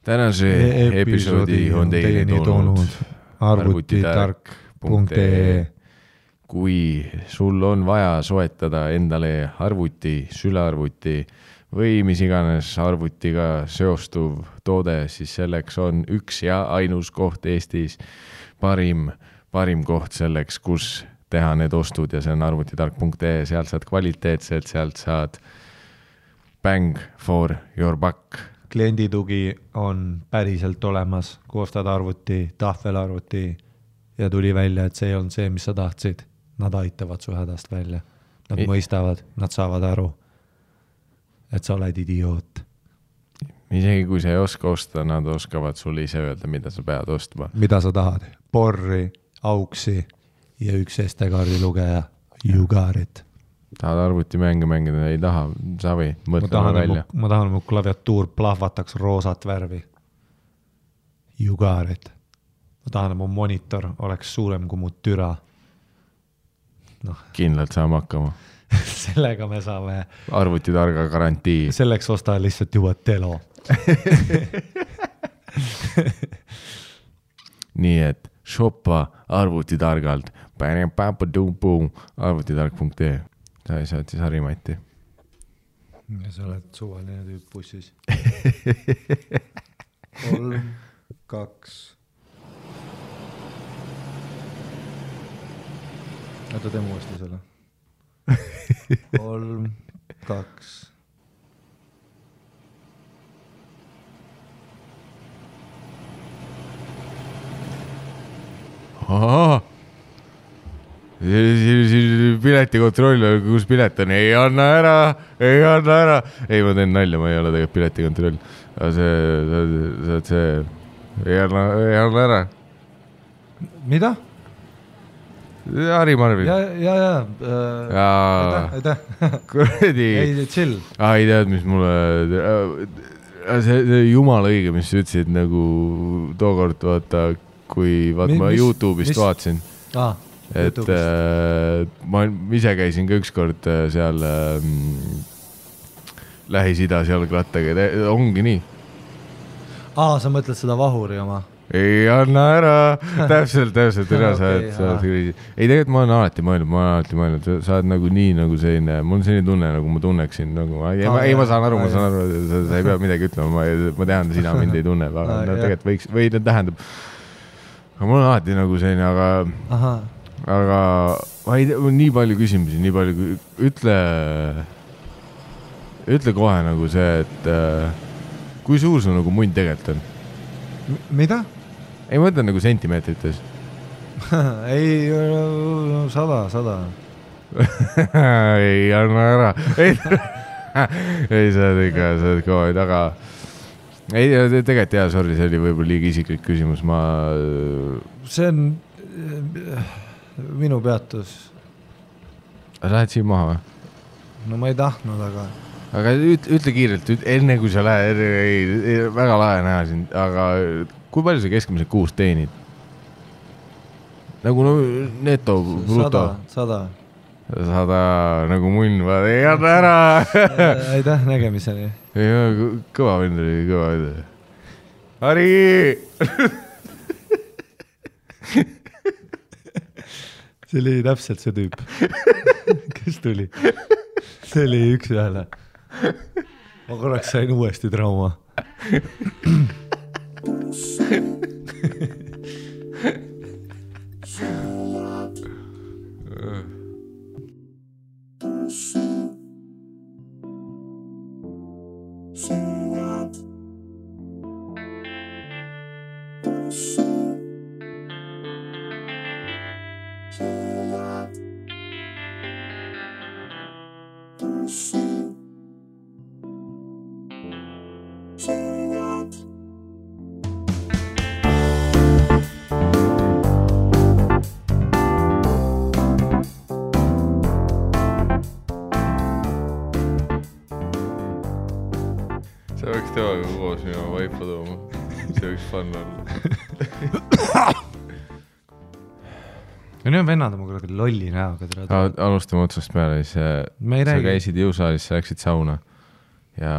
Tänase episoodi on teieni toonud arvutitark.ee. Kui sul on vaja soetada endale arvuti, sülearvuti või mis iganes arvutiga seostuv toode, siis selleks on üks ja ainus koht Eestis, parim koht selleks, kus teha need ostud ja see on arvutitark.ee. Sealt saad kvaliteetselt, sealt saad bang for your buck. Klienditugi on päriselt olemas, koostad arvuti, tahvelarvuti ja tuli välja, et see ei olnud see, mis sa tahtsid. Nad aitavad su hädast välja. Nad mõistavad, nad saavad aru, et sa oled idioot. Isegi kui sa ei oska osta, nad oskavad sulle ise öelda, mida sa pead ostma. Mida sa tahad? Porri, auksi ja üks SD-kaardi lugeja. You got it. Tahad arvuti mängida, ei taha, savi, mõtleme välja. Ma tahan, mu klaviatuur plahvataks roosat värvi. You got it. Ma tahan, mu monitor oleks suurem kui mu türa. No. Kindlalt saame hakkama. Sellega me saame arvutitarga garantii. Selleks osta lihtsalt juba telo. Nii et shoppa arvutitargalt. Arvutitark.ee. Sa ei saad siis Harimati. Ja sa oled suvaline tüüp bussis. 3, 2. Oota, teeme uuesti selle. 3, 2. Ahaa! Piletikontroll, kus pilet on? Ei anna ära! Ei, ma teen nalja, ma ei ole tegelikult piletikontroll. Aga see ei anna ära. Mida? Harri Marvin. Ja. Aitäh. Kuradi. Ei, chill. Ei tead, mis mulle... See jumala õige, mis sa ütlesid nagu tookord, vaata, kui ma YouTube'ist vaatasin. Et ma ise käisin ka ükskord seal Lähis-Idas jalgrattaga. Ongi nii. Sa mõtled seda vahuri oma? Ei anna ära. Täpselt. Ei, tegelikult ma olen alati mõelnud. Sa oled nagu nii nagu selline, mul on selline tunne, nagu ma tunneksin. Ma saan aru, sa ei pea midagi ütlema. Ma tean, sina mind ei tunne. Aga tegelikult võiks, või tähendab. Aga mul on alati nagu selline, aga ma ei tea, nii palju küsimusi, nii palju. Ütle kohe nagu see, et kui suur su nagu mund tegelikult on? Mida? Ei mõtle nagu sentimeetrites. Ei, 100. Ei anna ära. Ei, sa oled kõva, aga ei, tegelikult jah, sorry, see oli võib-olla liiga isiklik küsimus. See on minu peatus. Sa lähed siin maha või? No ma ei tahtnud, aga ütle kiirelt, enne kui sa lähed, väga lahe näha sind, aga kui palju sa keskmiselt kuus teenid? Nagu neto, bruto? 100. Nagu munn, ei anna ära. Aitäh, nägemiseni. Kõva vend oli. Harri! See oli täpselt see tüüp. Kes tuli? See oli üks ühele. Ma korraks sain uuesti trauma. Sa võiks temaga koos minu vaipa tooma. See võiks fun olla. Ja nüüd on vennad oma kuradi lolli näoga. Alustame otsast peale. Sa käisid jõusaalis, sa läksid sauna. Ja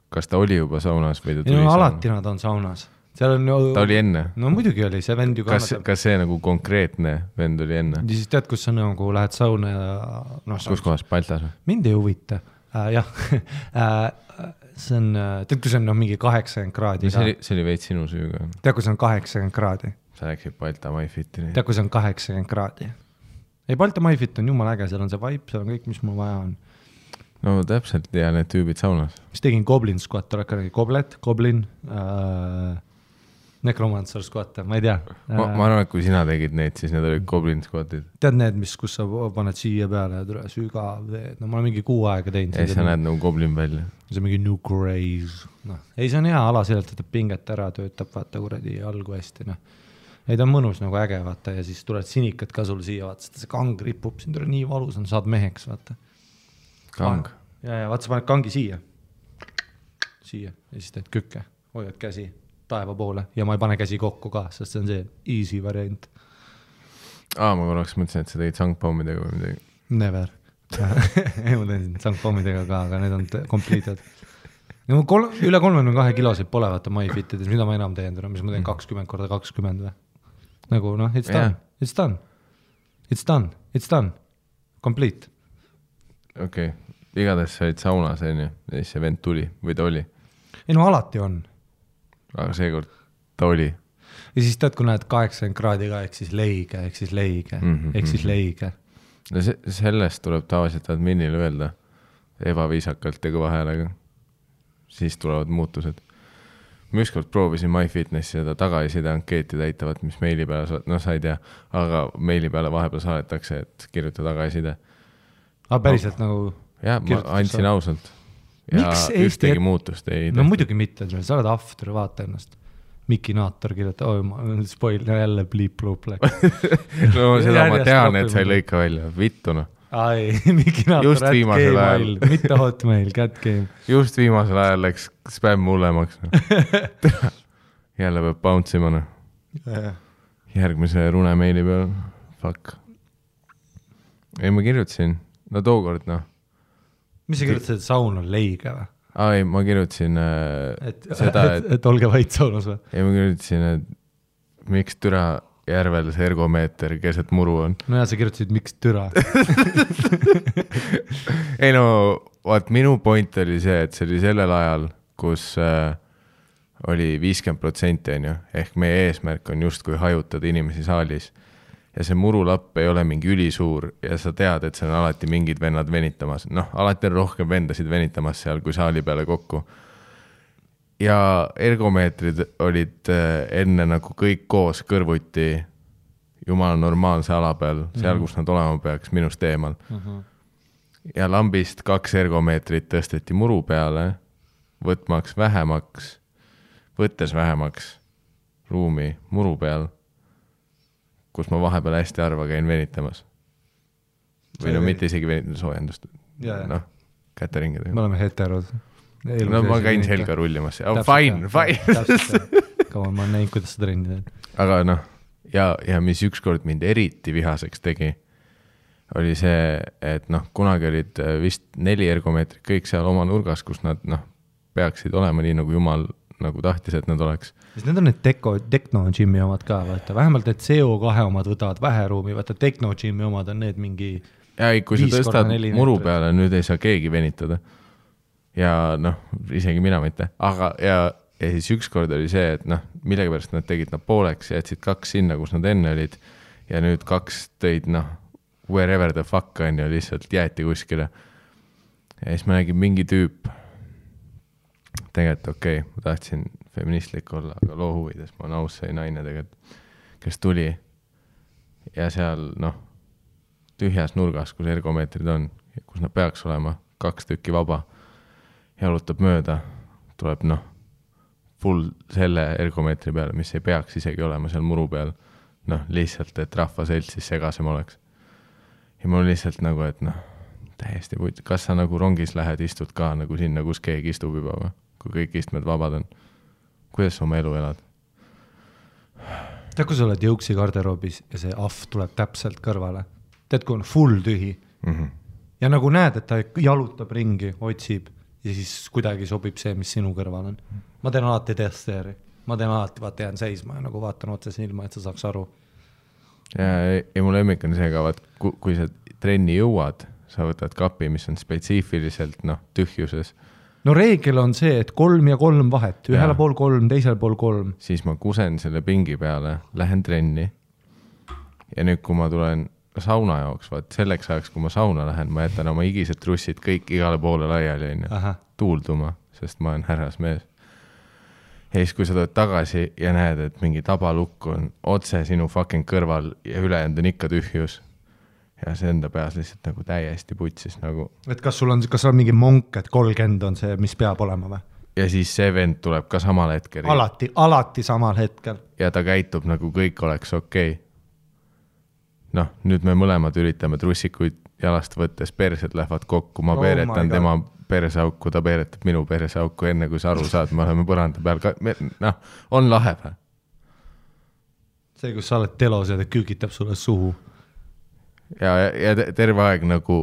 kas ta oli juba saunas või ta tuli alati nad on saunas. Seal on ta oli enne? No muidugi oli, see vend ju kannatab. Kas see nagu konkreetne vend oli enne? Ja siis tead, kus sa nagu lähed sauna ja kus kohas, Baltas või? Mind ei huvita. Jah, see on, tead, kui see on mingi 80 kraadi. See oli veits sinu süüga. Tead, kui see on 80 kraadi. Sa läksid Balta MyFitini. Tead, kui see on 80 kraadi. Ei, Balta MyFit on jumal äge, seal on see vibe, seal on kõik, mis mul vaja on. No täpselt, ja need tüübid saunas. Mis tegin Goblin squat, oled ka nägi Goblin, Necromancer squat, ma ei tea. Ma arvan, et kui sina tegid neid, siis need olid Goblin squatid. Tead need, kus sa paned siia peale ja tule sügav veed, no ma olen mingi 6 aega teinud. Ei, sa näed nagu Goblin välja. See on mingi new craze. No. Ei, see on hea ala, sellelt võtab pinget ära, töötab, vaata kuradi algu hästi, noh. Ei, ta on mõnus nagu äge, vaata, ja siis tuled sinikad ka sul siia, vaata, see kang ripub, siin tuleb nii valus on, saad meheks, vaata. Kang? Ja, vaata, sa paned kangi siia, ja siis teed kükke, hoiad käsi taeva poole ja ma ei pane käsi kokku ka, sest see on see easy variant. Ma korraks mõtlesin, et sa tegid sangpommidega või midagi. Never. Ei, ma tegin sangpommidega ka, aga need on completed. No, üle 32 kilosid pole, vaata, MyFitides, mida ma enam teen, mis ma teen 20x20 või? Nagu, noh, it's done, yeah. It's done. It's done, it's done. Complete. Okei, igatahes sa olid saunas, ja siis see vend tuli või ta oli? Ei, no alati on. Aga seekord ta oli. Ja siis tead, kui näed 80 kraadiga, ehk siis leige. No sellest tuleb tavaliselt adminile öelda ebaviisakalt ja kõva häälega. Siis tulevad muutused. Ma ükskord proovisin MyFitnessi seda tagasiside ankeeti täitavat, mis meili peale, no sa ei tea, aga meili peale vahepeal saadetakse, et kirjuta tagasiside. Päriselt nagu... Jah, ma andsin ausalt. Ja ühtegi muutust ei... No muidugi mitte, sa oled after, vaata ennast. Miki Naator kirjuta, ma spoil, jälle bliip-luup läks. No seda ma tean, et sa ei lõika välja. Vittu, noh. Ai, Miki Naator, @gmail, mitte hotmail, @game. Just viimasel ajal läks spämm hullemaks. Jälle peab bouncima, noh. Järgmise rune meili peal. Fuck. Ei, ma kirjutasin. No tookord, noh. Mis sa kirjutasid, et saun on leige või? Ei, ma kirjutasin seda, et olge vait saunas või? Ei, ma kirjutasin, et miks türa järvel see ergomeeter keset muru on. No ja sa kirjutasid, miks türa? Ei no, vaat minu point oli see, et see oli sellel ajal, kus oli 50% on ju, ehk meie eesmärk on just kui hajutada inimesi saalis. Ja see murulapp ei ole mingi ülisuur ja sa tead, et see on alati mingid vennad venitamas. Noh, alati on rohkem vendasid venitamas seal kui saali peale kokku. Ja ergomeetrid olid enne nagu kõik koos kõrvuti jumala normaalse ala peal, seal, kus nad olema peaks, minust eemal. Ja lambist 2 ergomeetrit tõsteti muru peale, võttes vähemaks ruumi muru peal, kus ma vahepeal hästi harva käin venitamas. Või no mitte isegi venitamas soojendust. Noh, käteringid. Me oleme heterod. No ma käin selga rullimas. Fine. Kaua ma näin, kuidas sa trenni teed. Aga noh, ja mis ükskord mind eriti vihaseks tegi, oli see, et noh, kunagi olid vist 4 ergomeetrit kõik seal oma nurgas, kus nad peaksid olema nii, nagu jumal nagu tahtis, et nad oleks. Need on need Techno-Gym'i omad ka, vaata. Vähemalt need CO2 omad võtavad vähe ruumi, vaata Techno-Gym'i omad on need mingi... Ja kui sa tõstad muru peale, nüüd ei saa keegi venitada. Ja noh, isegi mina mitte. Aga ja siis ükskord oli see, et noh, millega pärast nad tegid nad pooleks ja jätsid 2 sinna, kus nad enne olid. Ja nüüd 2 tõid, noh, wherever the fuck on ja lihtsalt jäeti kuskile. Ja siis ma nägin mingi tüüp. Tegelikult okei, ma tahtsin feministlik olla, aga loo huvides. Ma olen aus see naine tegelikult, kes tuli. Ja seal, noh, tühjas nurgas, kus ergomeetrid on, kus nad peaks olema, 2 tükki vaba. Jalutab mööda, tuleb full selle ergomeetri peale, mis ei peaks isegi olema seal muru peal. Lihtsalt, et rahvaselt siis segasem oleks. Ja mul lihtsalt nagu, et täiesti puit. Kas sa nagu rongis lähed, istud ka nagu sinna, kus keegi istub juba või? Kui kõik istmed vabad on. Kuidas sa oma elu elad? Tead, kui sa oled jõuksi garderoobis ja see ahv tuleb täpselt kõrvale. Tead, kui on full tühi. Ja nagu näed, et ta jalutab ringi, otsib. ja siis kuidagi sobib see, mis sinu kõrval on. Ma teen alati testeeri, ma teen alati, vaata jään seisma ja nagu vaatan otse silma, et sa saaks aru. Ja mu lemmik on see ka, vaat kui sa trenni jõuad, sa võtad kapi, mis on spetsiifiliselt tühjuses. No reegel on see, et 3 ja 3 vahet, ühele pool 3, teisele pool 3. Siis ma kusen selle pingi peale, lähen trenni ja nüüd, kui ma tulen sauna jooks, vaat selleks ajaks, kui ma sauna lähen, ma jätan oma higised trussid kõik igale poole laiali tuulduma, sest ma olen härrasmees. Ja siis, kui sa tuled tagasi ja näed, et mingi tabalukk on otse sinu fucking kõrval ja ülejäänud on ikka tühjus ja see enda peas lihtsalt nagu täiesti putsis nagu. Et kas sul on mingi monk, et 30 on see, mis peab olema või? Ja siis see vend tuleb ka samal hetkel. Alati samal hetkel. Ja ta käitub nagu kõik oleks okei. Nüüd me mõlemad üritame trussikuid jalast võttes, persed lähevad kokku, ma peeretan tema perseauku, ta peeretab minu perseauku enne, kui sa aru saad, me oleme põranda peal ka, on lahe või? See, kus sa oled telos ja ta küügitab sulle suhu. Ja terve aeg nagu,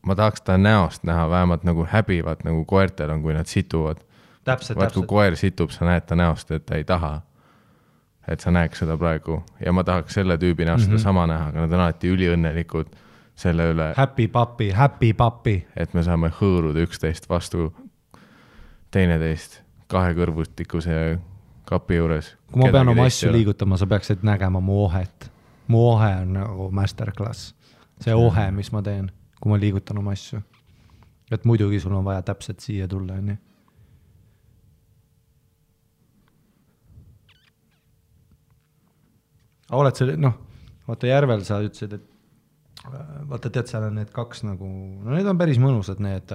ma tahaks ta näost näha, vähemalt nagu häbivad, nagu koertel on, kui nad situvad. Täpselt. Kui koer situb, sa näed ta näost, et ta ei taha. Et sa näeks seda praegu. Ja ma tahaks selle tüübi näost seda sama näha, aga nad on alati üliõnnelikud selle üle. Happy papi. Et me saame hõõruda üksteist vastu teineteist kahekõrvustikuse kapi juures. Kui ma pean oma asju liigutama, sa peaksid nägema mu ohet. Mu ohe on nagu masterclass. See ohe, mis ma teen, kui ma liigutan oma asju. Et muidugi sul on vaja täpselt siia tulla. Nii. Oled see, vaata Järvel sa ütlesid, et vaata tead, seal on need 2 nagu, need on päris mõnusad need,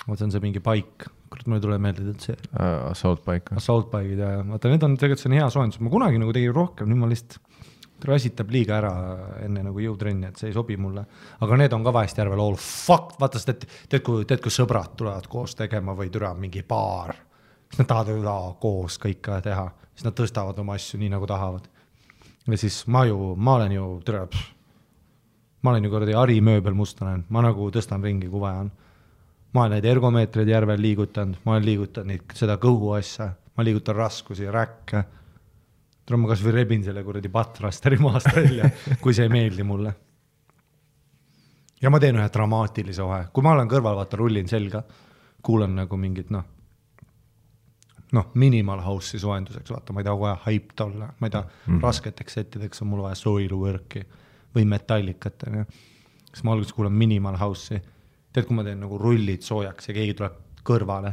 vaata on see mingi paik, kurat mulle tuleb meelde see. Assault paigid ja vaata need on tegelikult see on hea soojendus, ma kunagi nagu tegin rohkem, nüüd ma lihtsalt rasitab liiga ära enne nagu jõutrenni, et see ei sobi mulle, aga need on ka vahest Järvel all fuck, vaata tead kui sõbrad tulevad koos tegema või türa mingi baar, siis nad tahavad koos kõike teha, siis nad tõstavad oma asju nii nagu tahavad. Ja siis ma olen ju kuradi Ari mööbel mustanen, ma nagu tõstan ringi, kui vaja on. Ma olen neid ergomeetreid Järvel liigutanud, ma olen liigutanud seda kõhu asja, ma liigutan raskusi, räkke. Ma kas või rebin selle kuradi patrasteri maast välja, kui see ei meeldi mulle. Ja ma teen ühe dramaatilise ohe. Kui ma olen kõrval, vaata, rullin selga, kuulan nagu mingit, minimal house'i soojenduseks, vaata, ma ei taha vaja hyped olla, ma ei taha rasketeks settideks on mul vaja soilwork'i või metallikat. Siis ma alguses kuulan minimal house'i. Tead, kui ma teen nagu rullid soojaks ja keegi tuleb kõrvale,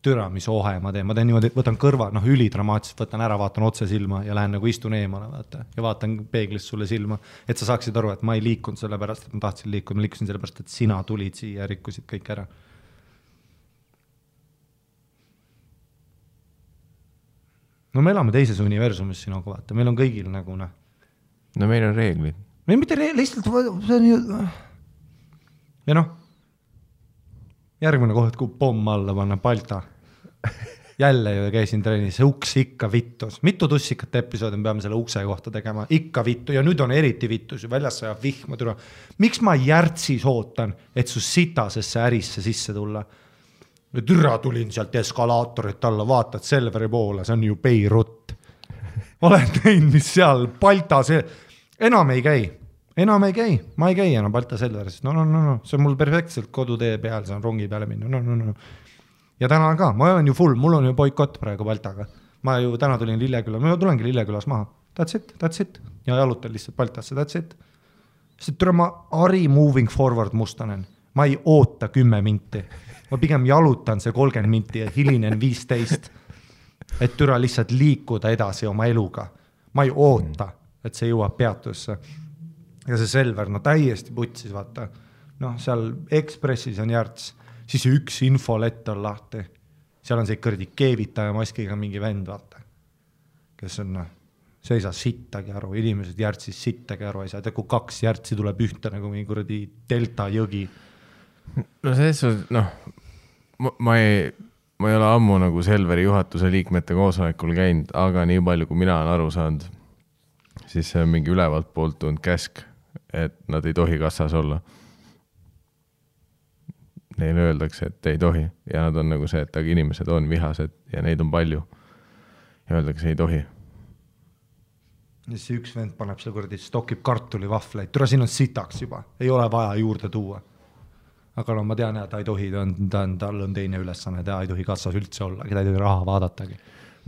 türa, mis ohe ma teen niimoodi, võtan kõrva, ülidramaatiliselt, võtan ära, vaatan otse silma ja lähen nagu istun eemale, vaata, ja vaatan peeglist sulle silma, et sa saaksid aru, et ma ei liikunud selle pärast, et ma tahtsin liikuda, ma liikusin selle pärast, et sina tulid siia ja rikkusid kõik ära. No me elame teises universumis sinuga, vaata, meil on kõigil nagu No meil on reeglid. Meil mitte lihtsalt, see on ju... Ja järgmine koht, kui pomm alla panna Balta. Jälle ju käisin trennis, see uks ikka vittus. Mitu tussikat episoodi me peame selle ukse kohta tegema? Ikka vittu ja nüüd on eriti vittus. Väljas sajab vihma türa. Miks ma järtsis ootan, et su sitasesse ärisse sisse tulla? Türa tulin sealt eskalaatorit alla, vaatad Selveri poole, see on ju Beirut. Olen näinud, mis seal Balta see... Enam ei käi, ma ei käi enam Balta Selveris. No, see on mul perfektselt kodutee peal, see on rongi peale minna. No. Ja täna ka, ma olen ju full, mul on ju boikott praegu Baltaga. Ma ju täna tulin Lilleküla, ma tulengi Lillekülas maha. That's it. Ja jalutan lihtsalt Baltasse, that's it. Sest türa ma Ari moving forward mustanen. Ma ei oota 10 minti. Ma pigem jalutan see 30 minti ja hilinen 15. Et türa lihtsalt liikuda edasi oma eluga. Ma ei oota, et see jõuab peatusse. Ja see Selver, täiesti putsis, vaata. Seal Ekspressis on järts, siis üks infolett on lahti. Seal on see kõrdi keevitaja maskiga mingi vend, vaata. Kes on, see ei saa sittagi aru, inimesed järtsis sittagi aru, ei saa, kui 2 järtsi tuleb ühte nagu mingi kõrdi delta jõgi. No selles ma ei ole ammu nagu Selveri juhatuse liikmete koosolekul käinud, aga nii palju, kui mina olen aru saanud, siis see on mingi ülevalt poolt tulnud käsk, et nad ei tohi kassas olla. neile öeldakse, et ei tohi ja nad on nagu see, et aga inimesed on vihased ja neid on palju ja öeldakse, ei tohi. Ja see üks vend paneb seal kuradi, stokib kartulivahvleid, tule siin on sitaks juba, ei ole vaja juurde tuua. Aga no ma tean, et ta ei tohi, tal on teine ülesanne, ta ei tohi kassas üldse olla, keda ei tohi raha vaadatagi.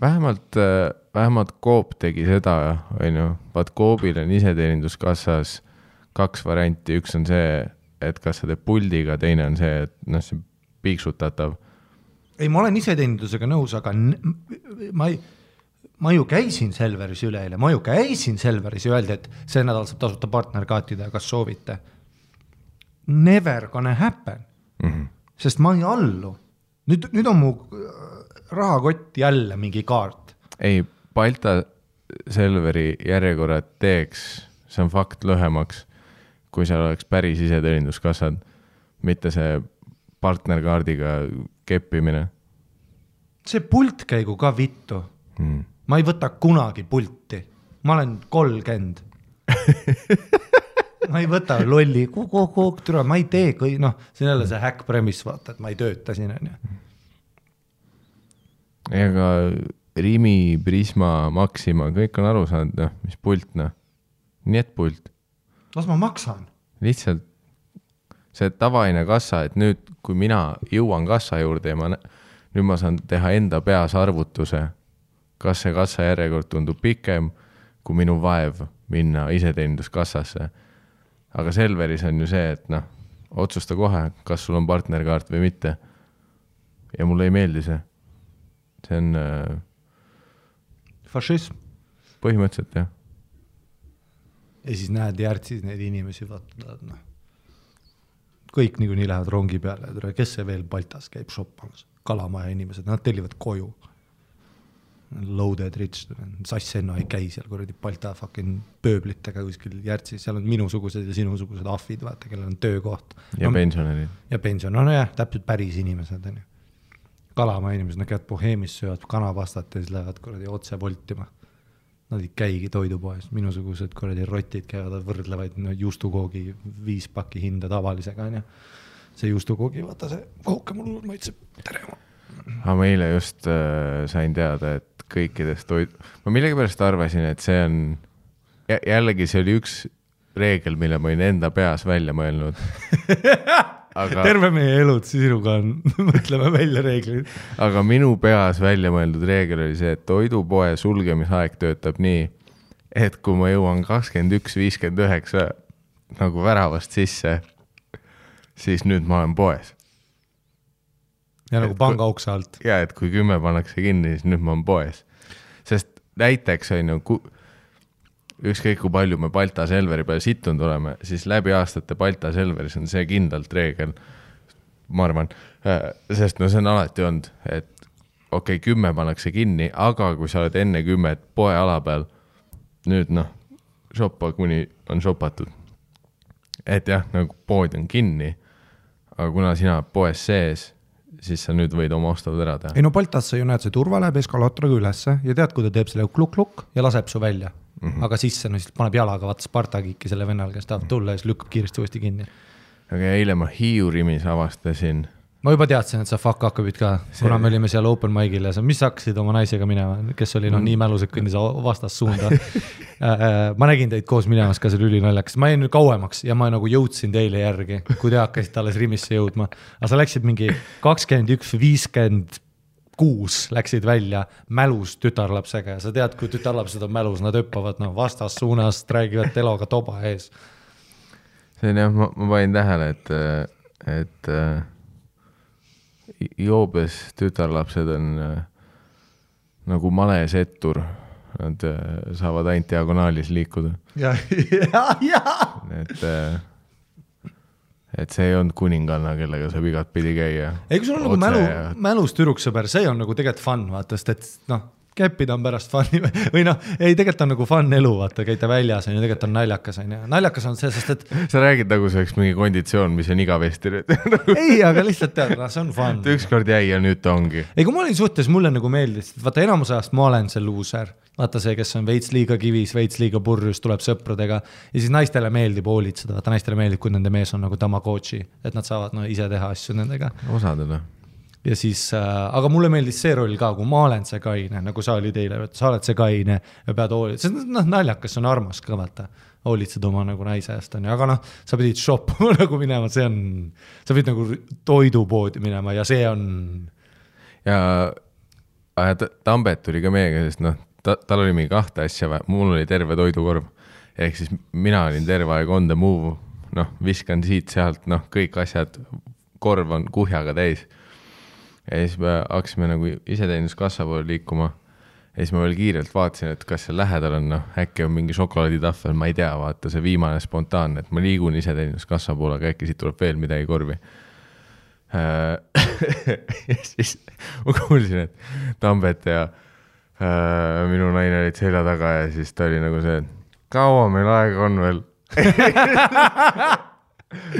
Vähemalt Coop tegi seda, vaat Coopil on iseteeninduskassas 2 varianti, üks on see, et kas sa teed puldiga, teine on see, et see piiksutatav. Ei, ma olen iseteenindusega nõus, aga ma ju käisin Selveris üleeile, ma ju käisin Selveris ja öeldi, et see nädal saab tasuta partnerkaatida, kas soovite. Never gonna happen, sest ma ei allu. Nüüd on mu rahakott jälle mingi kaart. Ei, Balta Selveri järjekorrad teeks, see on fakt lühemaks, kui seal oleks päris iseteeninduskassad, mitte see partnerkaardiga keppimine. See pult käigu ka vittu. Ma ei võta kunagi pulti. Ma olen 30. Ma ei võta lolli, ma ei tee, see on jälle see hack premise, vaata, et ma ei tööta siin. Ega Rimi, Prisma, Maxima, kõik on aru saanud, mis pult, nii et pult. Las ma maksan. Lihtsalt see tavaine kassa, et nüüd, kui mina jõuan kassa juurde ja nüüd ma saan teha enda peas arvutuse, kas see kassa järjekord tundub pikem, kui minu vaev minna iseteeninduskassasse. Aga Selveris on ju see, et otsusta kohe, kas sul on partnerkaart või mitte. Ja mulle ei meeldi see. See on fašism. Põhimõtteliselt, jah. Ja siis näed järtsis neid inimesi, vaata, kõik nii lähevad rongi peale, kes see veel Baltas käib shoppamas, Kalamaja inimesed, nad tellivad koju. Loaded rich, Sassenno ei käi seal kuradi Balta fucking pööblitega kuskil järtsis, seal on minusugused ja sinusugused ahvid, vaata, kellel on töökoht. Ja pensionärid. Ja pensionärid, jah, täpselt päris inimesed. Kalamaja inimesed, nad käivad Boheemis, söövad kanapastat ja siis lähevad kuradi otse voltima. Nad ei käigi toidupoes, minusugused kuradi rotid käivad, võrdlevaid juustukoogi 5 pakki hinda tavalisega. See juustukoogi, vaata see kooke mul maitseb terema. Aga meile just sain teada, et kõikidest ma millegipärast arvasin, et see on jällegi see oli üks reegel, mille ma olin enda peas välja mõelnud. Aga terve meie elud sinuga on, mõtleme välja reeglid. Aga minu peas välja mõeldud reegel oli see, et toidupoe sulgemisaeg töötab nii, et kui ma jõuan 21.59 nagu väravast sisse, siis nüüd ma olen poes. Ja nagu panga ukse alt. Ja, et kui 10 pannakse kinni, siis nüüd ma olen poes. Sest näiteks on ju, ükskõik kui palju me Balta Selveri peale situnud oleme, siis läbi aastate Balta Selveris on see kindlalt reegel, ma arvan, sest see on alati olnud, et 10 pannakse kinni, aga kui sa oled enne 10 poe ala peal, nüüd shoppa kuni on shopatud. Et jah, nagu pood on kinni, aga kuna sina poes sees, siis sa nüüd võid oma ostavad ära teha. Ei no Baltas sa ju näed, see turva läheb eskalaatoriga ülesse ja tead, kui ta teeb selle kluk-kluk ja laseb su välja. Aga sisse, siis paneb jalaga vaata Spartakiki selle vennal, kes tahab tulla ja siis lükkab kiiresti uuesti kinni. Aga eile ma Hiiurimis avastasin. Ma juba teadsin, et sa fuck hakkabid ka, kuna me olime seal open mic'il ja mis hakkasid oma naisega minema, kes oli nii mälused kõndis vastas suunda. Ma nägin teid koos minemas ka seal ülinaljakas. Ma jäin nüüd kauemaks ja ma nagu jõudsin teile järgi, kui te hakkasid alles Rimisse jõudma. Aga sa läksid mingi 21.56 läksid välja mälus tütarlapsega ja sa tead, kui tütarlapsed on mälus, nad öppavad vastas suunast, räägivad teloga toba ees. See on jah, ma panin tähele, et joobes tütarlapsed on nagu males ettur, nad saavad ainult diagonaalis liikuda. Ja. Et see ei olnud kuninganna, kellega saab igat pidi käia. Ei, kui sul on nagu mälus türuksõber, see on nagu tegelikult fun, vaata, sest et käppida on pärast fun'i või noh, ei tegelikult on nagu fun elu, vaata, käite väljas on ju, tegelikult on naljakas on ju. Naljakas on see, sest et sa räägid nagu see oleks mingi konditsioon, mis on igavesti nüüd. ei, aga lihtsalt tead, see on fun. Ükskord jäi ja nüüd ta ongi. Ei, kui ma olin suhtes, mulle nagu meeldis, vaata enamus ajast ma olen see loser. Vaata see, kes on veits liiga kivis, veits liiga purjus, tuleb sõpradega ja siis naistele meeldib hoolitseda, vaata naistele meeldib, kui nende mees on nagu Tamagotchi, et nad saavad ise teha asju nendega. Osadele. Ja siis, aga mulle meeldis see roll ka, kui ma olen see kaine, nagu sa olid eile, sa oled see kaine ja pead hoolitseda, see naljakas, see on armas ka, vaata, hoolitsed oma nagu naise eest on, aga noh, sa pidid shoppama nagu minema, see on, sa pidid nagu toidupoodi minema ja see on. Ja Tambet tuli ka meiega, sest noh, tal oli mingi 2 asja, mul oli terve toidukorv, ehk siis mina olin terve aeg on the move, noh, viskan siit sealt, noh, kõik asjad, korv on kuhjaga täis. Ja siis me hakkasime nagu iseteenuskassa poole liikuma ja siis ma veel kiirelt vaatasin, et kas see lähedal on, noh, äkki on mingi šokolaaditahvel, ma ei tea, vaata see viimane spontaanne, et ma liigun iseteenuskassa poole, aga äkki siit tuleb veel midagi korvi. Ja siis ma kuulsin, et Tambet ja minu naine olid selja taga ja siis ta oli nagu see, et kaua meil aega on veel.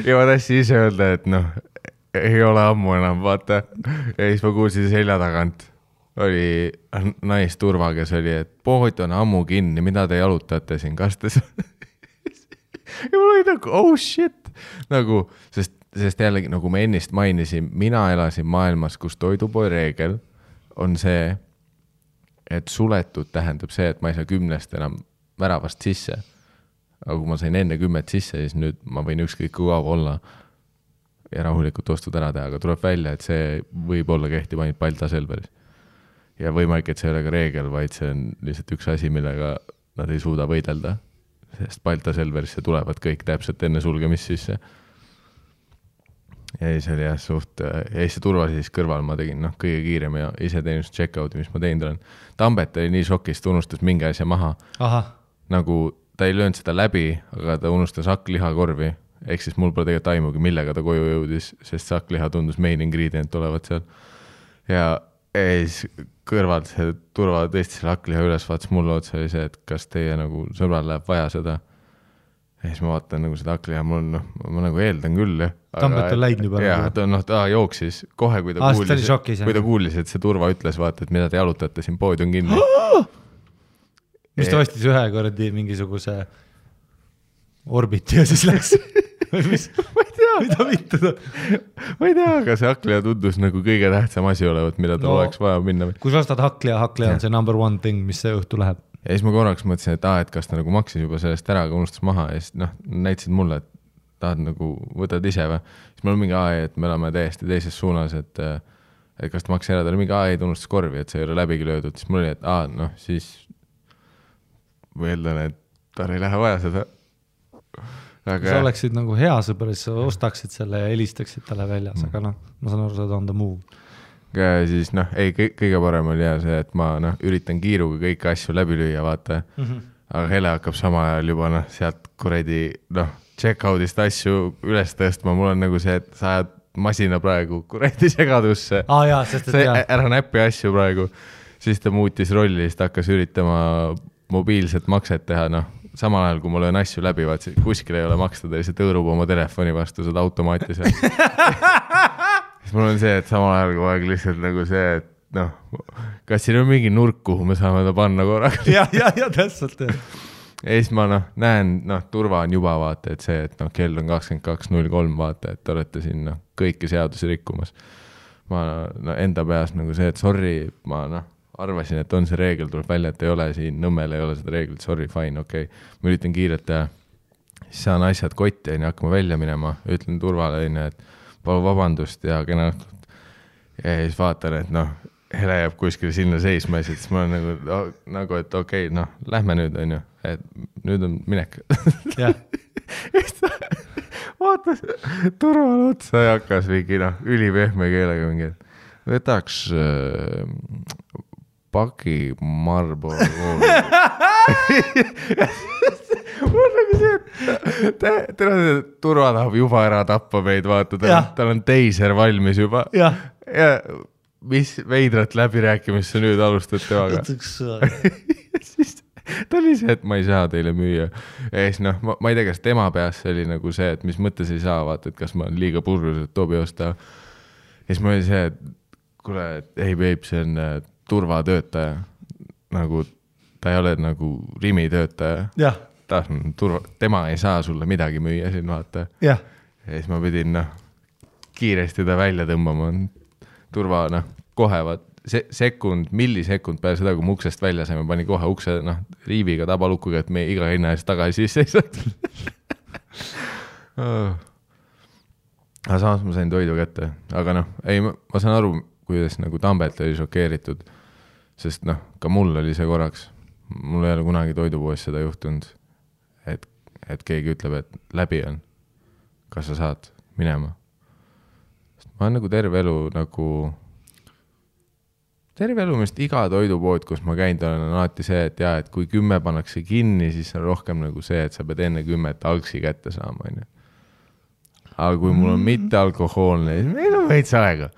Ja ma tahtsin ise öelda, et noh, ei ole ammu enam, vaata. Ja siis ma kuulsin selja tagant. Oli naisturva, kes oli, et pood on ammu kinni, mida te jalutate siin kastes. Ja mul oli nagu, oh shit. Nagu, sest jällegi, nagu me ennist mainisin, mina elasin maailmas, kus toidupoe reegel on see, et suletud tähendab see, et ma ei saa 10 enam väravast sisse. Aga kui ma sain enne 10 sisse, siis nüüd ma võin ükskõik kui kaua olla ja rahulikult ostud ära teha, aga tuleb välja, et see võib olla kehtib ainult Balta Selveris. Ja võimalik, et see ei ole ka reegel, vaid see on lihtsalt üks asi, millega nad ei suuda võidelda, sest Balta Selverisse tulevad kõik täpselt enne sulgemist sisse. Ja siis oli jah suht, ja siis see turva siis kõrval ma tegin kõige kiirem ja iseteenust check-out'i, mis ma teinud olen. Tambet oli nii šokist, unustas mingi asja maha. Aha. Nagu ta ei löönud seda läbi, aga ta unustas hakklihakorvi. Ehk siis mul pole tegelikult aimugi, millega ta koju jõudis, sest sakkliha tundus main ingredient olevat seal. Ja siis kõrvalt see turva tõesti selle hakkliha üles vaatas mulle otsa oli see, et kas teie nagu sõbral läheb vaja seda. Ja siis ma vaatan nagu seda hakkliha, ma nagu eeldan küll. Tambet on läinud juba. Ja ta jooksis kohe, kui ta kuulis, et see turva ütles, vaata, et mida te jalutate, siin pood on kinni. Mis ta ostis ühe kordi mingisuguse orbiti ja siis läks... ma ei tea. Mida mitte? Ma ei tea, aga see hakkliha tundus nagu kõige tähtsam asi olevat, mida ta oleks vaja minna. Kui sa ostad hakkliha on see number one thing, mis see õhtu läheb. Ja siis ma korraks mõtlesin, et kas ta nagu maksis juba sellest ära, aga unustas maha ja siis näitasid mulle, et tahad nagu võtad ise või. Siis mul on mingi et me oleme täiesti teises suunas, et kas ta maksis ära, ta oli mingi ta unustas korvi, et see ei ole läbigi löödud. Siis mul oli, et siis mõeldan, et tal ei lähe vaja seda. Kui sa oleksid nagu hea sõber, siis sa ostaksid selle ja helistaksid talle väljas, aga ma saan aru, sa on the move. Ja siis kõige parem oli see, et ma üritan kiiruga kõiki asju läbi lüüa, vaata. Aga Hele hakkab sama ajal juba sealt kuredi check-out'ist asju üles tõstma. Mul on nagu see, et sa ajad masina praegu kuredi segadusse. Ära näppi asju praegu. Siis ta muutis rolli, siis ta hakkas üritama mobiilset makset teha, samal ajal, kui ma löön asju läbi, vaat kuskil ei ole maksta, ta lihtsalt õõrub oma telefoni vastu seda automaati seal. Siis mul on see, et samal ajal kui aeg lihtsalt nagu see, et kas siin on mingi nurk, kuhu me saame ta panna korraga? Ja täpselt. Ja siis ma näen, turva on juba vaata, et see, et kell on 22.03 vaata, et te olete siin kõiki seadusi rikkumas. Ma enda peas nagu see, et sorry, ma arvasin, et on see reegel, tuleb välja, et ei ole siin, Nõmmel ei ole seda reeglit, sorry, fine, okei. Ma üritan kiirelt teha, siis saan asjad kotti ja hakkama välja minema, ütlen turvale, et palun vabandust ja kena õhtut. Ja siis vaatan, et Hele jääb kuskil sinna seisma ja siis ma olen nagu et okei, lähme nüüd, on ju, et nüüd on minek. Ja. Vaatas turvale otsa ja hakkas mingi ülipehme keelega mingi, et võtaks paki Marlboro. Mul on nagu see, et turva tahab juba ära tappa meid, vaata, tal on teiser valmis juba. Ja mis veidrat läbirääkimist sa nüüd alustad temaga. Siis ta oli see, et ma ei saa teile müüa. Ja siis noh, ma ei tea, kas tema peas oli nagu see, et mis mõttes ei saa, vaata, et kas ma olen liiga purgus, et toobi osta. Ja siis ma oli see, et kuule, ei peib, see on turvatöötaja. Nagu ta ei ole nagu Rimi töötaja. Jah. Tema ei saa sulle midagi müüa siin, vaata. Jah. Ja siis ma pidin kiiresti ta välja tõmbama. Turva, kohe vaat millisekund peale seda, kui mu uksest välja saime, pani kohe ukse riiviga tabalukkuga, et me iga hinna eest tagasi sisse ei saanud. Aga samas ma sain toidu kätte. Aga ma saan aru, kuidas nagu Tambelt oli šokeeritud, sest ka mul oli see korraks. Mul ei ole kunagi toidupoes seda juhtunud, et keegi ütleb, et läbi on. Kas sa saad minema? Ma olen nagu terve elu mest iga toidupood, kus ma käinud olen, on alati see, et kui 10 pannakse kinni, siis on rohkem nagu see, et sa pead enne 10 algsi kätte saama. Aga kui mul on mitte alkohoolne, siis meil on veits aega.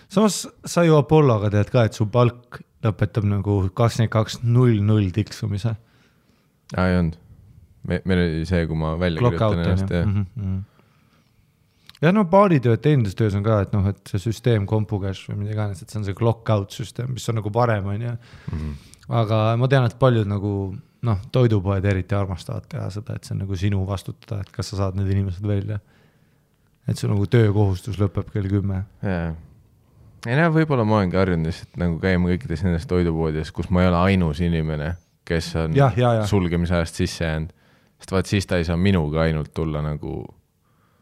Samas sa ju Apolloga tead ka, et su palk lõpetab nagu 22.00 tiksumise. Ei olnud. Meil oli see, kui ma välja kirjutan ennast. Ja baaritööd teenindustöös on ka, et see süsteem kompukäš või mida iganes, et see on see clock-out süsteem, mis on nagu parem, on ja. Aga ma tean, et paljud nagu, toidupoed eriti armastavad teha seda, et see on nagu sinu vastutada, et kas sa saad need inimesed välja. Et see nagu töökohustus lõpeb kell 10. Ei võib-olla ma olengi harjunud lihtsalt nagu käima kõikides nendes toidupoodides, kus ma ei ole ainus inimene, kes on sulgemise ajast sisse jäänud. Sest vaat siis ta ei saa minuga ainult tulla nagu...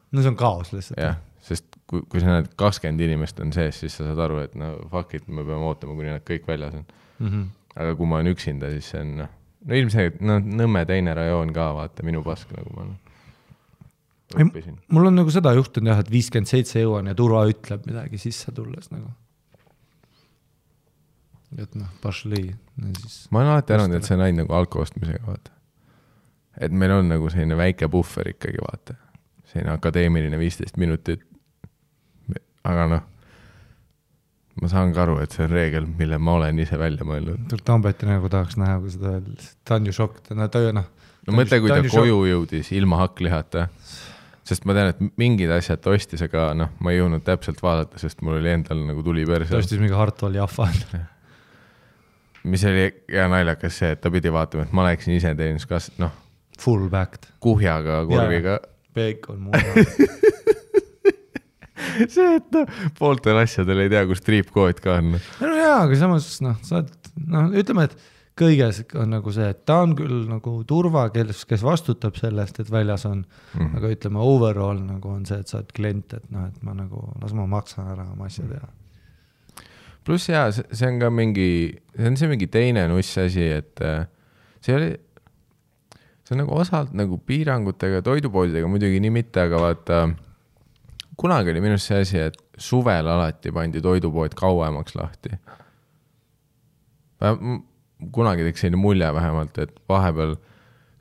No see on kaos lihtsalt. Jah, sest kui sa näed 20 inimest on sees, siis sa saad aru, et fuck it, me peame ootama, kuni nad kõik väljas on. Aga kui ma olen üksinda, siis see on... ilmselt Nõmme teine rajoon ka, vaata, minu pask nagu ma õppisin. Mul on nagu seda juhtunud jah, et 57 jõuan ja turva ütleb midagi sisse tulles nagu. Et pašli. Ma olen alati arvanud, et see on ainult nagu alkoostmisega, vaata. Et meil on nagu selline väike buffer ikkagi, vaata. Selline akadeemiline 15 minutit. Aga ma saan ka aru, et see on reegel, mille ma olen ise välja mõelnud. Tambeti nagu tahaks näha, kui seda ta on ju šokk. Mõtle, kui ta koju jõudis ilma hakklihata. Sest ma tean, et mingid asjad ostis, aga ma ei jõudnud täpselt vaadata, sest mul oli endal nagu tuli perse. Ta ostis mingi Hartwall Jaffa. Mis oli hea naljakas see, et ta pidi vaatama, et ma läksin ise teenus kas, full backed. Kuhjaga, korviga. Bacon muuna. See, et pooltel asjadel ei tea, kus triipkood ka on. No jaa, aga samas, ütleme, et kõiges on nagu see, et ta on küll nagu turva, kes vastutab sellest, et väljas on, aga ütleme, overall nagu on see, et sa oled klient, et et ma nagu, las ma maksan ära oma asja teha. Plus jaa, see on ka mingi teine nuss asi, et see on nagu osalt nagu piirangutega, toidupoodidega muidugi nii mitte, aga vaata, kunagi oli minust see asi, et suvel alati pandi toidupood kauemaks lahti. Kunagi teeks selline mulje vähemalt, et vahepeal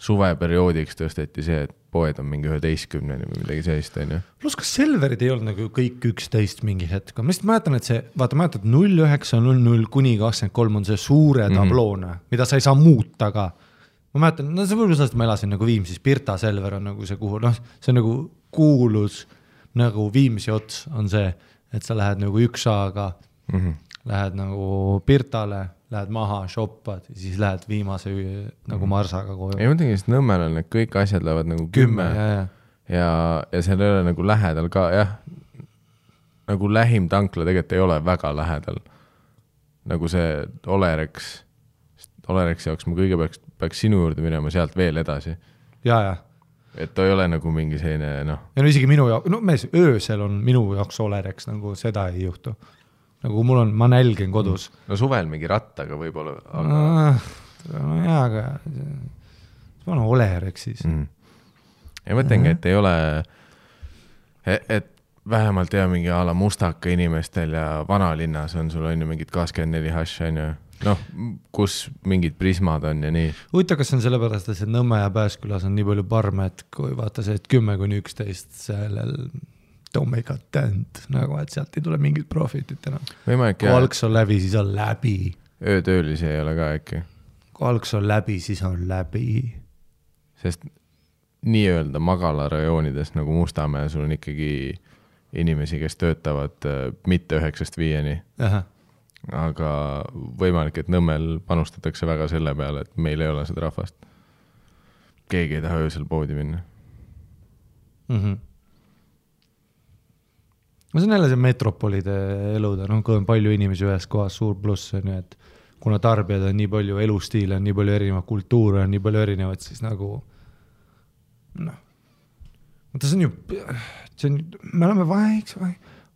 suveperioodiks tõsteti see, et poed on mingi 11 või midagi sellist, on ju. Plus kas Selverid ei olnud nagu kõik 11 mingi hetk. Ma lihtsalt mäletan, et see, vaata mäletad 09.00 kuni 23 on see suure tabloone, mida sa ei saa muuta ka. Ma mäletan, see võib-olla sellest ma elasin nagu Viimsis, Pirta Selver on nagu see kuhu, see on nagu kuulus nagu Viimsi ots on see, et sa lähed nagu üksaga, lähed nagu Pirtale, lähed maha, shoppad ja siis lähed viimase nagu Marsaga koju. Ei mõtlengi, sest Nõmmel on need kõik asjad lähevad nagu 10 ja seal ei ole nagu lähedal ka, jah, nagu lähim tankla tegelikult ei ole väga lähedal. Nagu see Olereksi jaoks ma kõigepealt peaks sinu juurde minema sealt veel edasi. Ja. Et ta ei ole nagu mingi selline, Ja isegi minu jaoks, öösel on minu jaoks Olereks, nagu seda ei juhtu. Nagu mul on, ma nälgen kodus. No suvel mingi rattaga võib-olla. aga ma olen Olereks siis. Ja mõtlengi, et ei ole, et vähemalt mingi ala mustaka inimestel ja vanalinnas on sul on ju mingid 24 hash, on ju. Kus mingid prismad on ja nii. Huvita, kas on sellepärast, et see Nõmme ja Pääskülas on nii palju parme, et kui vaata see, et 10-11 sellel don't make a dent, nagu et sealt ei tule mingit profitit enam. Võimalik kui algs on läbi, siis on läbi. Öötöölisi ei ole ka äkki. Kui algs on läbi, siis on läbi. Sest nii-öelda magalarajoonides nagu Mustamäe, sul on ikkagi inimesi, kes töötavad mitte 9-5. Aha. Aga võimalik, et Nõmmel panustatakse väga selle peale, et meil ei ole seda rahvast. Keegi ei taha öösel poodi minna. See on jälle see metropolide eluda, kui on palju inimesi ühes kohas, suur pluss on ju, et kuna tarbijad on nii palju elustiile, on nii palju erinevat kultuure, on nii palju erinevat, siis nagu see on ju, me oleme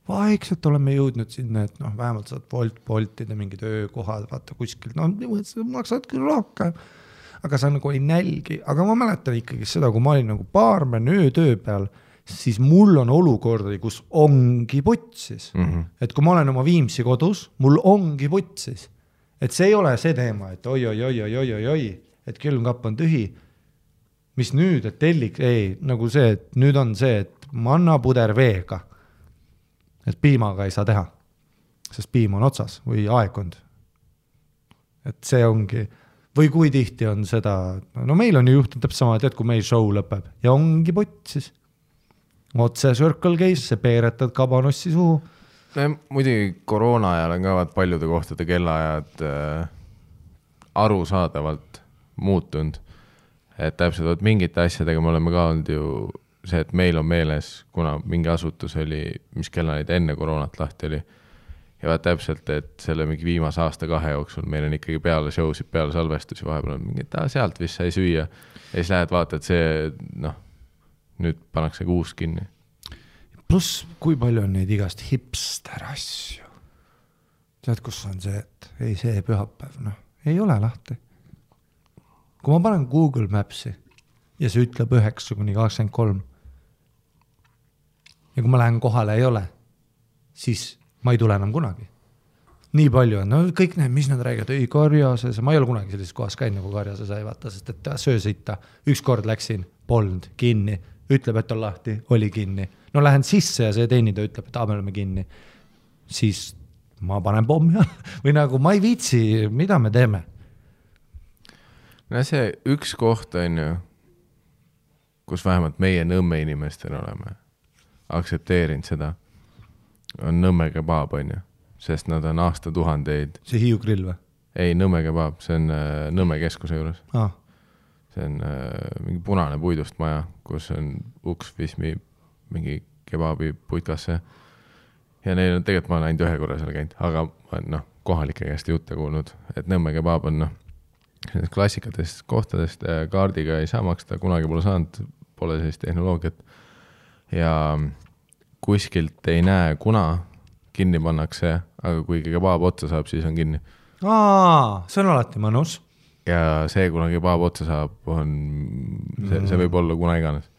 vaikselt oleme jõudnud sinna, et vähemalt saad voltida mingid öökohad, vaata kuskil, maksad küll rohkem, aga sa nagu ei nälgi, aga ma mäletan ikkagi seda, kui ma olin nagu baarmen öötöö peal, siis mul on olukordi, kus ongi putsis. Et kui ma olen oma Viimsi kodus, mul ongi putsis. Et see ei ole see teema, et oi, et külmkapp on tühi. Mis nüüd, et telliks, ei, nagu see, et nüüd on see, et manna puder veega. Et piimaga ei saa teha, sest piim on otsas või aegkond. Et see ongi, või kui tihti on seda, meil on ju juhtunud täpselt sama, et kui meil show lõpeb ja ongi putsis. Otse Circle Case, see peeretad kabanossi suhu. Muidugi koroona ajal on ka paljude kohtade kellaajad arusaadavalt muutunud. Et täpselt mingite asjadega me oleme ka olnud ju see, et meil on meeles, kuna mingi asutus oli, mis kellaid enne koroonat lahti oli. Ja täpselt, et selle mingi viimase aasta 2 jooksul meil on ikkagi peale showsid, peale salvestusi vahepeal on mingi, et sealt vist sai süüa. Ja siis lähed vaata, et see, nüüd pannakse uus kinni. Plus, kui palju on neid igast hipster asju. Tead, kus on see, et ei see pühapäev, ei ole lahti. Kui ma panen Google Mapsi ja see ütleb 9-23 ja kui ma lähen kohale ei ole, siis ma ei tule enam kunagi. Nii palju on, kõik need, mis nad räägivad, ei Karjases, ma ei ole kunagi sellises kohas käinud nagu Karjases ei vaata, sest et söösita, üks kord läksin, polnud kinni, ütleb, et on lahti, oli kinni. Lähen sisse ja see teenida ütleb, et me oleme kinni. Siis ma panen pommi või nagu ma ei viitsi, mida me teeme? See üks koht on ju, kus vähemalt meie Nõmme inimestel oleme aktsepteerinud seda, on Nõmme kebab on ju, sest nad on aastatuhandeid. See Hiiu grill või? Ei, Nõmme kebab, see on Nõmme keskuse juures. Ah. See on mingi punane puidust maja, kus on uks vismi mingi kebabi puitkasse. Ja neil on tegelikult ma olen ainult 1 korra seal käinud, aga ma kohalike käest jutte kuulnud, et Nõmme kebab on klassikatest kohtadest kaardiga ei saa maksta, kunagi pole saanud, pole sellist tehnoloogiat. Ja kuskilt ei näe, kuna kinni pannakse, aga kui kebaab otsa saab, siis on kinni. See on alati mõnus. Ja see, kuna kebaab otsa saab, on, see võib olla kuna iganes.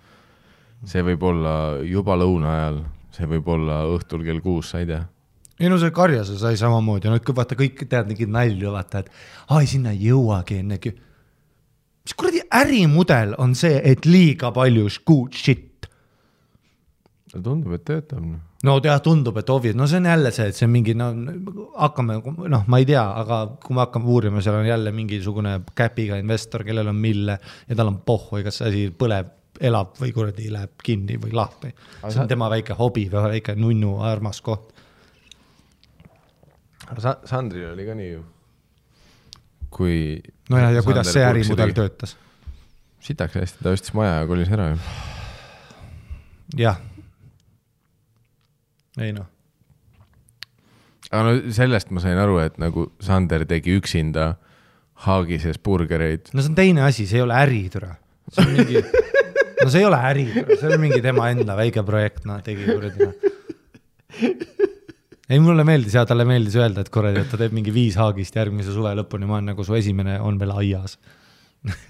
See võib olla juba lõuna ajal, see võib olla õhtul kell 6, sa ei tea. Ei see Karjase sai samamoodi, vaata kõik tead nigid nälju, vaata, et sinna ei jõuagi ennegi. Mis kuradi ärimudel on see, et liiga palju good shit? Tundub, et töötab. Tundub, et ovid. See on jälle see, et see on mingi, hakkame, ma ei tea, aga kui me hakkame uurima, seal on jälle mingisugune käpiga investor, kellel on mille ja tal on pohhu, kas see asi põleb, elab või kuradi läheb kinni või lahti. See on tema väike hobi või väike nunnu armas koht. Sandril oli ka nii ju. Kui ja kuidas see ärimudel töötas? Sitaks hästi, ta ostis maja ja kolis ära ju. Jah. Ei Aga sellest ma sain aru, et nagu Sander tegi üksinda Haagises burgereid. See on teine asi, see ei ole äritüra. See on mingi... see ei ole äritüra, see on mingi tema enda väike projekt, tegi kuradina. Ei, mulle meeldis ja talle meeldis öelda, et korrali, et ta teeb mingi 5 Haagist järgmise suve lõpuni, ma olen nagu su esimene on veel aias.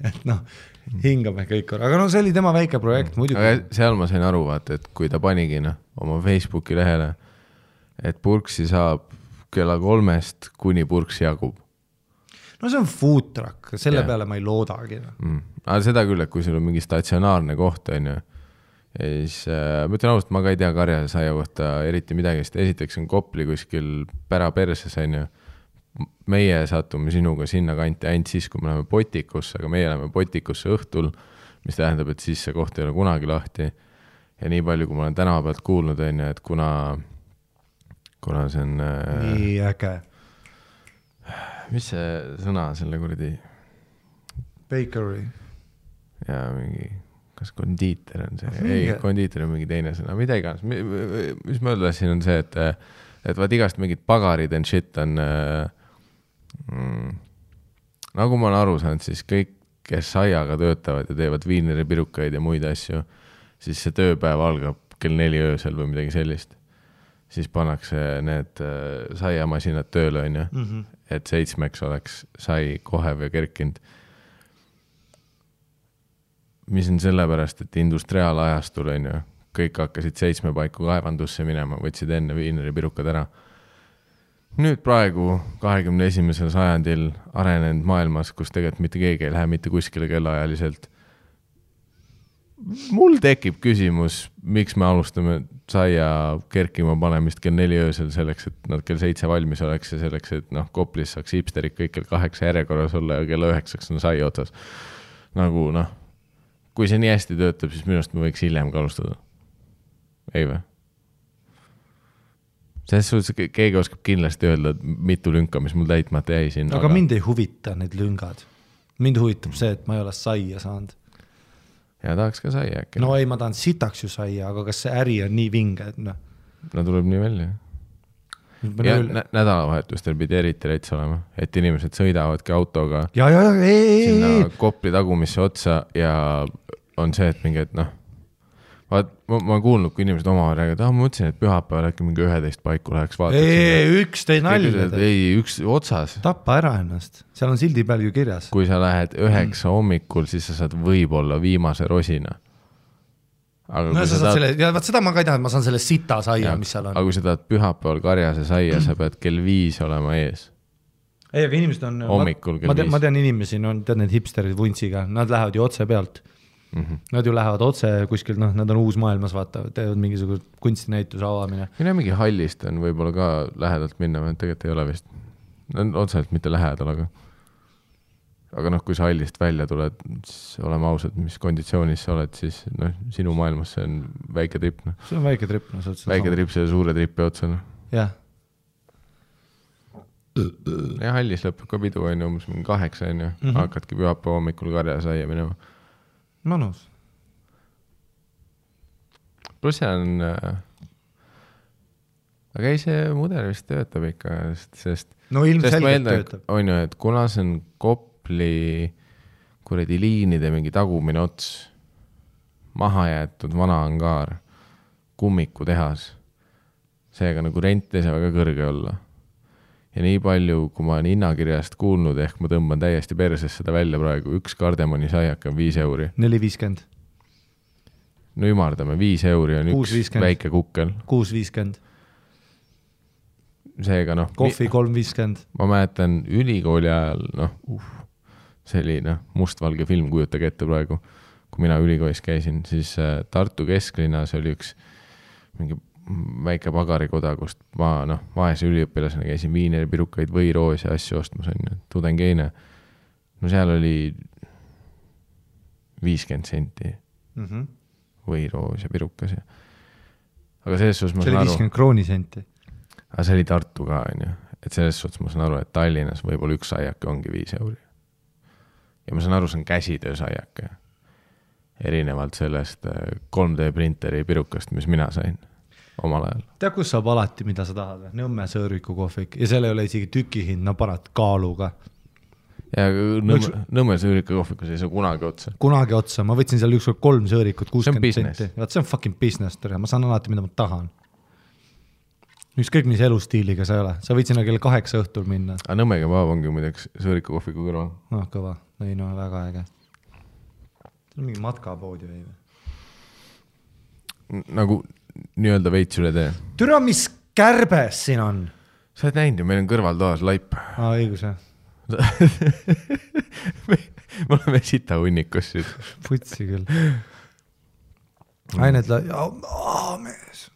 Et hingame kõik korra. Aga see oli tema väike projekt muidugi. Aga seal ma sain aru, vaata, et kui ta panigi oma Facebooki lehele, et purksi saab kella 3 kuni purksi jagub. See on food truck, selle peale ma ei loodagi. Aga seda küll, et kui sul on mingi statsionaarne koht on ju, ja siis ma ütlen ausalt, ma ka ei tea karjasaia kohta eriti midagi, sest esiteks on Kopli kuskil päraperses, on ju. Meie satume sinuga sinna kanti ainult siis, kui me läheme Potikusse, aga meie läheme Potikusse õhtul, mis tähendab, et siis see koht ei ole kunagi lahti. Ja nii palju, kui ma olen tänava pealt kuulnud, on ju, et kuna see on... nii äge. Mis see sõna selle kuradi? Bakery. Ja mingi, kas kondiiter on see? Ei, kondiiter on mingi teine sõna, mida iganes. Mis ma öeldasin on see, et vaat igast mingid pagarid and shit on... nagu ma olen aru saanud, siis kõik, kes saiaga töötavad ja teevad viineripirukaid ja muid asju, siis see tööpäev algab kell 4 öösel või midagi sellist. Siis pannakse need saiamasinad tööle, on ju, et 7 oleks sai kohev ja kerkinud. Mis on sellepärast, et industriaalajastul, on ju, kõik hakkasid 7 paiku kaevandusse minema, võtsid enne viineripirukad ära. Nüüd praegu 21. sajandil arenenud maailmas, kus tegelikult mitte keegi ei lähe mitte kuskile kellaajaliselt. Mul tekib küsimus, miks me alustame saia kerkima panemist kell 4 öösel selleks, et nad kell 7 valmis oleks ja selleks, et Koplis saaks hipsterid kõik kell 8 järjekorras olla ja kell 9 on sai otsas. Nagu kui see nii hästi töötab, siis minust me võiks hiljem ka alustada. Ei või? Selles suhtes keegi oskab kindlasti öelda mitu lünka, mis mul täitmata jäi siin. Aga mind ei huvita need lüngad. Mind huvitab see, et ma ei ole saia saanud. Ja tahaks ka saia äkki. No ei, ma tahan sitaks ju saia, aga kas see äri on nii vinge, et No tuleb nii välja. Ja nädalavahetustel pidi eriti reits olema, et inimesed sõidavadki autoga sinna Kopli tagumisse otsa ja on see, et mingi, et ma kuulnud, kui inimesed omavahel räägivad, ma mõtlesin, et pühapäeval äkki mingi 11 paiku läheks vaatad. Üks tõi nalja. Ei, üks otsas. Tappa ära ennast. Seal on sildi peal ju kirjas. Kui sa lähed 9 hommikul, siis sa saad võib-olla viimase rosina. No sa saad selle, ja seda ma ka ei taha, et ma saan selle sita saia, mis seal on. Aga kui sa tahad pühapäeval karjase saia, sa pead kell 5 olema ees. Ei, aga inimesed on... Hommikul kell 5. Ma tean inimesi, tead need hipsterid vuntsiga, nad lähevad ju otse pealt. Nad ju lähevad otse kuskil, nad on uus maailmas, vaatavad, teevad mingisugune kunstinäituse avamine. Mina mingi hallist on võib-olla ka lähedalt minna, tegelikult ei ole vist. Otseselt mitte lähedal, aga kui sa hallist välja tuled, siis oleme ausad, mis konditsioonis sa oled, siis sinu maailmas see on väike trip. See on väike trip. Väike trip see suure tripi otsa. Jah. Ja hallis lõpeb ka pidu, on ju, umbes 8, on ju. Hakkadki pühapäeva hommikul karja saia minema. Manus. Plus see on... Aga ei, see mudel vist töötab ikka, sest... No ilmselgelt töötab. On ju, et kuna see on Kopli kuredi liinide mingi tagumine ots, maha jäetud vana angaar, kummiku tehas, seega nagu rent ei saa väga kõrge olla. Ja nii palju, kui ma olen hinnakirjast kuulnud, ehk ma tõmban täiesti perses seda välja praegu, üks kardemoni saiak on 5 euri. 4,50. No ümardame, 5 euri on 6, üks 50. Väike kukkel. 6,50. Seega Kohvi 3,50. Ma mäletan ülikooli ajal, see oli mustvalge film, kujutage ette praegu, kui mina ülikoolis käisin, siis Tartu kesklinnas oli üks mingi väike pagarikoda, kust ma vaese üliõpilasena käisin viineripirukaid või roos ja asju ostmas, on tudengeine. No seal oli 50 senti või roos ja pirukas. Aga selles suhtes ma saan aru... See oli 50 kroonisenti. Aga see oli Tartu ka, on ju. Et selles suhtes ma saan aru, et Tallinnas võib-olla üks saiake ongi 5 euri. Ja ma saan aru, see on käsitöö saiake. Erinevalt sellest 3D printeri pirukast, mis mina sain omal ajal. Tea, kus saab alati, mida sa tahad? Nõmme sõõriku kohvik. Ja seal ei ole isegi tükihind, parat kaaluga. Ja Nõmme sõõriku kohvikus ei saa kunagi otsa. Kunagi otsa. Ma võtsin seal ükskord 3 sõõrikut, 60 senti. See on fucking business. Ma saan alati, mida ma tahan. Ükskõik mis elustiiliga sa ei ole. Sa võid sinna kell 8 õhtul minna. Aga Nõmmega vaab ongi muideks sõõriku kohviku kõrval. Kõva. Ei, väga äge. See on mingi matkapood ju. Nagu nii-öelda veits üle tee. Türa, mis kärbes siin on? Sa oled näinud ju, meil on kõrvaltoas laip. Õigus, jah. Me oleme sita hunnikus. Putsi küll. ained mees.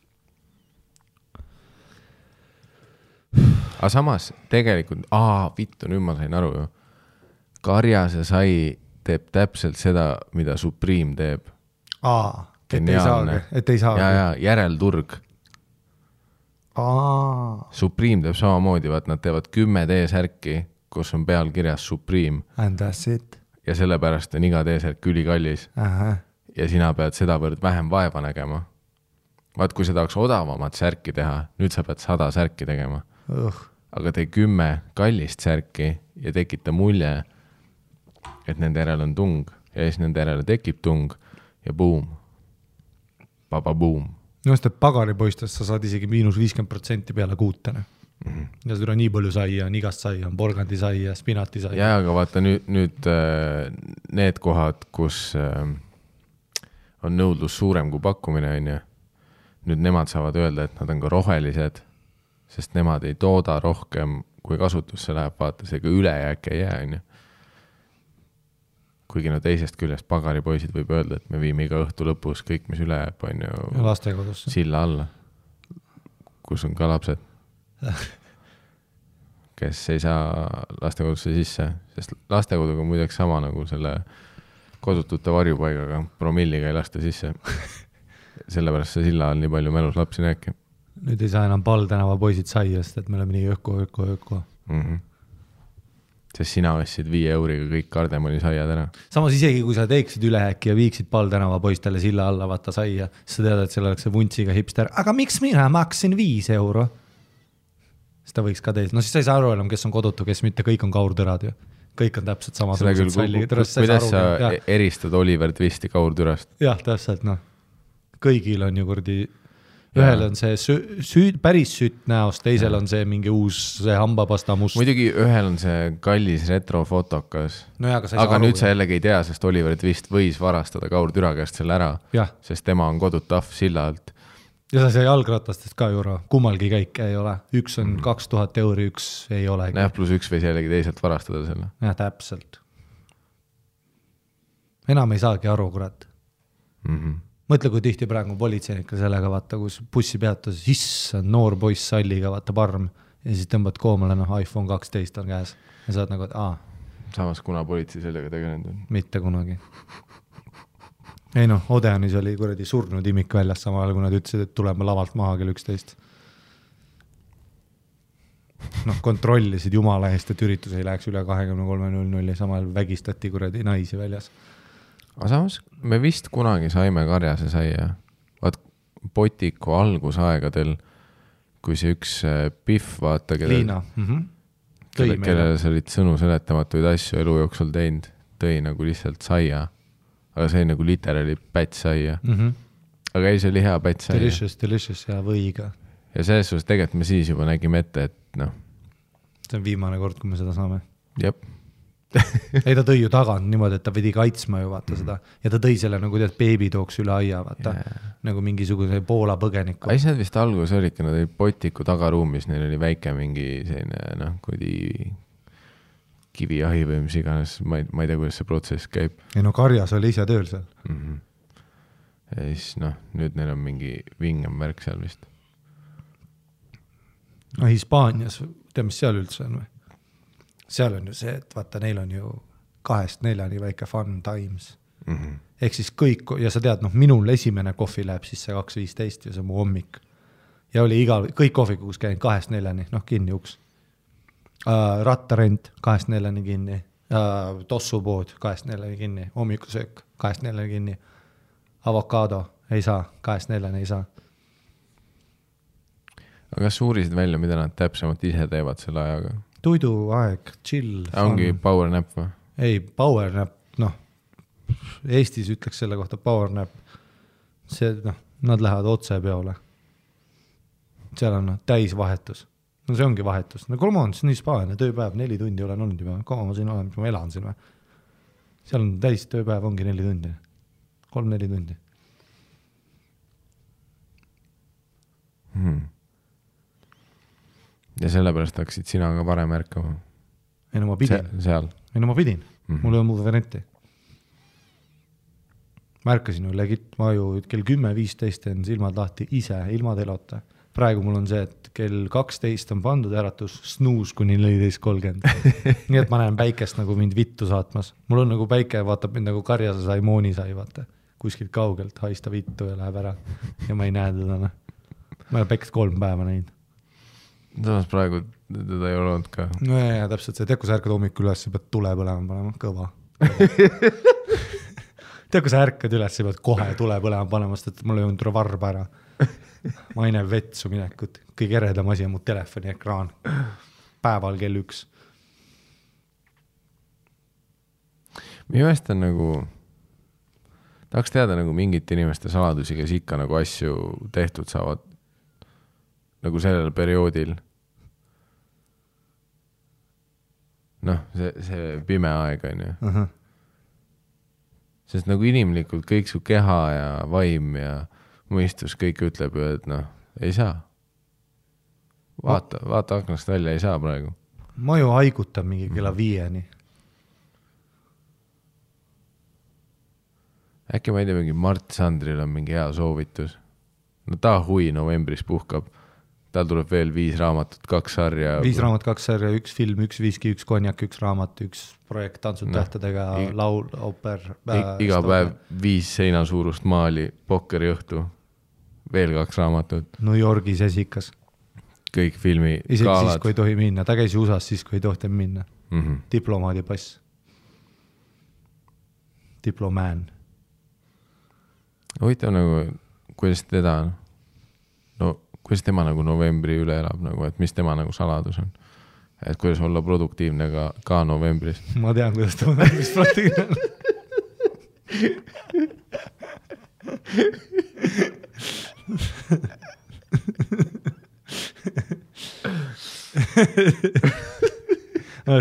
Aga samas tegelikult, vittu, nüüd ma sain aru ju. Karjase sai teeb täpselt seda, mida Supreme teeb. Et ei saagi. Ja järelturg. Supreme teeb samamoodi, vaat nad teevad 10 T-särki, kus on peal kirjas Supreme. And that's it. Ja sellepärast on iga T-särk ülikallis. Ja sina pead sedavõrd vähem vaeva nägema. Vaat kui seda oleks odavamat särki teha, nüüd sa pead 100 särki tegema. Aga tee 10 kallist särki ja tekita mulje, et nende järel on tung ja siis nende järel tekib tung ja boom. Boom. Just, et pagaripoistest sa saad isegi -50% peale kuutene. Ja seda on nii palju saia, on igast saia, on porgandi saia, spinati saia. Ja, aga vaata nüüd need kohad, kus on nõudlus suurem kui pakkumine, on ju. Nüüd nemad saavad öelda, et nad on ka rohelised, sest nemad ei tooda rohkem, kui kasutusse läheb, vaata, see ka ülejääk ei jää, on ju. Kuigi no teisest küljest pagaripoisid võib öelda, et me viime iga õhtu lõpus kõik, mis üle jääb, on ju lastekodusse. Silla alla, kus on ka lapsed, kes ei saa lastekodusse sisse, sest lastekoduga on muideks sama nagu selle kodutute varjupaigaga, promilliga ei lasta sisse. Sellepärast see Silla all nii palju mälus lapsi näeki. Nüüd ei saa enam Paldänava poisid saiast, et me oleme nii öko. Sest sina ostsid 5 euriga kõik kardemoni saiad ära. Samas isegi, kui sa teeksid ülehäkki ja viiksid Paldänava poistele Silla alla vaata saia, siis sa tead, et seal oleks see vuntsiga hipster. Aga miks mina maksin 5 euro? Seda võiks ka teised. No siis sa ei saa aru enam, kes on kodutu, kes mitte, kõik on kaurtürad ju. Kõik on täpselt sama. Kuidas sa eristad Oliver Twisti kaurtürast? Jah, täpselt, noh. Kõigil on ju kurdi, ühel on see päris sütt näost, teisel on see mingi uus see hambapasta must. Muidugi ühel on see kallis retrofotokas. No ja, aga nüüd sa jällegi ei tea, sest Oliver Twist võis varastada kaurtüra käest selle ära, sest tema on kodut ahv Silla alt. Ja sa sai jalgratastest ka juura, kummalgi käike ei ole. Üks on 2000 euri, üks ei ole. +1 võis jällegi teiselt varastada selle. Ja, täpselt. Enam ei saagi aru, kurat. Mõtle, kui tihti praegu politseinikka sellega vaata, kus bussi peatus, issand, noor poiss salliga, vaata parm, ja siis tõmbad koomale, iPhone 12 on käes. Ja saad nagu, et Samas, kuna politsei sellega tegelenud on? Mitte kunagi. Ei noh, Odeanis oli kuradi surnud imik väljas samal, kui nad ütlesid, et tuleme lavalt maha kell 11. Kontrollisid jumala eest, et üritus ei läheks üle 23.00 ja samal vägistati kuradi naisi väljas. Aga samas, me vist kunagi saime Karjase saia. Vaat Potiku algusaegadel, kui see üks Pihv, vaata, Liina. kellele sa olid sõnu seletamatuid asju elu jooksul teinud, tõi nagu lihtsalt saia. Aga see nagu literaali päts saia. Aga ei, see oli hea päts saia. Delicious ja võiga. Ja selles suhtes tegelikult me siis juba nägime ette, et see on viimane kord, kui me seda saame. Jep. Ei, ta tõi ju tagant niimoodi, et ta pidi kaitsma ju vaata seda. Ja ta tõi selle nagu tead beebi tooks üle aia, vaata. Nagu mingisuguse Poola põgeniku. Ai, see vist algus olidki, nad olid Potiku tagaruumis, neil oli väike mingi selline, kui kiviahi või mis iganes, ma ei tea, kuidas see protsess käib. Ei no Karjas oli ise tööl seal. Ja siis nüüd neil on mingi vingem värk seal vist. Hispaanias, tea mis seal üldse on või? Seal on ju see, et vaata, neil on ju 2-4 väike fun times. Ehk siis kõik, ja sa tead, minul esimene kohvi läheb sisse 2.15 ja see on mu hommik. Ja oli kõik kohvikus käin 2-4, kinni uks. Rattarent 2-4 kinni, tossupood 2-4 kinni, hommikusöök 2-4 kinni, avokaado ei saa, 2-4 ei saa. Aga kas uurisid välja, mida nad täpsemalt ise teevad selle ajaga? Tuiduaeg, chill. Ongi power nap või? Ei, power nap, Eestis ütleks selle kohta power nap. See, nad lähevad otse peole. Seal on täisvahetus. See ongi vahetus. Kolma on nii spaane, tööpäev, 4 tundi olen olnud juba. Kaua ma siin olen, ma elan siin või? Seal on täis tööpäev, ongi 4 tundi. 3-4 tundi. Ja sellepärast hakkasid sina ka varem ärkama? Ei no ma pidin. Seal? Ei no ma pidin. Mul ei ole muud varianti. ma ärkasin ju legit, ma ju kell 10:15 teen silmad lahti ise, ilma telota. Praegu mul on see, et kell 12 on pandud äratus, snuus kuni 14:30. Nii et ma näen päikest nagu mind vittu saatmas. Mul on nagu päike, vaatab mind nagu karjase sai, mooni sai, vaata. Kuskilt kaugelt haista vittu ja läheb ära. Ja ma ei näe teda. Ma olen päikest 3 päeva näinud. Samas praegu teda ei ole olnud ka. No ja täpselt see, tead, kui sa ärkad hommikul üles, sa pead tule põlema panema, kõva. Tead, kui sa ärkad üles, sa pead kohe tule põlema panema, sest et mul ei olnud varba ära. Ma ei näe vetsu minekut. Kõige eredam asi on mu telefoni ekraan. Päeval kell 1. Minu meelest on nagu, tahaks teada nagu mingit inimeste saladusi, kes ikka nagu asju tehtud saavad nagu sellel perioodil. Noh, see pime aeg on ju. Sest nagu inimlikult kõik su keha ja vaim ja mõistus kõik ütleb ju, et noh, ei saa. Vaata aknast välja, ei saa praegu. Ma ju haigutan mingi kella 5. Äkki ma ei tea, mingi Mart Sandril on mingi hea soovitus. No ta hui novembris puhkab. Tal tuleb veel 5 raamatut, 2 sarja. 5 raamat, 2 sarja, 1 film, 1 viski, 1 konjak, 1 raamat, 1 projekt tantsud tähtedega, laul, ooper. Iga päev 5 seina suurust maali, pokkeri õhtu, veel 2 raamatut. New Yorgis esikas. Kõik filmi isegi kaalad. siis, kui ei tohi minna. Ta käis USA-s siis, kui ei tohti minna. Diplomaadipass. Diplomään. Huvitav nagu, kuidas teda on? No, kuidas tema nagu novembri üle elab, nagu, et mis tema nagu saladus on? Et kuidas olla produktiivne ka novembris? Ma tean, kuidas ta novembris produktiivne on.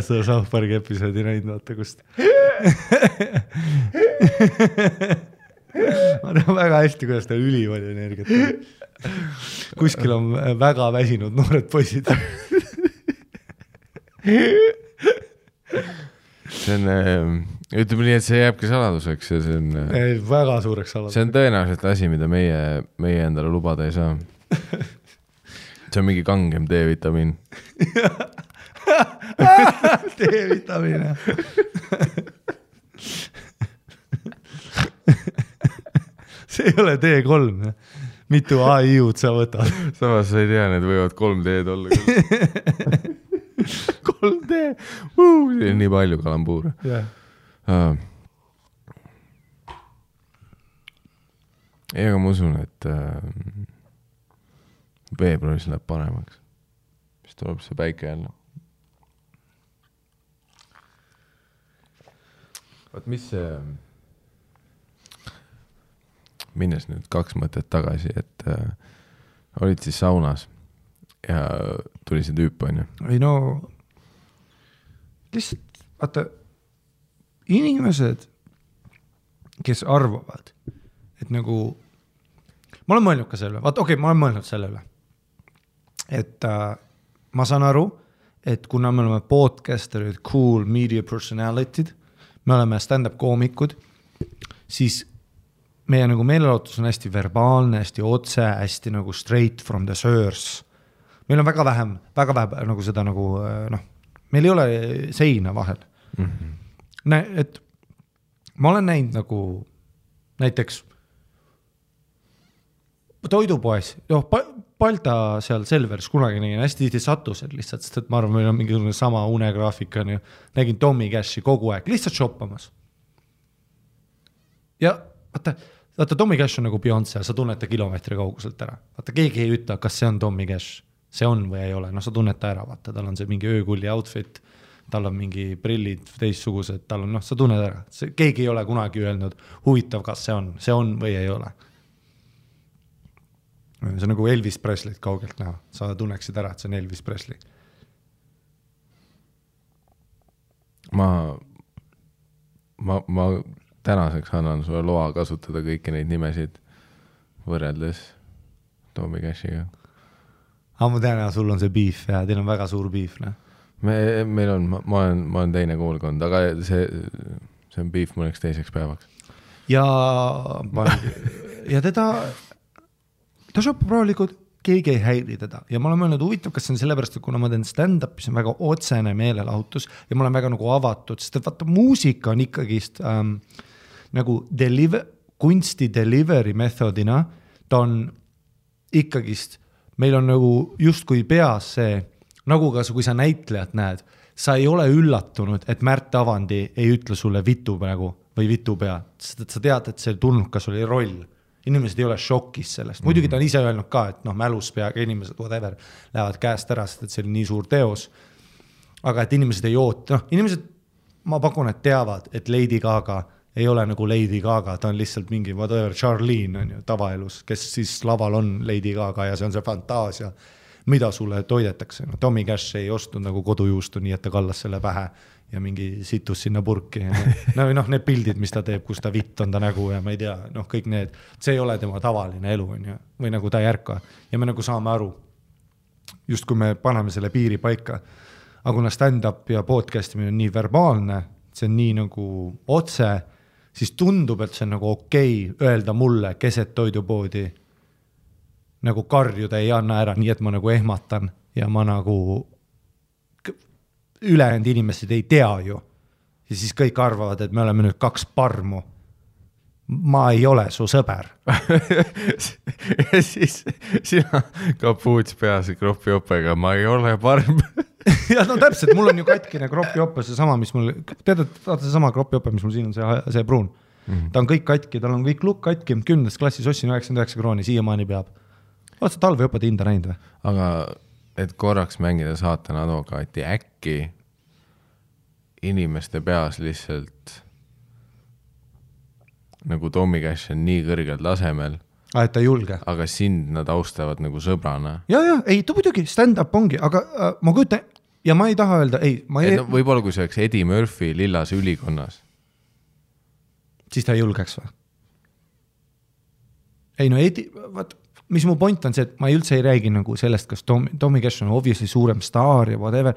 Seda South Parki episoodi näinud, vaata kust. Ma tean väga hästi, kuidas ta ülipalju energiat on. Kuskil on väga väsinud noored poisid. See on, ütleme nii, et see jääbki saladuseks ja see on väga suureks saladuseks. See on tõenäoliselt asi, mida meie endale lubada ei saa. See on mingi kangem D-vitamiin. D-vitamiin, jah. See ei ole D3, mitu AI-ud sa võtad. Samas sa ei tea, need võivad 3D-d olla. 3D, see on nii palju kalambuure. Ei, aga ma usun, et veebruaris läheb paremaks. Siis tuleb see päike jälle. Vaat mis see... Minnes nüüd 2 mõtet tagasi, et olid siis saunas ja tuli see tüüp, on ju? Ei no, lihtsalt, vaata, inimesed, kes arvavad, et nagu, ma olen mõelnud ka selle üle, vaata, ma olen mõelnud selle üle, et ma saan aru, et kuna me oleme podcasterid, cool media personality'd, me oleme stand-up koomikud, siis meie nagu meelelahutus on hästi verbaalne, hästi otse, hästi nagu straight from the source. Meil on väga vähe nagu seda nagu, noh, meil ei ole seina vahel. Et ma olen näinud nagu näiteks toidupoes, Balta seal Selvers kunagi nägin, hästi tihti sattused lihtsalt, sest et ma arvan, meil on mingi sama unegraafik, on ju. Nägin Tommy Cashi kogu aeg, lihtsalt shoppamas. Ja vaata, Tommy Cash on nagu Beyoncé, sa tunned ta kilomeetri kauguselt ära. Vaata, keegi ei ütle, kas see on Tommy Cash. See on või ei ole, no sa tunned ta ära, vaata, tal on see mingi öökulli outfit, tal on mingi prillid teistsugused, tal on, noh, sa tunned ära. Keegi ei ole kunagi öelnud, huvitav, kas see on või ei ole. See on nagu Elvis Presley't kaugelt näha, sa tunneksid ära, et see on Elvis Presley. Ma tänaseks annan sulle loa kasutada kõiki neid nimesid võrreldes Tommy Cashiga. Ma tean, sul on see beef ja teil on väga suur beef. Ne? Meil on, ma olen teine koolkond, aga see on beef mõneks teiseks päevaks. ja ta shoppab rahulikult, keegi ei häiri teda ja ma olen mõelnud huvitav, kas see on sellepärast, et kuna ma teen stand-up, siis on väga otsene meelelahutus ja ma olen väga nagu avatud, sest et vaata muusika on ikkagist nagu kunsti delivery methodina, ta on ikkagist, meil on nagu justkui peas see, nagu ka kui sa näitlejat näed, sa ei ole üllatunud, et Märt Avandi ei ütle sulle vitu praegu või vitu pea, sest et sa tead, et see tulnukas oli roll. Inimesed ei ole šokis sellest. Muidugi ta on ise öelnud ka, et mälus peaga inimesed, whatever, lähevad käest ära, sest et see oli nii suur teos. Aga et inimesed ei oota, inimesed, ma pakun, et teavad, et Lady Gaga ei ole nagu Lady Gaga, ta on lihtsalt mingi whatever, Charlene on ju tavaelus, kes siis laval on Lady Gaga ja see on see fantaasia, mida sulle toidetakse. Tommy Cash ei ostnud nagu kodujuustu, nii et ta kallas selle pähe ja mingi situs sinna purki. Need pildid, mis ta teeb, kus ta vitt on ta nägu ja ma ei tea, kõik need, see ei ole tema tavaline elu on ju, või nagu ta ei ärka. Ja me nagu saame aru, just kui me paneme selle piiri paika, aga kuna stand-up ja podcastimine on nii verbaalne, see on nii nagu otse, siis tundub, et see on nagu okei öelda mulle keset toidupoodi nagu karjuda ei anna ära, nii et ma nagu ehmatan ja ma nagu ülejäänud inimesed ei tea ju. Ja siis kõik arvavad, et me oleme nüüd 2 parmu. Ma ei ole su sõber. Ja siis sina kapuuts peas kropiopega, ma ei ole parm. Ja täpselt, mul on ju katkine kropiope, see sama, mis mul, tead, see sama kropiope, mis mul siin on, see pruun. Ta on kõik katki, tal on kõik lukk katki, 10. klassis ossin 99 krooni, siiamaani peab. Oled sa talveõpade hinda näinud või? Aga et korraks mängida saatana advokaati, äkki inimeste peas lihtsalt nagu Tommy Cash on nii kõrgel tasemel, et ta julge. Aga sind nad austavad nagu sõbrana. Ja, ei, ta muidugi stand-up ongi, aga ma kujutan, ja ma ei taha öelda, ei, ma ei... Võib-olla kui see oleks Eddie Murphy Lillas ülikonnas. Siis ta ei julgeks või? Ei, Eddie, mis mu point on see, et ma üldse ei räägi nagu sellest, kas Tommy Cash on obviously suurem staar ja whatever.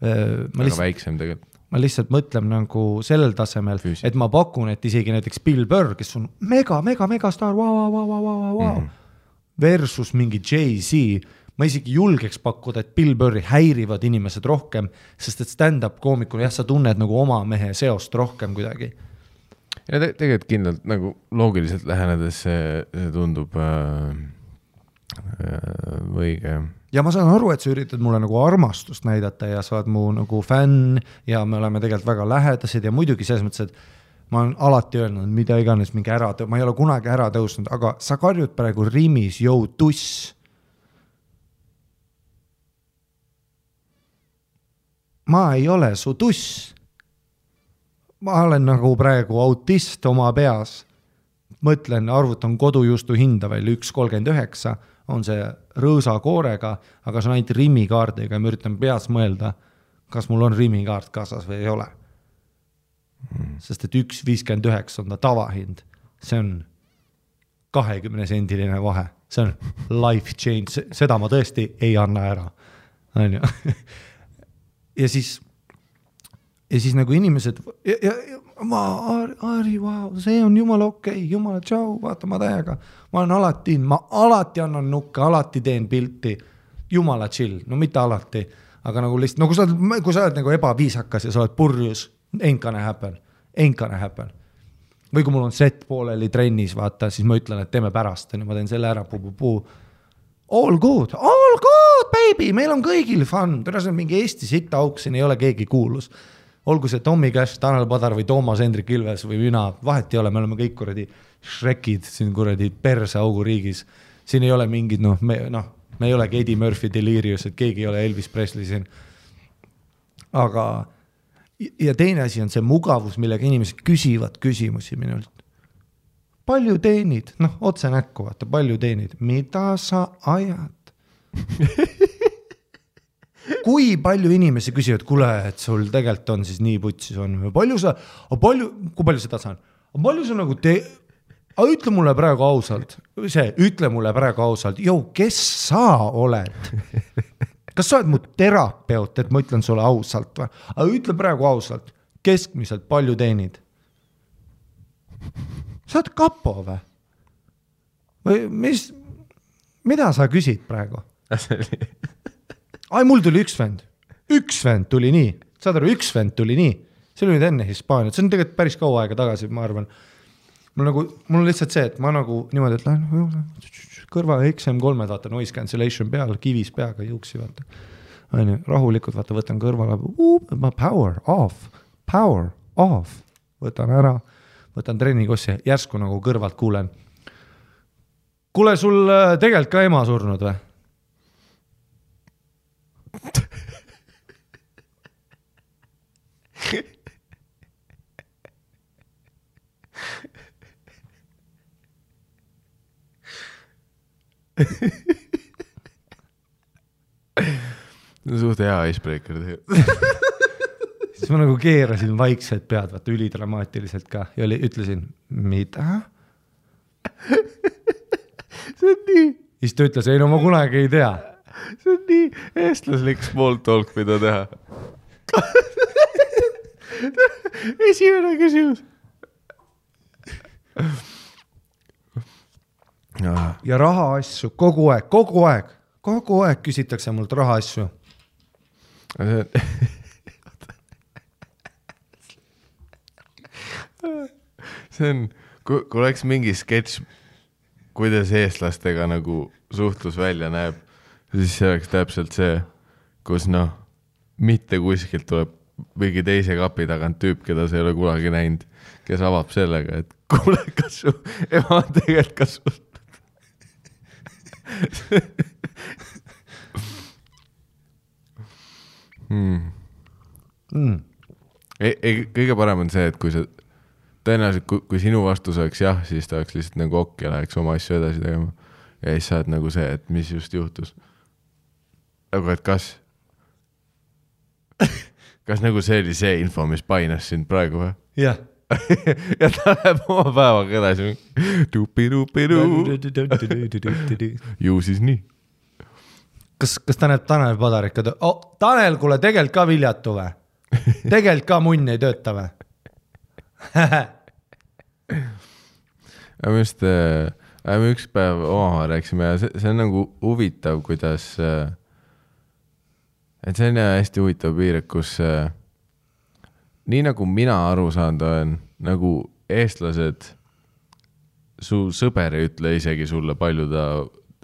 Aga väiksem tegelikult. Ma lihtsalt mõtlen nagu sellel tasemel, et ma pakun, et isegi näiteks Bill Burr, kes on mega staar, versus mingi Jay-Z, ma isegi julgeks pakkuda, et Bill Burri häirivad inimesed rohkem, sest et stand-up koomikul, sa tunned nagu oma mehe seost rohkem kuidagi. Ja tegelikult kindlalt nagu loogiliselt lähenedes see tundub õige. Ja ma saan aru, et sa üritad mulle nagu armastust näidata ja sa oled mu nagu fänn ja me oleme tegelikult väga lähedased ja muidugi selles mõttes, et ma olen alati öelnud, mida iganes mingi ma ei ole kunagi ära tõusnud, aga sa karjud praegu rimis, jõu tuss. Ma ei ole su tuss. Ma olen nagu praegu autist oma peas. Mõtlen, arvutan kodujuustu hinda veel 1,39, on see rõõsa koorega, aga see on ainult rimikaardiga ja ma üritan peas mõelda, kas mul on rimikaart kaasas või ei ole. Sest et 1,59 on ta tavahind. See on 20-sendiline vahe. See on life change. Seda ma tõesti ei anna ära. Ja siis nagu inimesed Ari, wow, see on jumala okei, jumala tšau, vaata ma täiega. Ma alati annan nukke, alati teen pilti, jumala chill, no mitte alati, aga nagu lihtsalt, no kui sa oled nagu ebaviisakas ja sa oled purjus, ain't gonna happen. Või kui mul on set pooleli trennis, vaata, siis ma ütlen, et teeme pärast, ma teen selle ära, all good, baby, meil on kõigil fun, tõenäoliselt on mingi Eesti sitta auk, siin ei ole keegi kuulus. Olgu see Tommy Cash, Tanel Padar või Toomas Hendrik Ilves või mina, vahet ei ole, me oleme kõik kuradi Shrekid siin kuradi perse augu riigis. Siin ei ole mingid, me ei olegi Eddie Murphy Delirious, et keegi ei ole Elvis Presley siin. Aga, ja teine asi on see mugavus, millega inimesed küsivad küsimusi minult. Palju teenid? Otse näkku, vaata, palju teenid? Mida sa ajad? Kui palju inimesi küsivad, kuule, et sul tegelikult on siis nii putsis on, kui palju seda saan? Palju sa nagu ütle mulle praegu ausalt, kes sa oled? Kas sa oled mu terapeut, et ma ütlen sulle ausalt või? Aga ütle praegu ausalt, keskmiselt palju teenid? sa oled kapo või? Või mida sa küsid praegu? Ai, mul tuli üks vend tuli nii, saad aru, üks vend tuli nii, see oli nüüd enne Hispaaniat, see on tegelikult päris kaua aega tagasi, ma arvan. Mul on lihtsalt see, et ma nagu niimoodi, et lähen kõrva XM3, vaata noise cancellation peal, kivis peaga juuksi, vaata. Aine, rahulikult, vaata, võtan kõrvale, power off, võtan ära, võtan trennikossi, järsku nagu kõrvalt kuulen. Kuule, sul tegelikult ka ema surnud või? Suht hea icebreaker Siis ma nagu keerasin vaikselt pead, vaata ülidramaatiliselt ka ja ütlesin, mida? See on nii. Siis ta ütles, ei no ma kunagi ei tea. See on nii eestlaslik small talk, mida teha. Esimene küsimus. Ja raha asju kogu aeg küsitakse mult raha asju. See on, kui oleks mingi sketš, kuidas eestlastega nagu suhtlus välja näeb, siis see oleks täpselt see, kus mitte kuskilt tuleb mingi teise kapi tagant tüüp, keda sa ei ole kunagi näinud, kes avab sellega, et kuule, kas su ema on tegelikult ka sul. Kõige parem on see, et kui sa tõenäoliselt, kui sinu vastus oleks jah, siis ta oleks lihtsalt nagu okk ja läheks oma asju edasi tegema. Ja siis sa oled nagu see, et mis just juhtus. Aga et kas nagu see oli see info, mis painas sind praegu või? Jah. Ja ta läheb oma päevaga edasi. Ju siis nii. Kas ta näeb Tanel Padarik? Tanel, kuule, tegelikult ka viljatu või? Tegelikult ka munn ei tööta või? Me just üks päev omavahel rääksime ja see on nagu huvitav, kuidas et see on hästi huvitav piir, kus nii nagu mina aru saanud olen, nagu eestlased su sõber ei ütle isegi sulle palju ta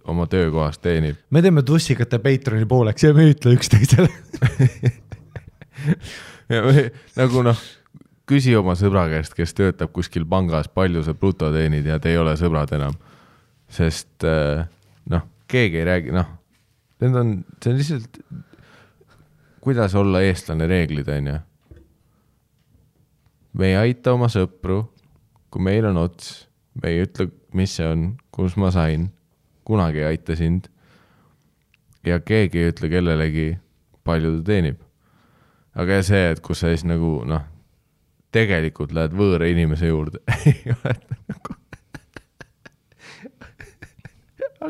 oma töökohast teenib. Me teeme tussikate Patreoni pooleks ja me ei ütle üksteisele. Ja nagu küsi oma sõbra käest, kes töötab kuskil pangas, palju sa bruto teenid ja te ei ole sõbrad enam. Sest keegi ei räägi, see on lihtsalt kuidas olla eestlane reeglid, on ja. Me ei aita oma sõpru, kui meil on ots, me ei ütle, mis see on, kus ma sain, kunagi ei aita sind ja keegi ei ütle kellelegi, palju ta teenib. Aga see, et kus sa siis nagu, tegelikult lähed võõra inimese juurde. Ei ole nagu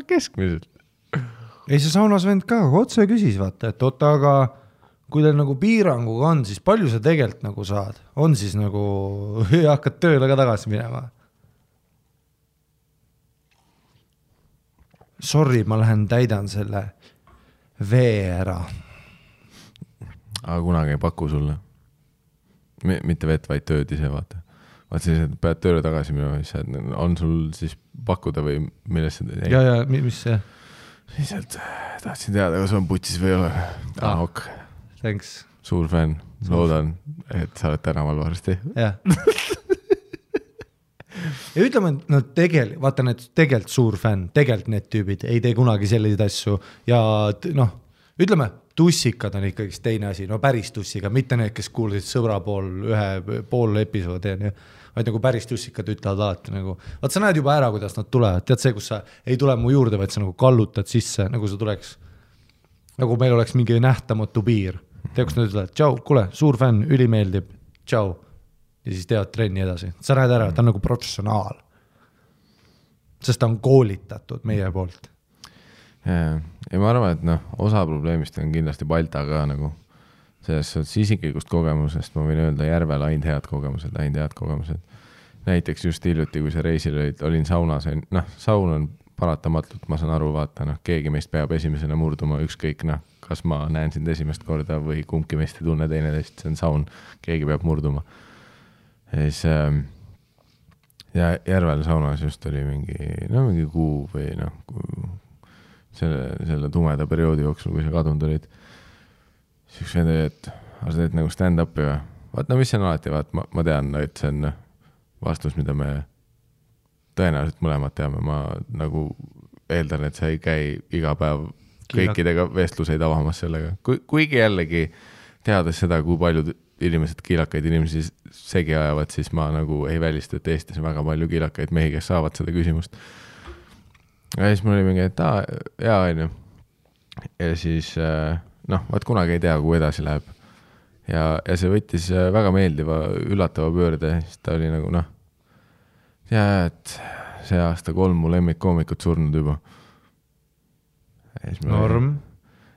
keskmiselt. Ei, see saunas vend ka otse küsis, vaata, et aga kui teil nagu piiranguga on, siis palju sa tegelikult nagu saad? On siis nagu hakkad tööle ka tagasi minema? Sorry, ma lähen täidan selle vee ära. Aga kunagi ei paku sulle. Mitte vett, vaid tööd ise, vaata. Vaat siis, et pead tööle tagasi minema, on sul siis pakkuda või millest see? Ja, mis see? Lihtsalt tahtsin teada, kas on putsis või ei ole. Ok. Thanks. Suur fänn. Loodan, et sa oled tänaval varsti. Jah. Ja ütleme, et vaata need tegelikult suur fänn, tegelikult need tüübid ei tee kunagi selliseid asju ja ütleme, tussikad on ikkagi teine asi, päris tussiga, mitte need, kes kuulsid sõbra pool episoodi, vaid nagu päris tussikad ütlevad alati nagu, vaat sa näed juba ära, kuidas nad tulevad, tead see, kus sa ei tule mu juurde, vaid sa nagu kallutad sisse, nagu sa tuleks, nagu meil oleks mingi nähtamatu piir, tead, kus nad ütlevad, tšau, kuule, suur fänn, ülimeeldib, tšau, ja siis teevad trenni edasi, sa näed ära, ta on nagu professionaal, sest ta on koolitatud meie poolt. Ja ma arvan, et osa probleemist on kindlasti Balta ka nagu selles isiklikust kogemusest, ma võin öelda järvel ainult head kogemused. näiteks just hiljuti, kui sa reisil olin saunas, noh, saun on paratamatult, ma saan aru, vaata, noh, keegi meist peab esimesena murduma, ükskõik, noh, kas ma näen sind esimest korda või kumbki meist ei tunne teineteist, see on saun, keegi peab murduma. Ja siis ja Järvel saunas just oli mingi kuu või noh, selle tumeda perioodi jooksul, kui sa kadunud olid, siis üks vend oli, et sa teed nagu stand-upi või? Vaat, no mis see on alati, vaat, ma tean, et see on vastus, mida me tõenäoliselt mõlemad teame, ma nagu eeldan, et sa ei käi iga päev kõikidega vestluseid avamas sellega. Kuigi jällegi teades seda, kui paljud inimesed kiilakaid inimesi segi ajavad, siis ma nagu ei välista, et Eestis on väga palju kiilakaid mehi, kes saavad seda küsimust. Ja siis mul oli mingi, et jaa, on ju. Ja siis, noh, vaat kunagi ei tea, kui edasi läheb. Ja see võttis väga meeldiva, üllatava pöörde, siis ta oli nagu, noh, ja et see aasta 3 mu lemmikkoomikut surnud juba. Norm.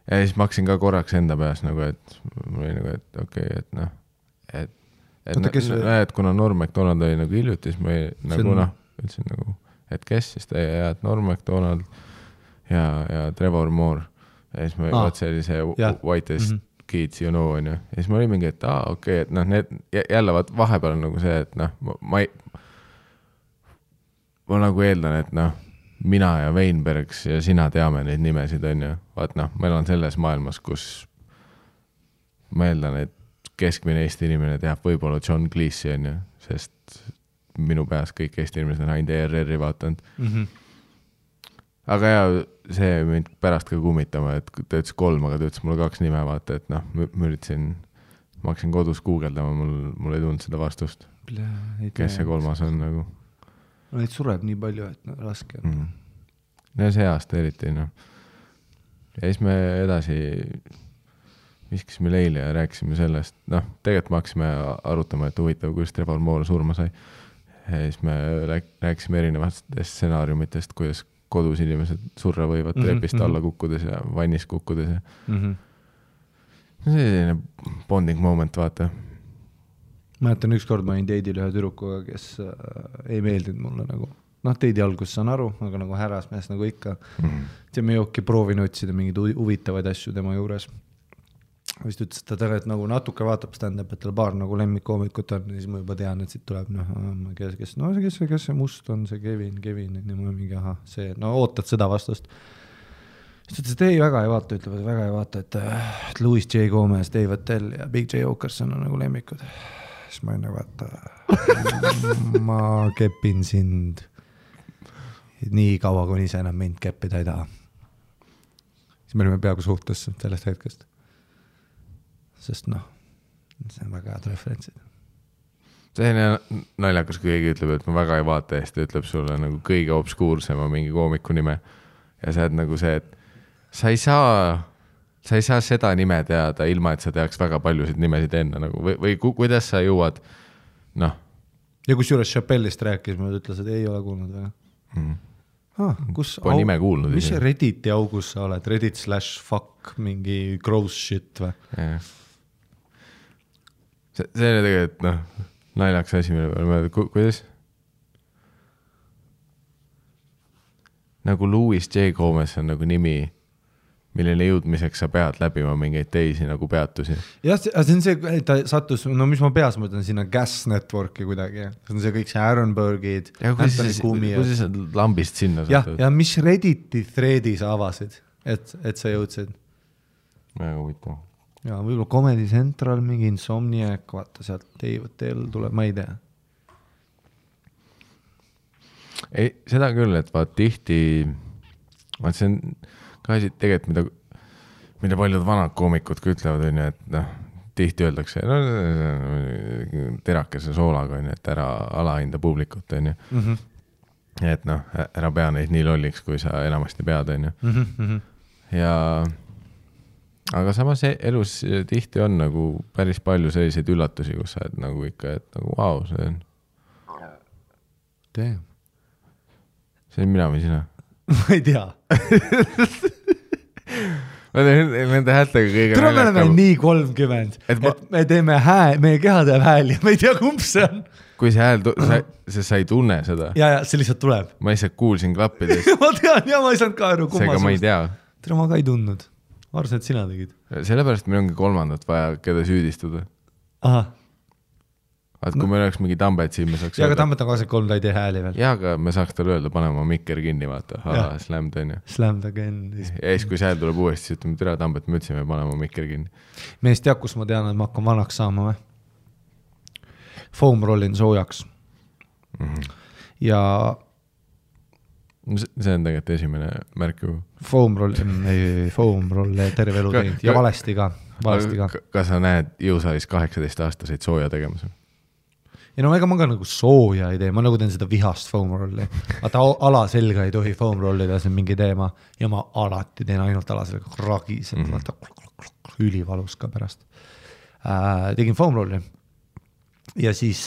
Ja siis ma hakkasin ka korraks enda peas nagu, et mul oli nagu, et okei, et noh, et kuna Norm MacDonald oli nagu hiljuti, siis ma nagu noh, ütlesin nagu, et kes siis ta ja et Norm MacDonald ja Trevor Moore. Ja siis ma vaat see oli see Whitest Kids, you know, on ju. Ja siis ma olin mingi, et okei, et noh, need jälle vaat vahepeal on nagu see, et noh, ma nagu eeldan, et noh, mina ja Weinbergs ja sina teame neid nimesid, on ju. Vaat noh, meil on selles maailmas, kus ma eeldan, et keskmine Eesti inimene teab võib-olla John Cleese, on ju, sest minu peas kõik Eesti inimesed on ainult ERR-i vaatanud. Aga ja see mind pärast ka kummitama, et ta ütles 3, aga ta ütles mulle 2 nime, vaata, et noh, ma hakkasin kodus guugeldama, mul ei tulnud seda vastust. Kes see 3 on nagu? Neid sureb nii palju, et no, raske on. Ja see aasta eriti, noh. Ja siis me edasi viskasime leile ja rääkisime sellest, noh, tegelikult me hakkasime arutama, et huvitav, kuidas Trevor Moore surma sai. Ja siis me rääkisime erinevatest stsenaariumitest, kuidas kodus inimesed surra võivad trepist alla kukkudes ja vannis kukkudes. See oli selline bonding moment, vaata. Mäletan, ükskord ma olin teidil ühe tüdrukuga, kes ei meeldinud mulle nagu. Noh, teidi algus saan aru, aga nagu härrasmees nagu ikka. Ja me jooki proovin otsida mingid huvitavaid asju tema juures. Vist ütles, et ta et nagu natuke vaatab stand-up, et tal paar nagu lemmikkoomikut on, siis ma juba tean, et siit tuleb, kes see must on, see Kevin, ja ma mingi, see, no ootad seda vastust. Siis ütles, et ei, väga ei vaata, et Louis J. Gomez, Dave Attell ja Big J. Okerson on nagu lemmikud. Siis ma ei nagu, et ma kepin sind nii kaua, kuni ise enam mind keppida ei taha. Siis me olime peaaegu suhtes sellest hetkest. Sest noh, see on väga head referentsid. See on naljakas, kui keegi ütleb, et ma väga ei vaata ja siis ta ütleb sulle nagu kõige obskuursema mingi koomiku nime. Ja sa oled nagu see, et sa ei saa seda nime teada, ilma et sa teaks väga paljusid nimesid enne. Nagu, või kuidas sa jõuad, noh. Ja kus juures Chappellist rääkis, ma ütles, et ei ole kuulnud väga. Kus Pole nime kuulnud. Mis see Redditi augus sa oled? Reddit/fuck mingi gross shit või? See oli tegelikult, noh, naljaks asi, mille peale, kuidas? Nagu Louis J. Gomez on nagu nimi, millele jõudmiseks sa pead läbima mingeid teisi nagu peatusi. Jah, see on see, et ta sattus, no mis ma peas mõtlen, sinna Gas Networki kuidagi. See on see kõik see Aaronbergid, Anthony Kumi. Kuidas sa lambist sinna satud? Ja mis Redditi threadi sa avasid, et sa jõudsid? Väga huvitav. Ja võib-olla Comedy Central, mingi Insomniac, vaata sealt Dave tuleb, ma ei tea. Ei, seda küll, et vaat tihti, vaat see on ka asi tegelikult, mida paljud vanad koomikud ka ütlevad, on ju, et noh, tihti öeldakse, no terakese soolaga, on ju, et ära alahinda publikut, on ju. Et noh, ära pea neid nii lolliks, kui sa enamasti pead, on ju. Ja aga samas elus tihti on nagu päris palju selliseid üllatusi, kus sa et nagu ikka, et nagu vau, see on. Damn. See on mina või sina? Ma ei tea. Ma teen nende häältega kõige naljakam. Me oleme nii 30, et me teeme meie keha teeb hääl ja me ei tea, kumb see on. kui see hääl, sa ei tunne seda. Ja see lihtsalt tuleb. Ma lihtsalt kuulsin klappidest. ma tean ja ma ei saanud ka aru, seega ma ei tea. Tere, ma ka ei tundnud. Arvasin, et sina tegid. Sellepärast meil ongi kolmandat vaja, keda süüdistada. Aha. Et kui meil oleks mingi Tambet siin, me saaks ja, aga Tambet on 23, ta ei tee hääli veel. Ja, aga me saaks talle öelda, pane oma mikker kinni, vaata. Slammed on ju. Slammed again. Ja siis, kui see hääl tuleb uuesti, siis ütleme, tere Tambet, me ütlesime, pane oma mikker kinni. Meest teab, kus ma tean, et ma hakkan vanaks saama või? Foam rollin soojaks. Ja see on tegelikult esimene märk ju. Foam roll terve elu teinud ja valesti ka. Kas sa näed jõusaalis 18-aastaseid sooja tegemas? Ja no ega ma ka nagu sooja ei tee, ma nagu teen seda vihast foam rolli. Vaata ala selga ei tohi foam rollida, see on mingi teema ja ma alati teen ainult ala selga ragised, vaata ülivalus ka pärast. Tegin foam rolli ja siis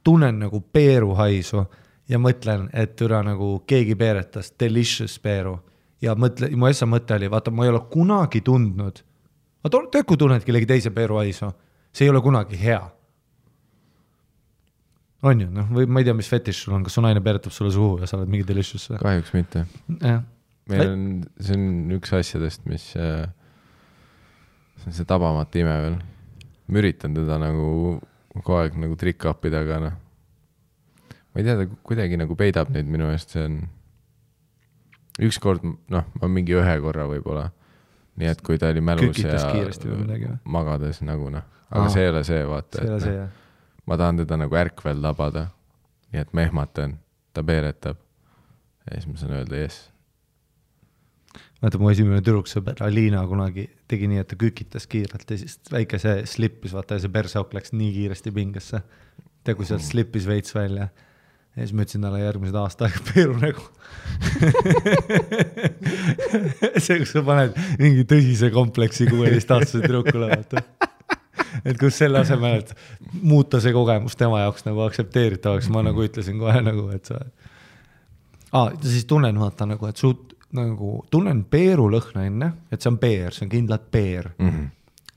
tunnen nagu peeru haisu ja mõtlen, et üle nagu keegi peeretas delicious peeru ja mu essa mõte oli, vaata ma ei ole kunagi tundnud, vaata kui tunned kellegi teise peeru haisu, see ei ole kunagi hea. On ju, noh, või ma ei tea, mis fetiš sul on, kas su naine peeretab sulle suhu ja sa oled mingi delicious? Kahjuks mitte. Meil on, see on üks asjadest, mis see tabamata ime veel. Ma üritan teda nagu kogu aeg nagu trick-upida, aga noh. Ma ei tea, ta kuidagi nagu peidab neid minu eest, see on ükskord, noh, ma mingi ühe korra võib-olla. Nii et kui ta oli mälus ja magades nagu noh. Aga see ei ole see, vaata. See ei ole see, jah. Ma tahan teda nagu ärkvel labada, nii et ma ehmatan, ta peeretab ja siis ma saan öelda yes. Vaata, mu esimene tüdruksõber Alina kunagi tegi nii, et ta kükitas kiirelt ja siis väike see slippis, vaata ja see persauk läks nii kiiresti pingesse. Tea, kui sealt slippis veits välja ja siis ma ütlesin talle järgmised aasta aega peeru nägu. See, kus sa paned mingi tõsise kompleksi 16-aastase tüdrukule, vaata. Et kus selle asemel, et muuta see kogemus tema jaoks nagu aktsepteeritavaks, ma nagu ütlesin kohe nagu, et sa... siis tunnen vaata nagu, et nagu, tunnen peeru lõhna enne, et see on peer, see on kindlalt peer.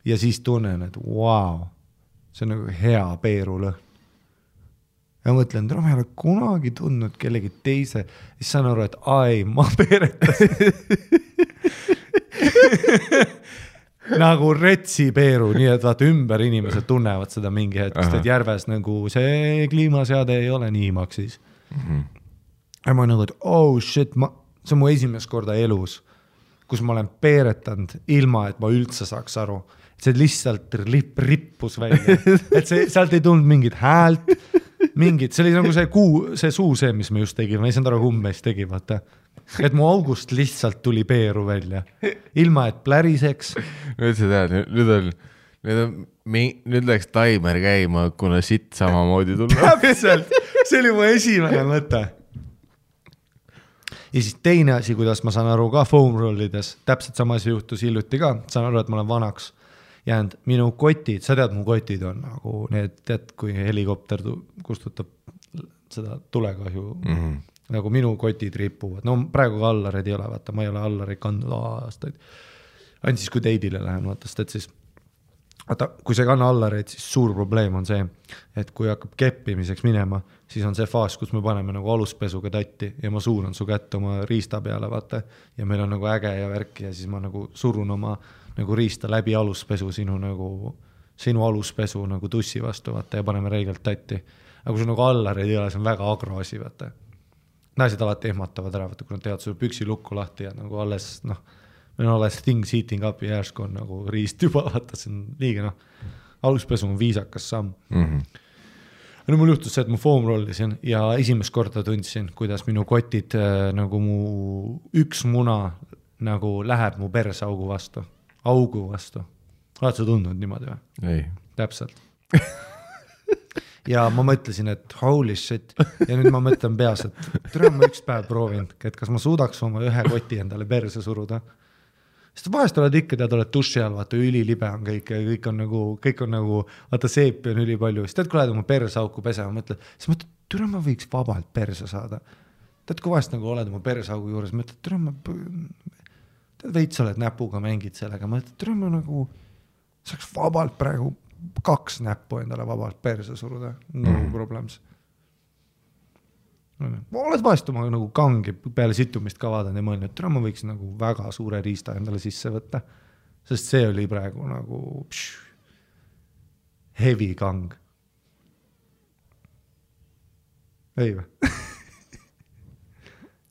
Ja siis tunnen, et wow, see on nagu hea peeru lõhn. Ja mõtlen, et ma ei ole kunagi tundnud kellegi teise, siis saan aru, et ma peeretasin. Nagu retsi peeru, nii et vaata ümber inimesed tunnevad seda mingi hetkest, et järves nagu see kliimaseade ei ole nii maksis. Ja ma nagu, et shit, see on mu esimest korda elus, kus ma olen peeretanud ilma, et ma üldse saaks aru. See lihtsalt rippus välja. Et sealt ei tulnud mingit häält, see oli nagu see suu see, mis me just tegime, ma ei saanud aru, kummes tegi, vaata. Et mu august lihtsalt tuli peeru välja. Ilma, et pläriseks. Nüüd sa tead, nüüd läks taimer käima, kuna sitt samamoodi tulla. Täpselt, see oli mu esimene mõte. Ja siis teine asi, kuidas ma saan aru ka foam rollides, täpselt sama asi juhtus hiljuti ka, saan aru, et ma olen vanaks jäänud. Minu kotid, sa tead, mu kotid on nagu need, tead, kui helikopter kustutab seda tulekahju, nagu minu kotid ripuvad. No praegu ka allareid ei ole, vaata, ma ei ole allareid kandnud aastaid. Ainult siis, kui teidile lähen, vaata, et siis vaata, kui see kanna allareid, siis suur probleem on see, et kui hakkab keppimiseks minema, siis on see faas, kus me paneme nagu aluspesuga tatti ja ma suuran su kätt oma riista peale, vaata, ja meil on nagu äge ja värk ja siis ma nagu surun oma nagu riista läbi aluspesu sinu aluspesu nagu tussi vastu, vaata, ja paneme reigelt tatti. Aga kui sul nagu allareid ei ole, see on väga agroasi, vaata. Naised alati ehmatavad ära, vaata, kui nad teevad sulle püksi lukku lahti ja nagu alles, noh, meil on alles things heating up ja järsk on nagu riist juba, vaata, see on liiga, noh, aluspesu on viisakas samm. No mul juhtus see, et ma foam rollisin ja esimest korda tundsin, kuidas minu kotid nagu mu üks muna nagu läheb mu persaugu vastu. Augu vastu. Oled sa tundnud niimoodi või? Ei. Täpselt. Ja ma mõtlesin, et holy shit. Ja nüüd ma mõtlen peas, et tere ma üks päev proovin, et kas ma suudaks oma ühe koti endale perse suruda. Sest vahest oled ikka, tead, oled duši all, vaata ülilibe on kõik on nagu, vaata seepi on ülipalju. Siis tead, kui lähed oma persauku pesema, siis mõtled, tere ma võiks vabalt perse saada. Tead, kui vahest nagu oled oma persaugu juures, mõtled, tere ma veits oled näpuga mängid sellega, mõtled, tere ma nagu saaks vabalt praegu 2 näppu endale vabalt perse suruda, no problems. Oled vahest oma nagu kangi peale situmist ka vaadanud ja mõelnud, et ma võiks nagu väga suure riista endale sisse võtta, sest see oli praegu nagu heavy kang. Ei või?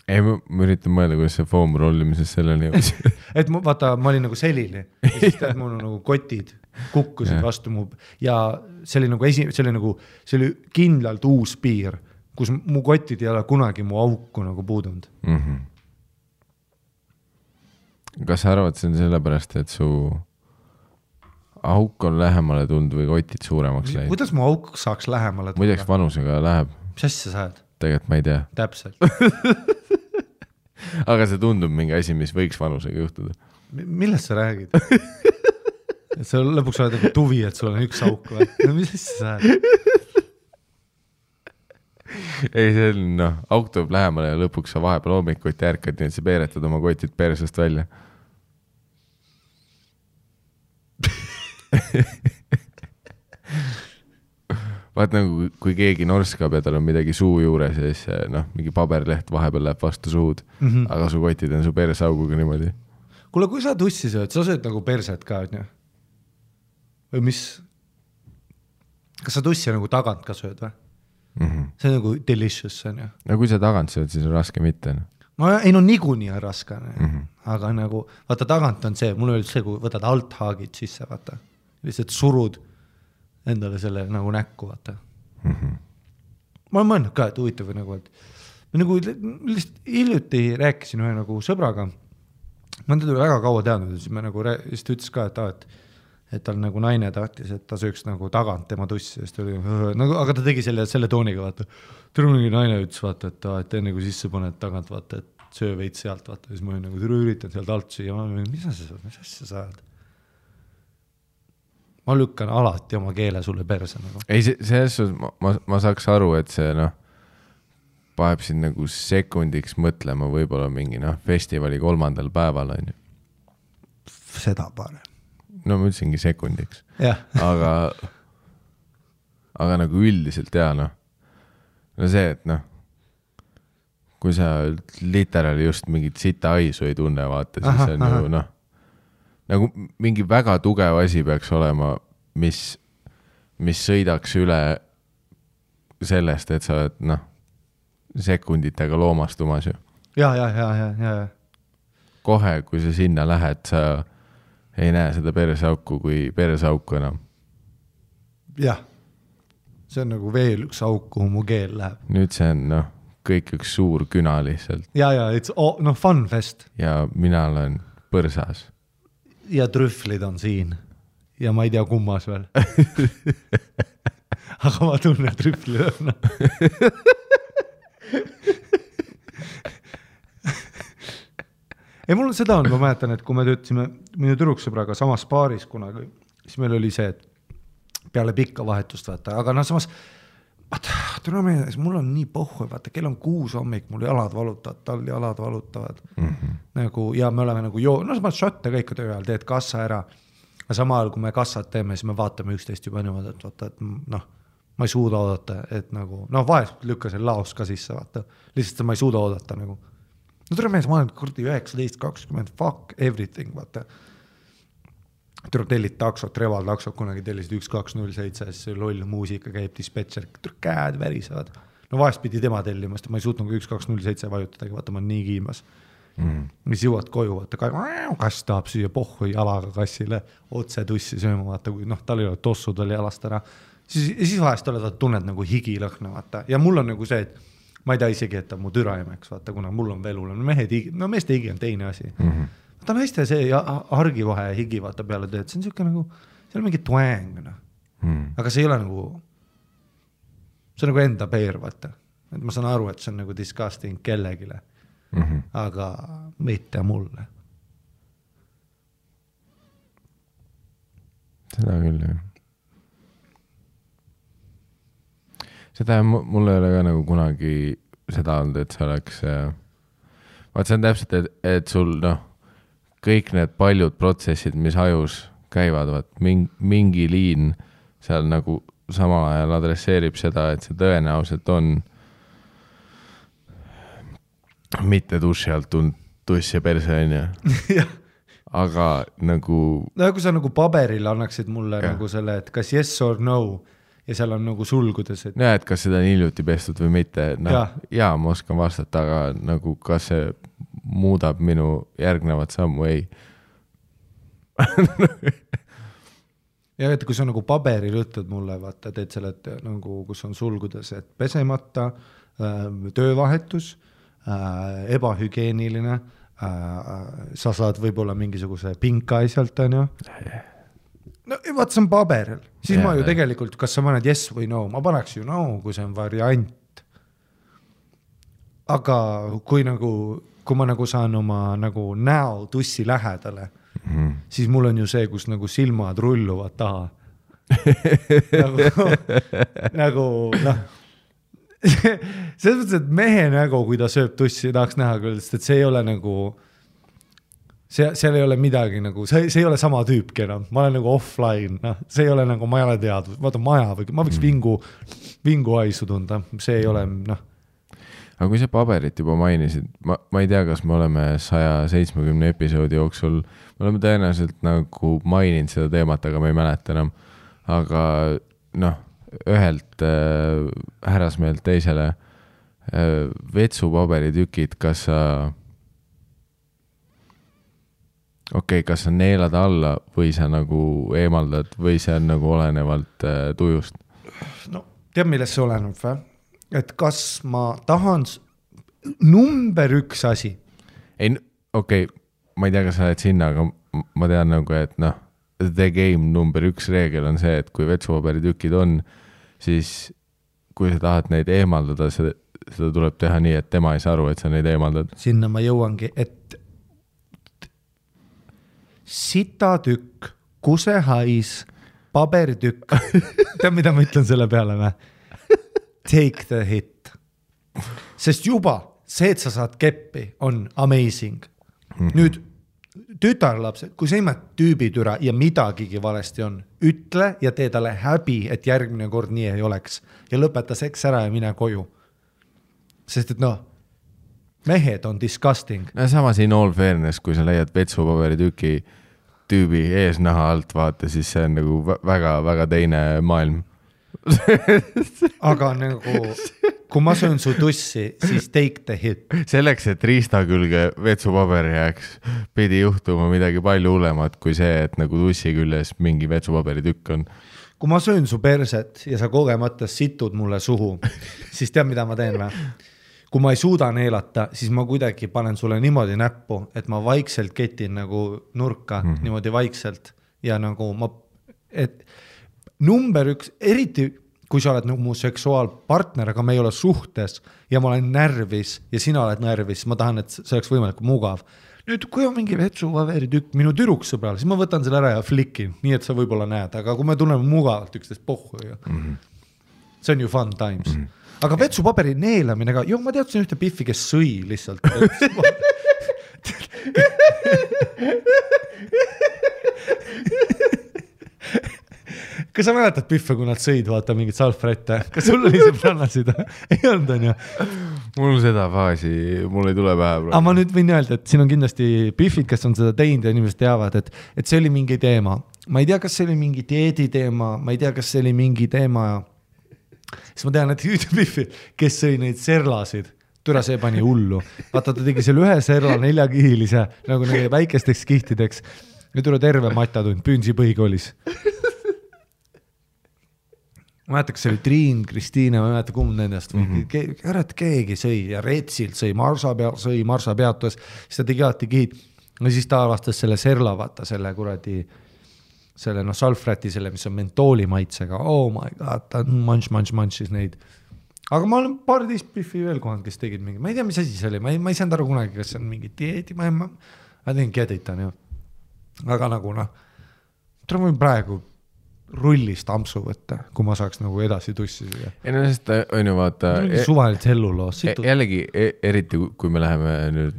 Ei, ma üritan mõelda, kuidas see foam rollimises selleni jõudis. Et vaata, ma olin nagu selili ja siis tead, mul nagu kotid kukkusid vastu mu ja see oli nagu see oli kindlalt uus piir, kus mu kotid ei ole kunagi mu auku nagu puudunud. Kas sa arvad, see on sellepärast, et su auk on lähemale tulnud või kotid suuremaks läinud? Kuidas mu auk saaks lähemale tulla? Muideks vanusega läheb. Mis asja sa ajad? Tegelikult ma ei tea. Täpselt. Aga see tundub mingi asi, mis võiks vanusega juhtuda. Millest sa räägid? Et sa lõpuks oled nagu tuvi, et sul on üks auk või? No mis asja sa ajad? Ei, see on, auk tuleb lähemale ja lõpuks sa vahepeal hommikuti ärkad, nii et sa peeretad oma kotid persest välja. Vaat nagu, kui keegi norskab ja tal on midagi suu juures ja siis mingi paberleht vahepeal läheb vastu suud, aga su kotid on su persauguga niimoodi. Kuule, kui sa tussi sööd, sa sööd nagu perset ka, on ju? Või mis? Kas sa tussi nagu tagant ka sööd või? See on nagu delicious, on ju. No kui sa tagant sööd, siis on raske mitte. Ei, niikuinii on raske. Aga nagu, vaata tagant on see, mul oli see, kui võtad althaagid sisse, vaata. Lihtsalt surud endale selle nagu näkku, vaata. Ma olen mõelnud ka, et huvitav nagu, et nagu lihtsalt hiljuti rääkisin ühe nagu sõbraga. Ma teda väga kaua teadnud, siis me nagu ütles ka, et tal nagu naine tahtis, et ta sööks nagu tagant tema tussi, sest oli, nagu, aga ta tegi selle tooniga, vaata. Tõrungi naine ütles, vaata, et enne kui sisse paned tagant, vaata, et söö veid sealt, vaata, siis ma olin nagu üritan sealt alt süüa, ma olin, mis asja sa ajad? Ma lükkan alati oma keele sulle perse. Nagu. Ei, selles ma saaks aru, et see paneb siin nagu sekundiks mõtlema võib-olla mingi festivali 3. päeval on ju. Seda parem. No ma ütlesingi sekundiks. Yeah. aga nagu üldiselt no see, et kui sa literaali just mingit sita aisu ei tunne, vaata, siis on ju nagu mingi väga tugev asi peaks olema, mis sõidaks üle sellest, et sa oled sekunditega loomastumas ju. Ja. Kohe, kui sa sinna lähed, sa ei näe seda persauku kui persauku enam. Jah, see on nagu veel üks auk, kuhu mu keel läheb. Nüüd see on kõik üks suur küna lihtsalt. Ja, it's fun fest. Ja mina olen põrsas. Ja trühvlid on siin. Ja ma ei tea kummas veel. Aga ma tunnen trühvlid on. Ei, mul on seda ma mäletan, et kui me töötasime minu tüdruksõbraga samas paaris kunagi, siis meil oli see, et peale pikka vahetust vaata, aga samas mul on nii pohhu, vaata, kell on 6 hommik, mul jalad valutavad, tal jalad valutavad. Nagu, ja me oleme nagu ma šotte kõik töö ajal, teed kassa ära. Ja sama ajal, kui me kassat teeme, siis me vaatame üksteist juba niimoodi, et vaata, et ma ei suuda oodata, et nagu, vahest lükka see laos ka sisse, vaata. Lihtsalt ma ei suuda oodata nagu. No tere mees, ma olen kurdi 19, 20, fuck everything, vaata. Tellid taksot, Reval taksot, kunagi tellisid 1207, siis loll muusika käib, dispetšer, käed värisevad. No vahest pidi tema tellimast, ma ei suutnud 1207 vajutadagi, vaata, ma olen nii kiimas. Mis jõuad koju, vaata, kass tahab süüa pohhu jalaga kassile, otse tussi sööma, vaata, kui tal ei ole tossud veel jalast ära. Siis vahest tunned nagu higilõhna, vaata. Ja mul on nagu see, et ma ei tea isegi, et ta mu türaimeks, vaata, kuna mul on veel hullem. Meeste higi on teine asi. Ta naiste see argivahe higi vaata peale tööd, see on siuke nagu, see on mingi twang. Aga see ei ole nagu, see on nagu enda peer, vaata. Et ma saan aru, et see on nagu disgusting kellegile. Aga mitte mulle. Seda küll, jah. Seda mul ei ole ka nagu kunagi seda olnud, et see oleks vaat see on täpselt, et sul kõik need paljud protsessid, mis ajus käivad, vaat mingi liin seal nagu samal ajal adresseerib seda, et see tõenäoliselt on mitte duši alt tulnud tuss ja perse on ju. Aga nagu no kui sa nagu paberil annaksid mulle nagu selle, et kas yes or no ja seal on nagu sulgudes, et et kas seda on hiljuti pestud või mitte, noh jaa, ma oskan vastata, aga nagu kas see muudab minu järgnevat sammu, ei. ja et kui sa nagu paberil ütled mulle, vaata, teed selle, et nagu kus on sulgudes, et pesemata, töövahetus, ebahügieeniline, sa saad võib-olla mingisuguse pinka sealt, on ju. No vaat see on paberil, siis ma ju tegelikult, kas sa paned yes või no, ma paneks ju no, kui see on variant. Aga kui ma nagu saan oma nagu näo tussi lähedale, siis mul on ju see, kus nagu silmad rulluvad taha. nagu noh, selles mõttes, et mehe nägu, kui ta sööb tussi, tahaks näha küll, sest et see ei ole nagu seal ei ole midagi nagu, see ei ole sama tüüpki enam, ma olen nagu offline, noh, see ei ole nagu, ma ei ole teadnud, vaata maja või ma võiks vingu haisu tunda, see ei ole, noh. Aga kui sa paberit juba mainisid, ma ei tea, kas me oleme 170 episoodi jooksul, me oleme tõenäoliselt nagu maininud seda teemat, aga ma ei mäleta enam, aga noh, ühelt härrasmeelt teisele vetsupaberitükid, kas sa kas sa neelad alla või sa nagu eemaldad või see on nagu olenevalt tujust? No, tead, millest see oleneb või? Et kas ma tahan number 1 asi? Ei, ma ei tea, kas sa oled sinna, aga ma tean nagu, et noh, the game number 1 reegel on see, et kui vetsupaberitükid on, siis kui sa tahad neid eemaldada, seda tuleb teha nii, et tema ei saa aru, et sa neid eemaldad. Sinna ma jõuangi, et sitatükk, kusehais, paberitükk. Tead, mida ma ütlen selle peale või? Take the hit. Sest juba see, et sa saad keppi, on amazing. Nüüd tütarlapsed, kui sa imad tüübitüra ja midagigi valesti on, ütle ja tee talle häbi, et järgmine kord nii ei oleks. Ja lõpeta seks ära ja mine koju. Sest et noh, mehed on disgusting. No samas in all fairness, kui sa leiad vetsupaberitüki tüübi eesnaha alt vaata, siis see on nagu väga teine maailm. Aga nagu, kui ma söön su tussi, siis take the hit. Selleks, et riista külge vetsupaber jääks, pidi juhtuma midagi palju hullemat kui see, et nagu tussi küljes mingi vetsupaberitükk on. Kui ma söön su perset ja sa kogemata situd mulle suhu, siis tead, mida ma teen või? Kui ma ei suuda neelata, siis ma kuidagi panen sulle niimoodi näppu, et ma vaikselt ketin nagu nurka, niimoodi vaikselt ja nagu et number 1, eriti kui sa oled nagu mu seksuaalpartner, aga me ei ole suhtes ja ma olen närvis ja sina oled närvis, ma tahan, et see oleks võimalik mugav. Nüüd, kui on mingi vetsupaberitükk minu türuksõbral, siis ma võtan selle ära ja flikin, nii et sa võib-olla näed, aga kui me tunneme mugavalt üksteist pohhu ju. See on ju fun times. Aga vetsupaberi neelamine ka, ma teadsin ühte piffi, kes sõi lihtsalt. Kas sa mäletad piffe, kui nad sõid, vaata mingit salfrette? Kas sul oli sõbrannasid? Ei olnud, on ju? Mul seda faasi, mul ei tule pähe. Aga ma nüüd võin öelda, et siin on kindlasti piffid, kes on seda teinud ja inimesed teavad, et see oli mingi teema. Ma ei tea, kas see oli mingi dieedi teema, ma ei tea, kas see oli mingi teema. Siis ma tean, et üks piffi, kes sõi neid serlasid, türa see pani hullu. Vaata, ta tegi selle ühe serla 4-kihilise, nagu neile väikesteks kihtideks. Ja türa terve matatund, Püünsi põhikoolis. Ma mäletan, kas see oli Triin, Kristiine, ma mäletan, kumb nendest. Keegi sõi ja Retsilt sõi, Marsa peatus, siis ta tegi alati kihid. Ja siis ta avastas selle serla, vaata, selle kuradi, selle salfräti, selle, mis on mentooli maitsega. Oh my god, ta manšis neid. Aga ma olen paar teist piffi veel kohanud, kes tegid mingi, ma ei tea, mis asi see oli, ma ei saanud aru kunagi, kas see on mingi dieedi, ma tegin keditan ju. Aga nagu ma võin praegu rullist ampsu võtta, kui ma saaks nagu edasi tussi siia. Ei no sest on ju vaata suvaliselt helluloos. Jällegi, eriti kui me läheme nüüd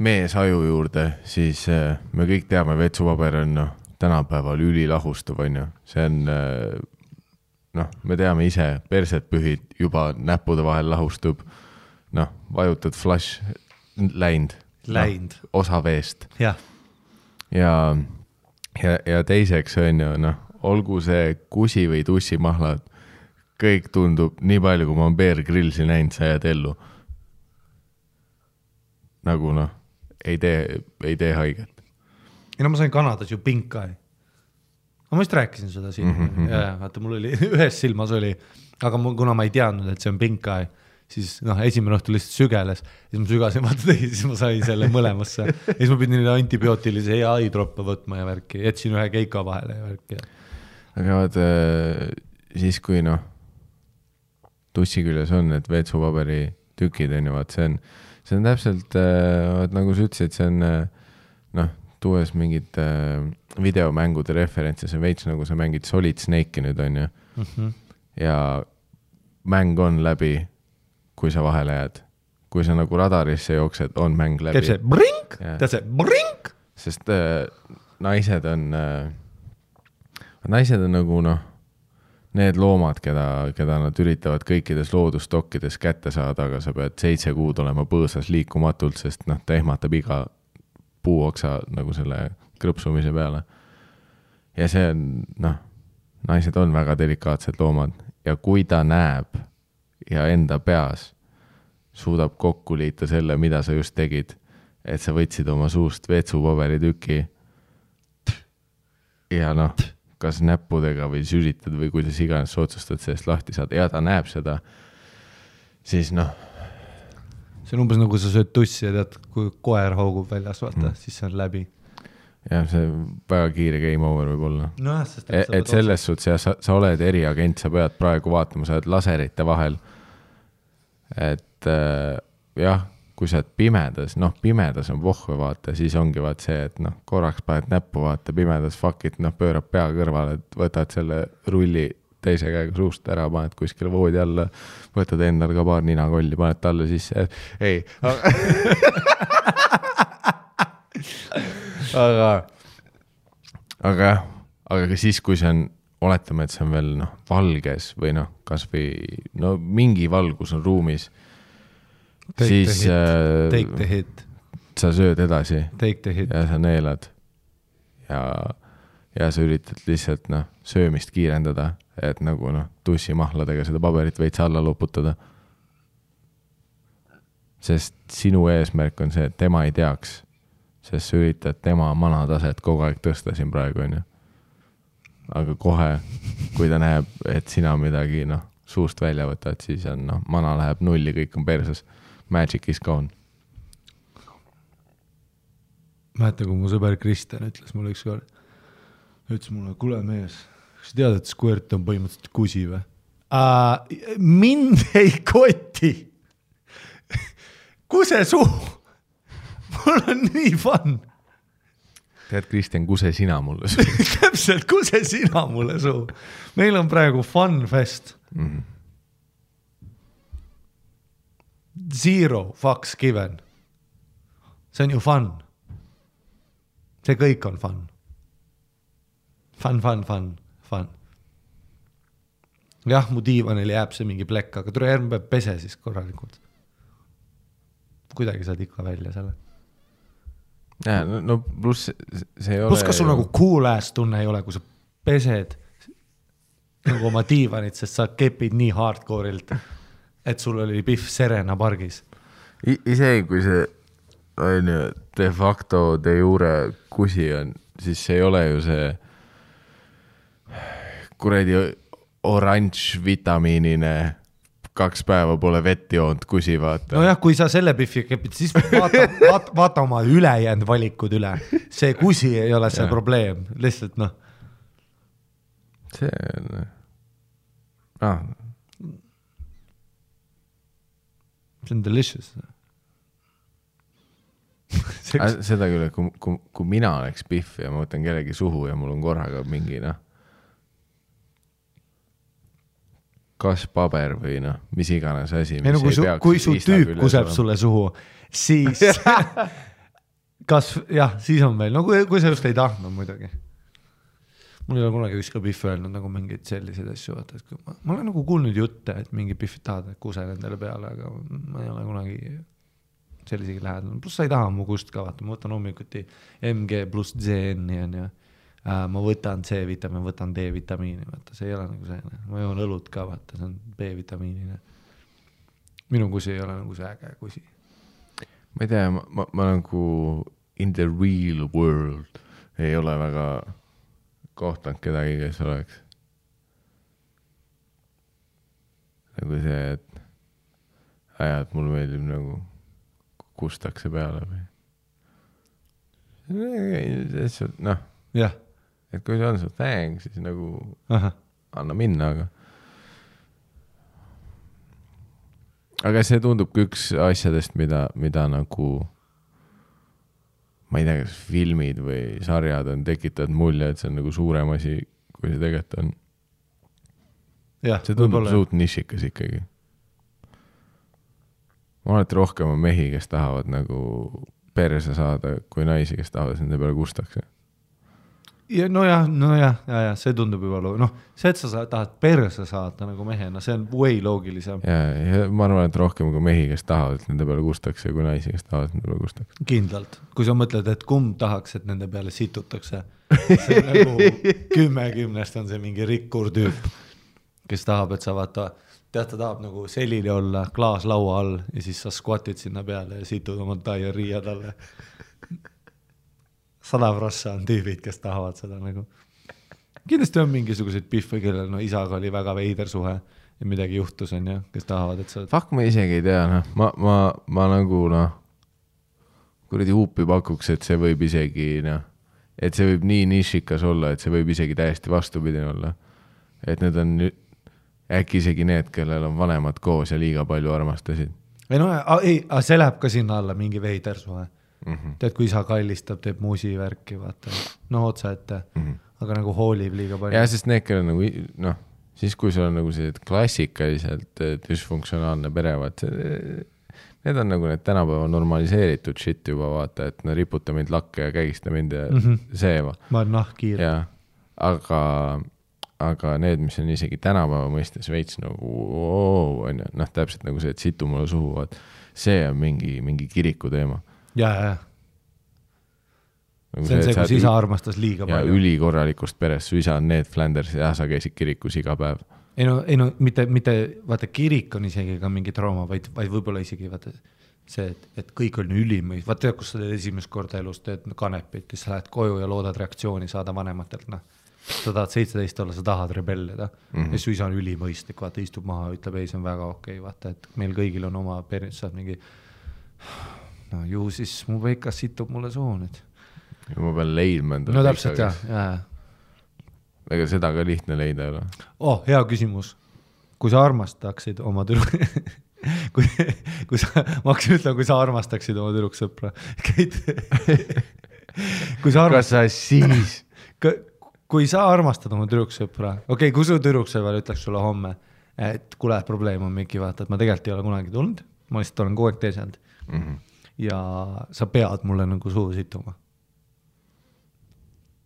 mees aju juurde, siis me kõik teame, vetsupaber on tänapäeval ülilahustuv, on ju. See on, noh, me teame ise, perset pühid juba näppude vahel lahustub, noh, vajutad flash, läind. No, osa veest. Ja. Ja teiseks on ju, noh, olgu see kusi või tussimahlad, kõik tundub nii palju, kui ma olen Bear Grillsi näinud, sa jääd ellu. Nagu noh, ei tee haiget. Ja no ma sain Kanadas ju pink eye. Ma vist rääkisin seda siin. Ja, vaata, mul oli ühes silmas oli, aga kuna ma ei teadnud, et see on pink eye, siis noh, esimene õhtu lihtsalt sügeles, siis ma sügasin, vaata tegi, siis ma sain selle mõlemasse. Ja siis ma pidin antibiootilise ja eye-droppe võtma ja värki, jätsin ühe keika vahele ja värki. Aga vaata, siis kui noh, tussi küljes on, et veetsupaberi tükid on ju, vaat see on täpselt, nagu sa ütlesid, see on noh, tuues mingid videomängude referentse, see veits nagu sa mängid Solid Snake'i nüüd on ju. Ja mäng on läbi, kui sa vahele jääd. Kui sa nagu radarisse jooksed, on mäng läbi. Teeb see brink, teeb see brink. Sest naised on nagu noh, need loomad, keda nad üritavad kõikides loodustokkides kätte saada, aga sa pead 7 kuud olema põõsas liikumatult, sest noh, ta ehmatab iga puuoksa nagu selle krõpsumise peale. Ja see on, noh, naised on väga delikaatsed loomad ja kui ta näeb ja enda peas suudab kokku liita selle, mida sa just tegid, et sa võtsid oma suust veetsupaberi tüki ja noh, kas näppudega või süritad või kuidas iganes sa otsustad sellest lahti saada ja ta näeb seda, siis noh. See on umbes nagu sa sööd tussi ja tead, kui koer hoogub väljas, vaata, siis see on läbi. Ja see väga kiire game over võib olla. No, et selles suhtes ja sa oled eriagent, sa pead praegu vaatama, sa oled laserite vahel. Et jah, kui sa oled pimedas, noh, pimedas on vohve vaata, siis ongi vaat see, et noh, korraks paned näppu vaata, pimedas fuck it, noh, pöörab pea kõrvale, et võtad selle rulli teise käega suust ära, paned kuskile voodi alla, võtad endal ka paar ninakolli, paned talle sisse, ei. aga siis, kui see on, oletame, et see on veel noh, valges või noh, kas või no, mingi valgus on ruumis, siis take the hit. Sa sööd edasi take the hit. Ja sa neelad ja sa üritad lihtsalt noh, söömist kiirendada, et nagu noh, tussimahladega seda paberit veits alla loputada. Sest sinu eesmärk on see, et tema ei teaks, sest sa üritad tema manataset kogu aeg tõsta siin praegu on ju. Aga kohe, kui ta näeb, et sina midagi noh, suust välja võtad, siis on noh, mana läheb nulli, kõik on perses. Magic is gone. Mäeta, kui mu sõber Kristjan ütles mulle ükskord, ütles mulle, kuule mees, kas tead, et squirt on põhimõtteliselt kusi või? Mind ei koti. Kuse suu. Mul on nii fun. Tead, Kristjan, kuse sina mulle suu. Täpselt, kuse sina mulle suu. Meil on praegu fun fest. Zero fucks given. See on ju fun. See kõik on fun. Fun. Jah, mu diivanil jääb see mingi plekk, aga tule järgmine päev pese siis korralikult. Kuidagi saad ikka välja selle. Ja, no pluss see ei ole... Plus kas sul nagu cool ass tunne ei ole, kui sa pesed nagu oma diivanit, sest sa kepid nii hardcoreilt, et sul oli Pihv Serena pargis. Isegi kui see on ju de facto de jure kusi on, siis see ei ole ju see kuredi oranž vitamiinine 2 päeva pole vett joont kusi, vaata. No jah, kui sa selle Pihvi kepid, siis vaata oma ülejäänud valikud üle. See kusi ei ole see probleem, lihtsalt noh. See on... See on delicious. Seda küll, et kui mina oleks Pihv ja ma võtan kellegi suhu ja mul on korraga mingi noh, kas paber või noh, mis iganes asi, mis ei peaks. Kui su tüüp kuseb sulle suhu, siis kas, jah, siis on meil, no kui sa just ei tahtnud muidugi. mul ei ole kunagi ükski Pihv öelnud nagu mingeid selliseid asju, vaata, et ma olen nagu kuulnud jutte, et mingi Pihvid tahavad kuse nendele peale, aga ma ei ole kunagi sellisegi lähedal. Plus sa ei taha mu kust ka, vaata, ma võtan hommikuti MG plus ZN-i ja ma võtan C-vitamiini, võtan D-vitamiini, vaata, see ei ole nagu see, ma joon õlut ka, vaata, see on B-vitamiinine. Minu kusi ei ole nagu see äge kusi. Ma ei tea, ma nagu in the real world ei ole väga kohtanud kedagi, kes oleks nagu see, et mul meeldib nagu kustakse peale või noh, jah. Et kui see on su thing, siis nagu anna minna, aga see tundub üks asjadest, mida nagu ma ei tea, kas filmid või sarjad on tekitanud mulje, et see on nagu suurem asi, kui see tegelikult on. See tundub suut nišikas ikkagi. Ma olen rohkem mehi, kes tahavad nagu perse saada, kui naisi, kes tahavad nende peale kustakse. Ja, no jah, see tundub juba see, et sa tahad perse saada nagu mehena, see on way loogilisem. Ja ma arvan, et rohkem kui mehi, kes tahavad nende peale kustakse, kui naisi, kes tahavad nende peale kustakse. Kindlalt. Kui sa mõtled, et kumb tahaks, et nende peale situtakse, see on nagu 10 on see mingi rikkur tüüp, kes tahab, et sa vaata, ta tahab nagu selili olla klaas laua all ja siis sa squatid sinna peale ja situd oma diarrhea talle. 100% on tüübid, kes tahavad seda nagu. Kindlasti on mingisuguseid Pihve, kellel isaga oli väga veider suhe ja midagi juhtus on kes tahavad, et sa... Fuck, ma isegi ei tea, ma nagu kuradi huupi pakuks, et see võib isegi et see võib nii nišikas olla, et see võib isegi täiesti vastupidine olla. Et need on äkki isegi need, kellel on vanemad koos ja liiga palju armastasid. See läheb ka sinna alla mingi veider suhe. Tead, kui isa kallistab, teeb muusi värki, vaata. Otsa ette, aga nagu hoolib liiga palju. Ja, sest need, kellel nagu, siis kui sul on nagu see klassikaliselt dysfunktsionaalne pere, vaat need on nagu need tänapäeva normaliseeritud shit juba, vaata, et riputa mind lakke ja kägista mind ja seeva. Ma olen kiir. Ja, aga need, mis on isegi tänapäeva mõistes veits nagu, täpselt nagu see, et situ mulle suhu, vaat see on mingi kiriku teema. Ja. See on see, kus isa armastas liiga palju. Ja ülikorralikust perest, su isa on Ned Flanders ja sa käisid kirikus iga päev. Ei no mitte, vaata, kirik on isegi ka mingi trauma, vaid võib-olla isegi vaata see, et kõik on ülimõis. Vaata, kus sa teed esimest korda elus, teed kanepit, siis sa lähed koju ja loodad reaktsiooni saada vanematelt. Sa tahad 17 olla, sa tahad rebellida. Ja su isa on ülimõistlik, vaata, istub maha, ütleb, ei, see on väga okei, vaata, et meil kõigil on oma periood, saad mingi ju siis mu veikas situb mulle soo nüüd. Ja ma pean leidma endale. No täpselt, jah. Ega seda ka lihtne leida ei ole. Hea küsimus. Kui sa armastaksid oma kui sa armastaksid oma tüdruksõpra, kas sa siis kui sa armastad oma tüdruksõpra, kui su tüdruksõpra ütleks sulle homme, et kuule, probleem on Miki, vaata, et ma tegelikult ei ole kunagi tulnud, ma lihtsalt olen kogu aeg teisend ja sa pead mulle nagu suhu situma.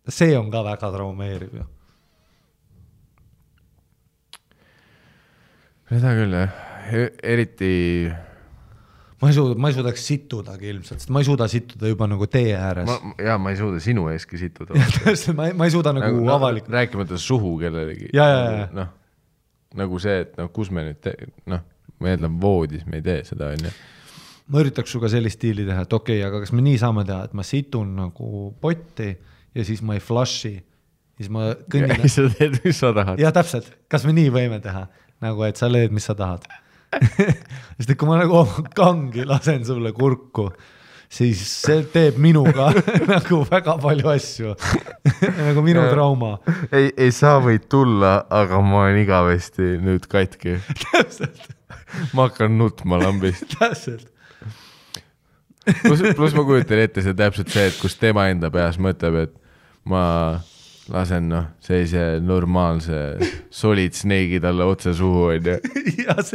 See on ka väga traumeeriv ju. Seda küll, eriti... Ma ei suudaks situdagi ilmselt, sest ma ei suuda situda juba nagu tee ääres. Ma ei suuda sinu eeski situda. ma ei suuda nagu avalikult. Rääkimata suhu kellelegi. Ja. Nagu see, et kus me nüüd ma eeldan voodis, me ei tee seda, on ju. Ma üritaks suga sellist stiili teha, et aga kas me nii saame teha, et ma situn nagu potti ja siis ma ei flushi. Siis ma kõnnin... Ja sa teed, mis sa tahad. Ja täpselt, kas me nii võime teha? Nagu, et sa leed, mis sa tahad. Sest kui ma nagu kangi lasen sulle kurku, siis see teeb minuga nagu väga palju asju. Nagu minu trauma. Ei saa võid tulla, aga ma olen igavesti nüüd katki. Täpselt. Ma hakkan nutma lambist. Täpselt. Plus ma kujutan ette see täpselt see, et kus tema enda peas mõtleb, et ma lasen sellise normaalse solid snake'i talle otse suhu, on ju.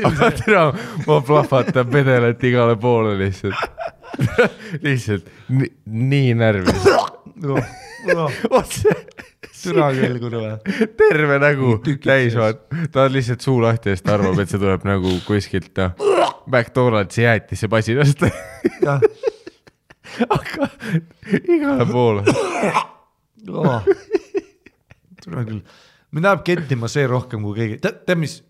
Aga tere, ma plahvatan pedelet igale poole lihtsalt nii närvis. otse türa küll, kurva. terve nägu täis vaat. Ta on lihtsalt suu lahti ja ta arvab, et see tuleb nagu kuskilt McDonaldsi jäätisse pasinast. aga igale poole. Türa küll. Mind läheb kettima see rohkem kui keegi. Tead mis?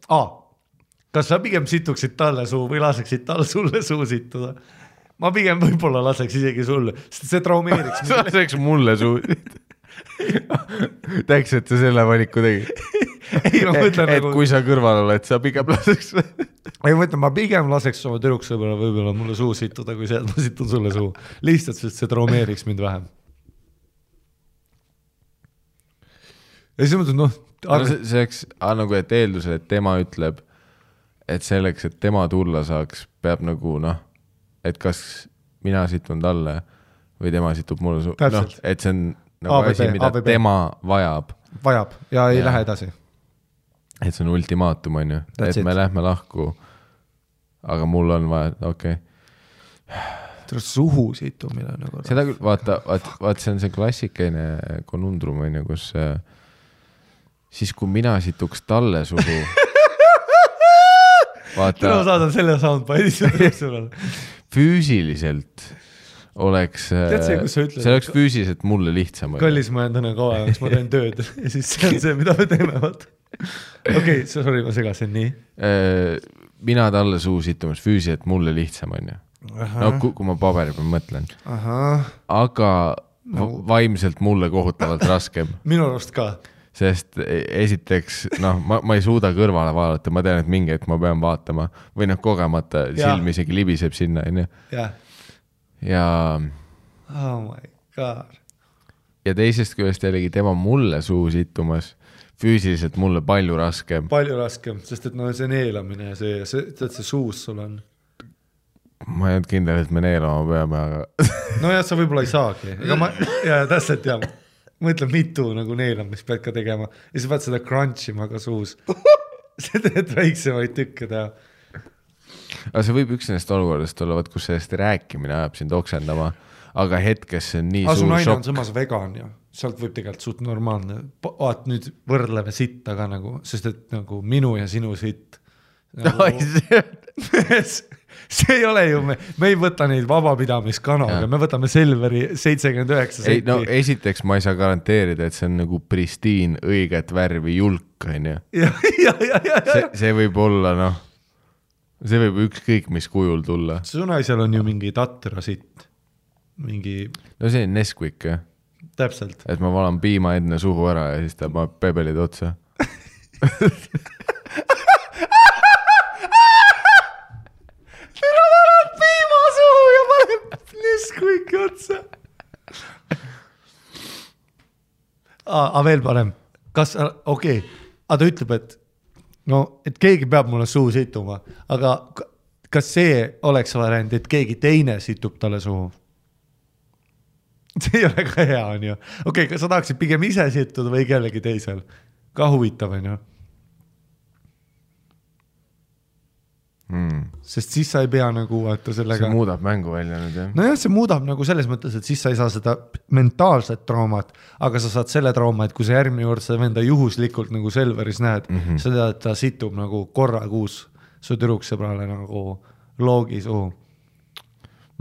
Kas sa pigem situksid talle suu või laseksid tal sulle suu situda? Ma pigem võib-olla laseks isegi sulle, sest see traumeeriks. Laseks mulle suu. Täiks, et sa selle valiku tegi. Ei, ma mõtlen et nagu... kui sa kõrval oled, sa pigem laseks. Ei, ma mõtlen, ma pigem laseks oma tüdruksõbra võib-olla mulle suu situda, kui see, et ma situn sulle suu. Lihtsalt, sest see traumeeriks mind vähem. Ja siis mõtlen, see oleks nagu, et eeldusel, et tema ütleb, et selleks, et tema tulla saaks, peab nagu et kas mina situn talle või tema situb mulle suu. Et see on nagu asi, mida tema vajab. Vajab ja ei lähe edasi. Et see on ultimaatum, on ju. Et me lähme lahku, aga mul on vaja, okei. Suhu situmine nagu. Seda küll, vaata, see on see klassikeine konundrum, on ju, kus siis kui mina situks talle suhu vaata, ma saadan selle soundbite'i füüsiliselt oleks see oleks füüsiliselt mulle lihtsam. Kallis ma jään täna kaua ajaks, ma teen tööd ja siis see on see, mida me teeme. Okei, sorry, ma segasin nii. Mina talle suu situmas füüsiliselt mulle lihtsam, on ju. Kui ma paberi peal mõtlen. Aga vaimselt mulle kohutavalt raskem. Minu arust ka. Sest esiteks, ma ei suuda kõrvale vaadata, ma tean, et mingi hetk ma pean vaatama või kogemata silm isegi libiseb sinna. Ja oh my god. Ja teisest küljest jällegi tema mulle suu situmas füüsiliselt mulle palju raskem. Palju raskem, sest et see neelamine ja see suus sul on. Ma ei olnud kindel, et me neelama peame, aga... no jah, sa võib-olla ei saagi. Ja täpselt jah. Mõtlen mitu nagu neelamist pead ka tegema ja sa pead seda crunchima ka suus. See teed väiksemaid tükke teha. Aga see võib üks nendest olukordest olla, kus sellest rääkimine ajab sind oksendama, aga hetkes see on nii suur šokk. Su naine on samas vegan ja sealt võib tegelikult suht normaalne. Vaat nüüd võrdleme sitta ka nagu, sest et nagu minu ja sinu sitt. See ei ole ju, me ei võta neid vabapidamiskanaga, me võtame Selveri 79 senti. No esiteks ma ei saa garanteerida, et see on nagu pristiin, õiget värvi julk, on ju. See võib olla, see võib ükskõik mis kujul tulla. Su naisel on ju mingi tatra sitt. No see on Nesquik, jah. Täpselt. Et ma valan piima enne suhu ära ja siis ta paneb pebelid otsa. Nesquiki otsa. Aga veel parem. Okei. Aga ta ütleb, et keegi peab mulle suu situma, aga kas see oleks variant, et keegi teine situb talle suhu? See ei ole ka hea, on ju. Okei, kas sa tahaksid pigem ise situda või kellegi teisel? Ka huvitav, on ju. Sest siis sa ei pea nagu sellega... See muudab mängu välja nüüd, jah? No jah, see muudab nagu selles mõttes, et siis sa ei saa seda mentaalset traumat, aga sa saad selle trauma, et kui sa järgmine kord sa venda juhuslikult nagu Selveris näed, sa tead, et ta situb nagu korra kuus su tüdruksõbrale nagu loogi suhu.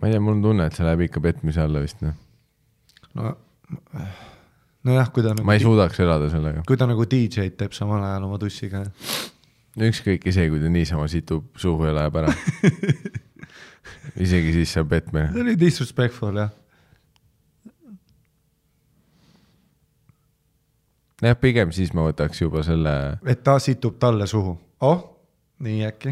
Ma ei tea, mul on tunne, et see läheb ikka petmise alla vist, No jah, kui ta nagu... Ma ei suudaks elada sellega. Kui ta nagu DJ-d teeb samal ajal oma tussiga. No ükskõik isegi, kui ta niisama situb suhu ja läheb ära. Isegi siis see on petmine. See oli disrespectful, jah. Jah, pigem siis ma võtaks juba selle... Et ta situb talle suhu. Nii äkki.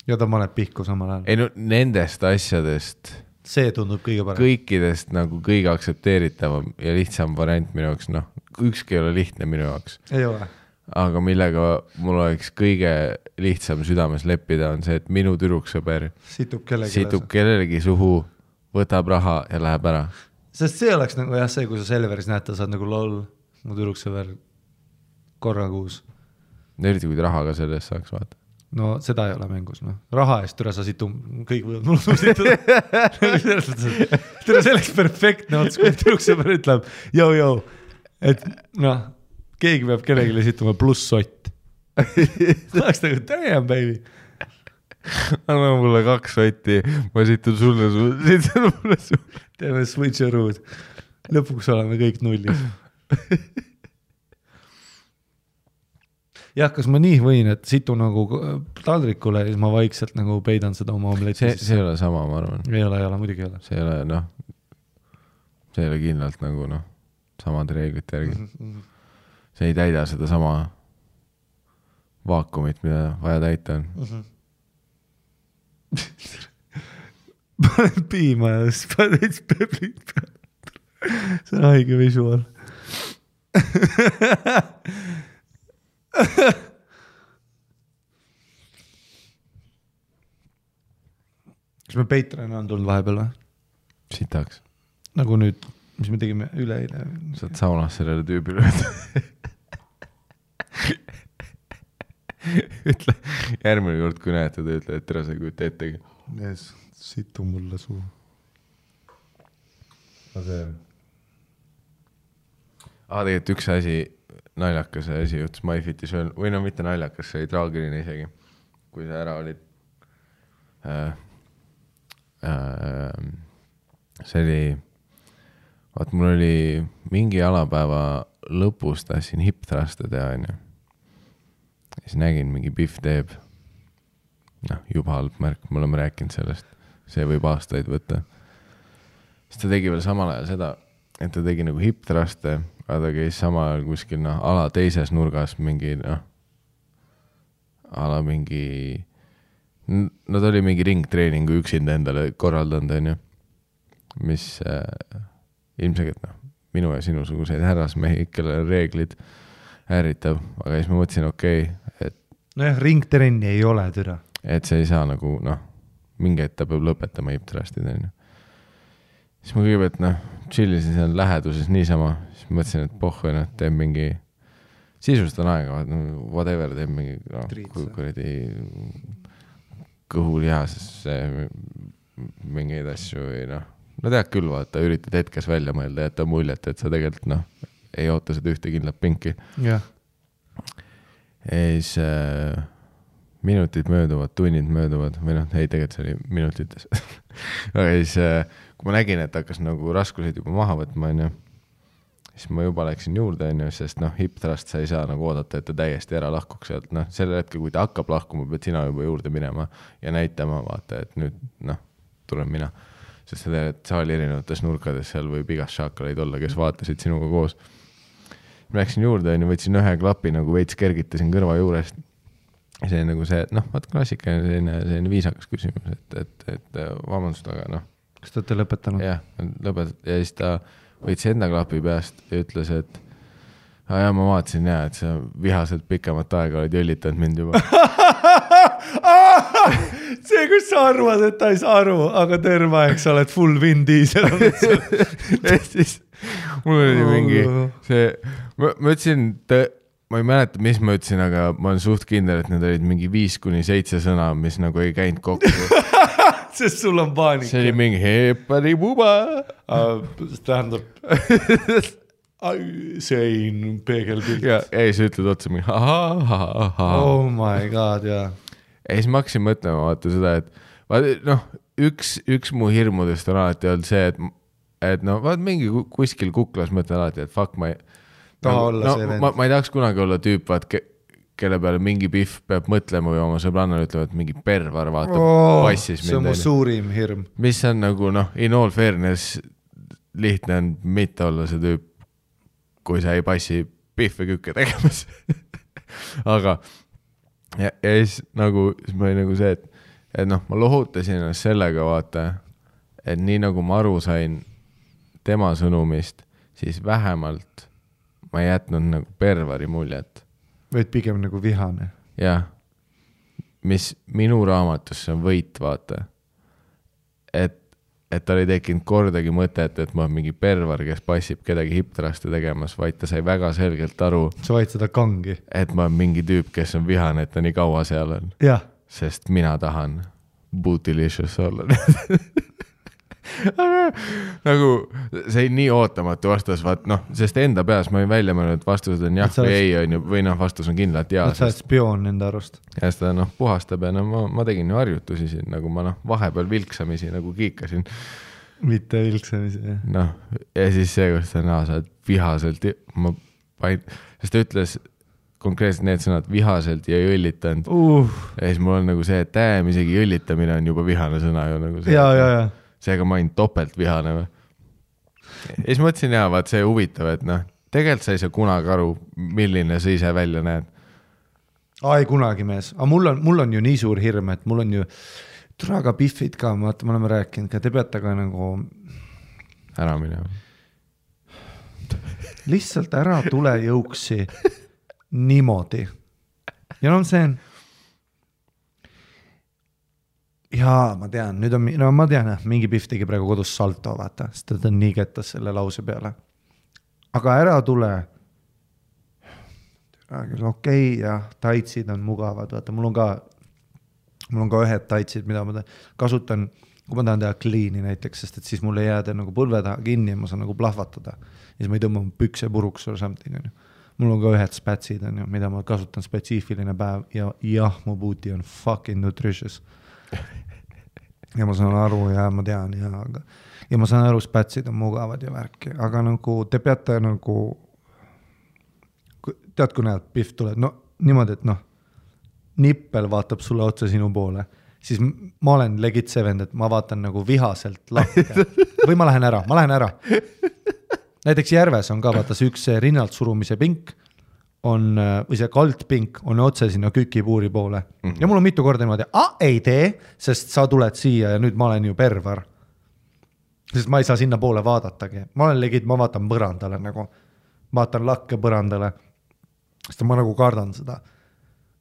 Ja ta maneb pihku samal ajal. Ei no nendest asjadest... See tundub kõige parem. Kõikidest nagu kõige aktsepteeritavam ja lihtsam variant minu jaoks, ükski ei ole lihtne minu jaoks. Ei ole. Aga millega mul oleks kõige lihtsam südames leppida on see, et minu tüdruksõber situb kellelegi suhu, võtab raha ja läheb ära. Sest see oleks nagu jah see, kui sa Selveris näed, ta saad nagu lol, mu tüdruksõber korra kuus. Eriti kui raha ka sellest saaks vaata. no seda ei ole mängus, noh. Raha eest türa sa situ, kõik võivad mul situda. Türa selleks perfektne ots, kui tüdruksõber ütleb, jõu, et noh, keegi peab kellelegi situma pluss sott. Tahaks nagu, damn baby. Anna mulle 2 sotti, ma situn sulle, situn mulle sulle. Teeme switcherood. Lõpuks oleme kõik nullis. Jah, kas ma nii võin, et situ nagu taldrikule ja siis ma vaikselt nagu peidan seda oma omletti? See ei ole sama, ma arvan. Ei ole, muidugi ei ole. See ei ole, noh, see ei ole kindlalt nagu, noh, samad reeglid järgi. See ei täida seda sama vaakumit, mida vaja täita on. Panen piima ja siis panen veits peplit peale. See on haige visual. Kas me Patreon on tulnud vahepeal või? Sitaks. Nagu nüüd, mis me tegime üleeile. Saad saunas sellele tüübile ütle, järgmine kord, kui näete, ta ütle, et tere sa ei kujuta ettegi. Yes, situ mulle suu. Tegelikult üks asi, naljakas asi juhtus MyFitis veel, või no mitte naljakas, see oli traagiline isegi, kui sa ära olid. See oli, vaat mul oli mingi alapäeva lõpus tahtsin hip-thruste teha, onju. Siis nägin, mingi Pihv teeb, noh, juba halb märk, me oleme rääkinud sellest, see võib aastaid võtta. Siis ta tegi veel samal ajal seda, et ta tegi nagu hip-thruste, aga ta käis samal ajal kuskil, noh, ala teises nurgas mingi, noh, ala mingi, no ta oli mingi ringtreeningu üksinda endale korraldanud, onju, mis ilmselt, noh, minu ja sinusuguseid härrasmehi, kellel reeglid ärritab, aga siis ma mõtlesin, okei, et nojah, ringtrenni ei ole türa. Et see ei saa nagu, noh, mingi hetk ta peab lõpetama hip-thrustid, onju. Siis ma kõigepealt, noh, chillisin seal läheduses niisama, siis mõtlesin, et pohhu, noh, teeb mingi, sisustan aega, whatever, teeb mingi, noh, kuradi kõhulihasesse mingeid asju või noh, no tead küll, vaata, üritad hetkes välja mõelda ja jätta muljet, et sa tegelikult, noh, ei oota seda ühte kindlat pinki. Ja siis minutid mööduvad, tunnid mööduvad, või noh, ei, tegelikult see oli minutites. Aga siis, kui ma nägin, et hakkas nagu raskuseid juba maha võtma, onju, siis ma juba läksin juurde, onju, sest noh, hip-thrust sa ei saa nagu oodata, et ta täiesti ära lahkuks sealt. Noh, selle hetkel, kui ta hakkab lahkuma, pead sina juba juurde minema ja näitama, vaata, et nüüd, noh, tulen mina. Sest seda, et saali erinevates nurkades seal võib igas šaakaleid olla, kes vaatasid sinuga koos. Ma läksin juurde, võtsin ühe klapi, nagu veits kergitasin kõrva juurest. See on nagu see, et noh, vaat klassika on selline viisakas küsimus, et vabandust, aga noh. Kas te olete lõpetanud? Jah, lõpetanud. Ja siis ta võtsi enda klapi peast ja ütles, et ja ma vaatasin ja, et sa vihaselt pikemat aega olid jõllitanud mind juba. See, kus sa arvad, et ta ei saa aru, aga terve aeg sa oled full Vin Diesel. siis mul oli mingi see, ma ütlesin, ma ei mäleta, mis ma ütlesin, aga ma olen suht kindel, et need olid mingi 5-7 sõna, mis nagu ei käinud kokku. Sest sul on paanika. See oli mingi heparibuba. Tähendab, sein peegelpilt. Ja ei, sa ütled otsa mingi Oh my god, jaa. Ja siis ma hakkasin mõtlema, vaata seda, et noh, üks mu hirmudest on alati olnud see, et no vaat mingi kuskil kuklas mõtlen alati, et fuck, ma ei tahaks kunagi olla tüüp, vaat, kelle peale mingi Pihv peab mõtlema või oma sõbrannale ütlema, et mingi pervar vaata passis mind. See on mu suurim hirm. Mis on nagu, noh, in all fairness lihtne on mitte olla see tüüp, kui sa ei passi Pihve kükke tegemas. Aga ja siis nagu, siis ma oli nagu see, et noh, ma lohutasin ennast sellega, vaata, et nii nagu ma aru sain tema sõnumist, siis vähemalt ma ei jätnud nagu pervari muljet. Võid pigem nagu vihane. Jah, mis minu raamatusse on võit, vaata. Et et tal ei tekkinud kordagi mõtet, et ma olen mingi pervar, kes passib kedagi hiptraste tegemas, vaid ta sai väga selgelt aru, sa vaid seda kangi. et ma olen mingi tüüp, kes on vihane, et ta nii kaua seal on. jah. Sest mina tahan bootylicious olla. nagu see nii ootamatu vastus, vaat noh, sest enda peas ma olin välja mõelnud, et vastused on jah või ei on ju, või noh, vastus on kindlalt jaa. sa oled spioon enda arust. Ja seda noh, puhastab ja no ma tegin ju harjutusi siin, nagu ma noh, vahepeal vilksamisi nagu kiikasin. Mitte vilksamisi, jah. Noh, ja siis see, kus sa oled vihaselt, sest ta ütles konkreetselt need sõnad vihaselt ja ei õllitanud. Ja siis mul on nagu see, et isegi õllitamine on juba vihane sõna ju nagu see. Ja. Seega ma olin topelt vihane või. Ja siis mõtlesin jaa, vaat see huvitav, et noh, tegelikult sa ei saa kunagi aru, milline sa ise välja näed. Ei kunagi mees, aga mul on ju nii suur hirm, et mul on ju traga piffid ka, me oleme rääkinud ka, te peate ka nagu ära minema. Lihtsalt ära tule jõuksi niimoodi. Ja no see on jaa, ma tean, nüüd on, no ma tean, mingi pihv tegi praegu kodus salto, vaata, sest ta on nii kettas selle lause peale. Aga ära tule. Okei, ja taitsid on mugavad, vaata, mul on ka ühed taitsid, mida ma kasutan, kui ma tahan teha clean'i näiteks, sest et siis mul ei jääda nagu põlve taha kinni ja ma saan nagu plahvatada. Ja siis ma ei tõmba pükse puruks or something. Mul on ka ühed spätsid, mida ma kasutan spetsiifiline päev ja jah, mu booty on fucking nutritious. Ja ma saan aru ja ma tean ja ma saan aru, spätsid on mugavad ja värki, aga nagu te peate nagu tead, kui näed, pihv tuleb, no niimoodi, et noh, nippel vaatab sulle otsa sinu poole, siis ma olen legit see vend, et ma vaatan nagu vihaselt lahke või ma lähen ära. Näiteks Järves on ka vaata see üks rinnalt surumise pink on, või see kaldpink on otse sinna kükipuuri poole. Ja mul on mitu korda niimoodi, ei tee, sest sa tuled siia ja nüüd ma olen ju pervar. Sest ma ei saa sinna poole vaadatagi. Ma olen legit, ma vaatan põrandale nagu, vaatan lakke põrandale, sest ma nagu kardan seda.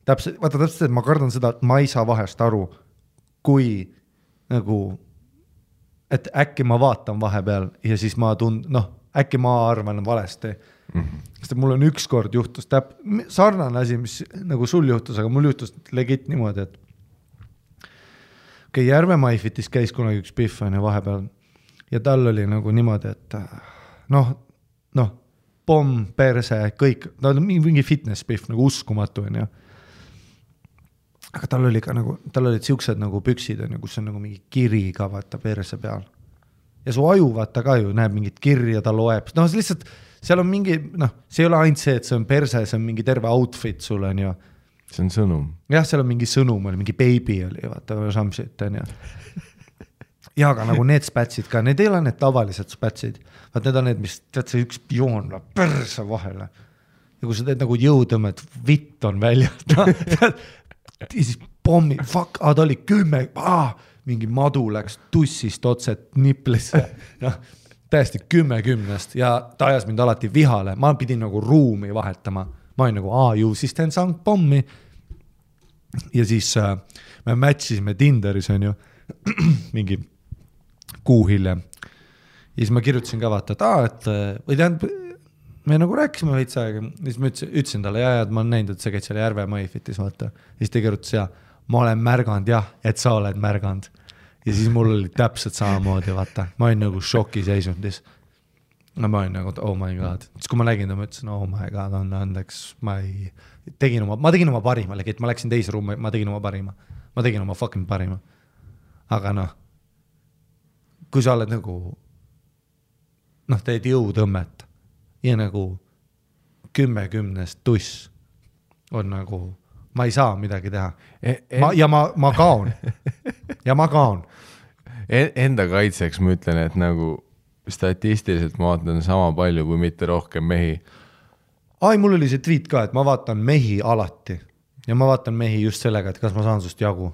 Täpselt, et ma kardan seda, et ma ei saa vahest aru, kui nagu, et äkki ma vaatan vahepeal ja siis ma äkki ma arvan valesti. Sest mul on üks kord juhtus sarnane asi, mis nagu sul juhtus, aga mul juhtus legit niimoodi, et Järve Maifitis käis kunagi üks pihv vahepeal ja tal oli nagu niimoodi, et pomm, perse, kõik, ta oli mingi fitness pihv, nagu uskumatu on ju. Aga tal oli ka nagu, tal olid siuksed nagu püksid on ju, kus on nagu mingi kiri ka vaata perse peal. Ja su aju vaata ka ju näeb mingit kirja, ta loeb. No lihtsalt, seal on mingi, see ei ole ainult see, et see on perse, see on mingi terve outfit sul on ju. See on sõnum. Jah, seal on mingi sõnum, mingi baby oli, vaata, samsit on ju. Ja aga nagu need spätsid ka, need ei ole need tavalised spätsid. Vaat need on need, mis tead see üks joon perse vahele. Ja kui sa teed nagu jõutõmmet, vitt on välja. Ja siis pommi, fuck, ta oli 10, mingi madu läks tussist otset niplisse, täiesti 10 ja ta ajas mind alati vihale, ma pidin nagu ruumi vahetama, ma olin nagu, ju siis teen sank pommi ja siis me matchisime Tinderis on ju mingi kuu hiljem ja siis ma kirjutasin ka vaata, et või tähendab, me nagu rääkisime veits aega, siis ma ütlesin talle, et ma olen näinud, et sa käid seal Järve Maifitis, vaata. Ja siis ta kirjutas, ma olen märganud, et sa oled märganud. Ja siis mul oli täpselt samamoodi, vaata. Ma olin nagu šoki seisundis. Ma olin nagu, oh my god. Siis kui ma nägin, ma ütlesin, oh my god, on andeks, ma tegin oma parima, et ma läksin teise ruumi, ma tegin oma parima. Ma tegin oma fucking parima. Aga kui sa oled nagu, teed jõutõmmet, ja nagu 10 tuss on nagu, ma ei saa midagi teha. Ma kaon. Ja ma kaon. Enda kaitseks ma ütlen, et nagu statistiliselt ma vaatan sama palju, kui mitte rohkem mehi. Mul oli see tweet ka, et ma vaatan mehi alati. Ja ma vaatan mehi just sellega, et kas ma saan sust jagu.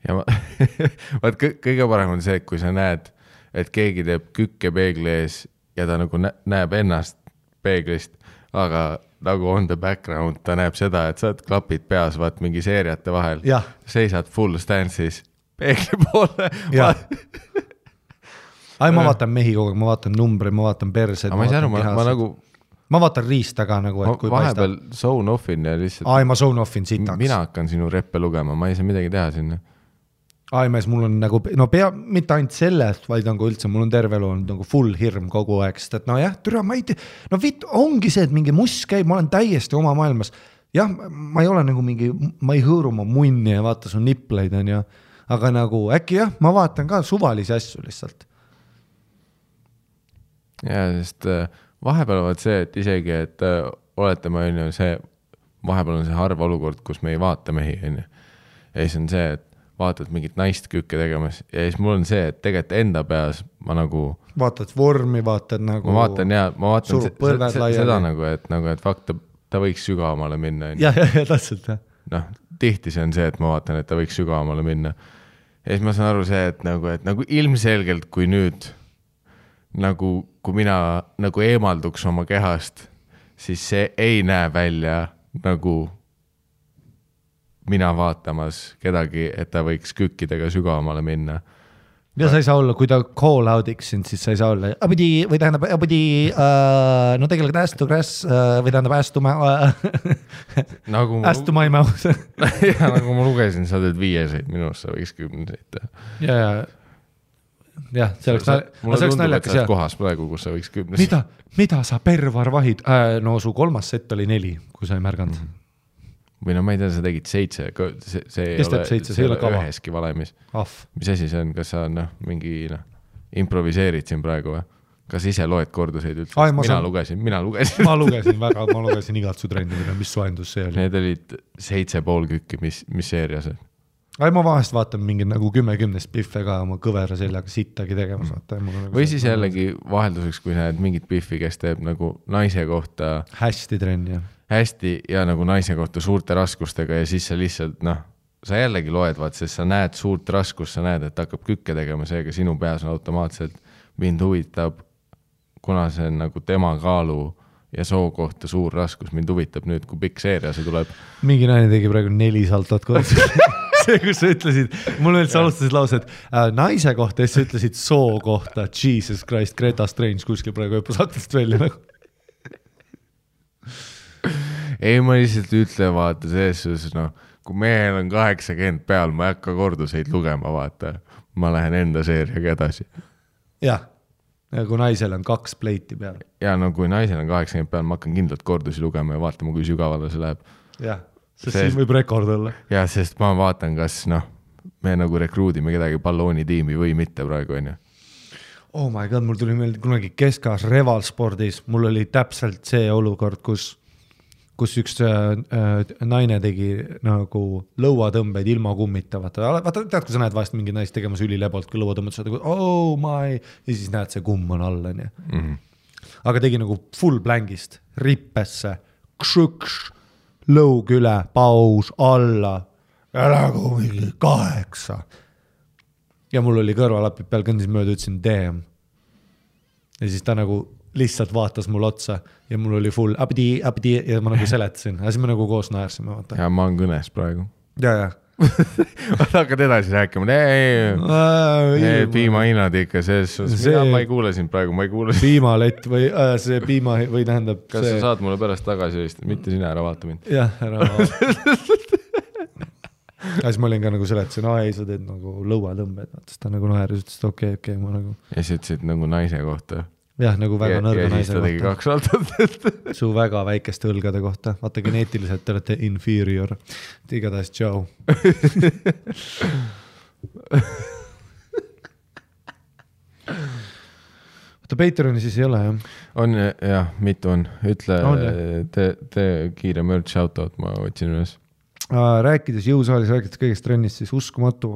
Ja vaat kõige parem on see, kui sa näed, et keegi teeb kükke peegli ees ja ta nagu näeb ennast peeglist, aga nagu on the background, ta näeb seda, et sa oled klapid peas, vaat mingi seeriate vahel, seisad full stance'is peegli poole. ma vaatan mehi kogu aeg, ma vaatan numbri, ma vaatan perse. Ma ei saa aru, ma nagu... Ma vaatan riista ka nagu, et kui vahepeal zone offin ja lihtsalt... ma zone offin sitaks. Mina hakkan sinu reppe lugema, ma ei saa midagi teha sinna. Mees, mul on nagu, mitte ainult sellest, vaid nagu üldse, mul on terve elu on nagu full hirm kogu aeg, sest et türa, ma ei tea, ongi see, et mingi muss käib, ma olen täiesti oma maailmas. Jah, ma ei ole nagu mingi, ma ei hõõru oma munni ja vaata su nipleid on ja, aga nagu äkki jah, ma vaatan ka suvalisi asju lihtsalt. Ja, sest vahepeal on see, et isegi, et oletame, vahepeal on see harv olukord, kus me ei vaata mehi, on. Ja siis on see, et vaatad mingit naist kükke tegemas ja siis mul on see, et tegelikult enda peas ma nagu... Vaatad vormi, vaatad nagu... Ma vaatan seda nagu, et fakt, ta võiks sügavamale minna. Ja, täpselt. Tihti see on see, et ma vaatan, et ta võiks sügavamale minna. Ja siis ma saan aru see, et nagu ilmselgelt, kui nüüd nagu, kui mina nagu eemalduks oma kehast, siis see ei näe välja nagu mina vaatamas kedagi, et ta võiks kükkidega sügavamale minna. Ja sa ei saa olla, kui ta call out'iks sind, siis sa ei saa olla no tegelikult või tähendab ästu my mouth. Ja nagu ma lugesin, sa teed 5-seid, minust sa võiks 10-seid. Ja, see oleks naljakas. Kohas praegu, kus sa võiks 10-seid. Mida sa pervar vahid? No su 3. set oli 4, kui sa ei märganud. Või no ma ei tea, sa tegid 7, see ei ole üheski valemis. Mis asi see on, kas sa mingi improviseerid siin praegu või? Kas ise loed korduseid üldse? Mina lugesin. Ma lugesin igat su trenni, mis soendus see oli. Need olid 7,5 kükki, mis seerias on. Ma vahest vaatan mingi nagu 10 piffe ka oma kõvera seljaga sittagi tegemas. Või siis jällegi vahelduseks, kui näed mingit piffi, kes teeb nagu naise kohta hästi trenni. Hästi ja nagu naise kohta suurte raskustega ja siis sa lihtsalt, sa jällegi loed, sest sa näed suurt raskust, sa näed, et hakkab kükke tegema, seega sinu peas on automaatselt mind huvitab, kuna see on nagu tema kaalu ja soo kohta suur raskus, mind huvitab nüüd, kui pikk seeria see tuleb. Mingi naine tegi praegu 4 saltot koos. See, kus sa ütlesid, mul veel sa alustasid lause, et naise kohta ja sa ütlesid soo kohta, Jesus Christ, Greta Strange kuskil praegu õppus hakkast välja nagu. Ei, ma lihtsalt ütlen, vaata, selles, kui mehel on 80 peal, ma ei hakka korduseid lugema, vaata. Ma lähen enda seeriaga edasi. Jah, ja kui naisel on 2 pleiti peal. Ja kui naisel on 80 peal, ma hakkan kindlalt kordusi lugema ja vaatama, kui sügavale see läheb. Jah, sest siin võib rekord olla. Ja, sest ma vaatan, kas me nagu rekruudime kedagi balloonitiimi või mitte praegu, on ju. Oh my god, mul tuli meelde kunagi keskaas revalspordis, mul oli täpselt see olukord, kus üks naine tegi nagu lõuatõmbeid ilma kummita. Vaata, tead, kui sa näed vahest mingi naist tegemas ülilebalt, kui lõuatõmbed saad, oh my, ja siis näed, see kumm on all. Aga tegi nagu full blankist, rippesse, kšõkš, lõug üle, paus, alla, ja nagu mingi 8. Ja mul oli kõrvalapid peal, kõndis mööda, ütlesin damn. Ja siis ta nagu lihtsalt vaatas mul otsa ja mul oli full abdi ja ma nagu seletasin. Ja siis me nagu koos naersime. Ja ma olen kõnes praegu. Ja. Hakkad edasi rääkima. Piimahinnad ikka selles. Ma ei kuule sind praegu, ma ei kuule. Piimalett või see piima või tähendab. Kas sa saad mulle pärast tagasi vist? Mitte sina ära vaata mind. Jah, ära vaata. Ja siis ma olin ka nagu seletasin, ei, sa teed nagu lõuatõmbed. Siis ta nagu naeris, ütles, et okei, ma nagu. Ja siis ütlesid nagu naise kohta. Jah, nagu väga nõrga naise kohta. Ja siis ta tegi 2 saltot. Su väga väikeste õlgade kohta. Vaata, geneetiliselt te olete inferior. Igatahes, tšau. Vaata, Patreoni siis ei ole, jah? On, jah, mitu on. Ütle, tee kiire merch shoutout, ma otsin üles. Rääkides jõusaalis, rääkides kõigest trennist, siis uskumatu...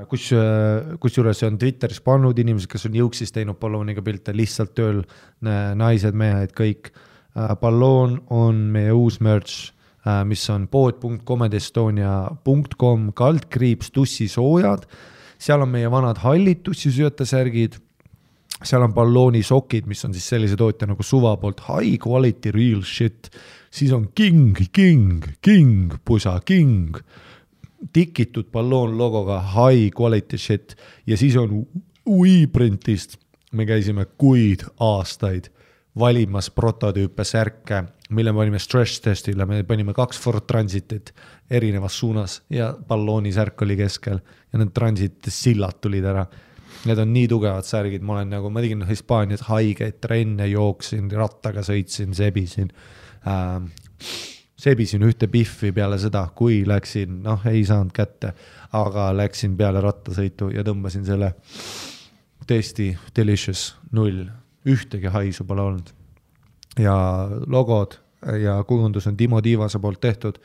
Kusjuures on Twitteris pannud inimesed, kes on jõuksis teinud ballooniga pilte, lihtsalt tööl naised, mehed, kõik. Balloon on meie uus merch, mis on pood.comedestonia.com /tussisoojad. Seal on meie vanad hallid tussisöötasärgid. Seal on ballooni sokid, mis on siis sellise tootja nagu Suva poolt high quality real shit. Siis on pusa tikitud balloon logoga high quality shit ja siis on UI-printist me käisime kuid aastaid valimas prototüüpe särke, mille me panime stress testile, me panime 2 Ford Transitit erinevas suunas ja ballooni särk oli keskel ja need Transit sillad tulid ära. Need on nii tugevad särgid, ma tegin Hispaanias haigeid trenne, jooksin, rattaga sõitsin, sebisin ühte biffi peale seda, kui läksin, ei saanud kätte, aga läksin peale rattasõitu ja tõmbasin selle tõesti delicious 0, ühtegi haisu pole olnud. Ja logod ja kujundus on Timo Tiivase poolt tehtud.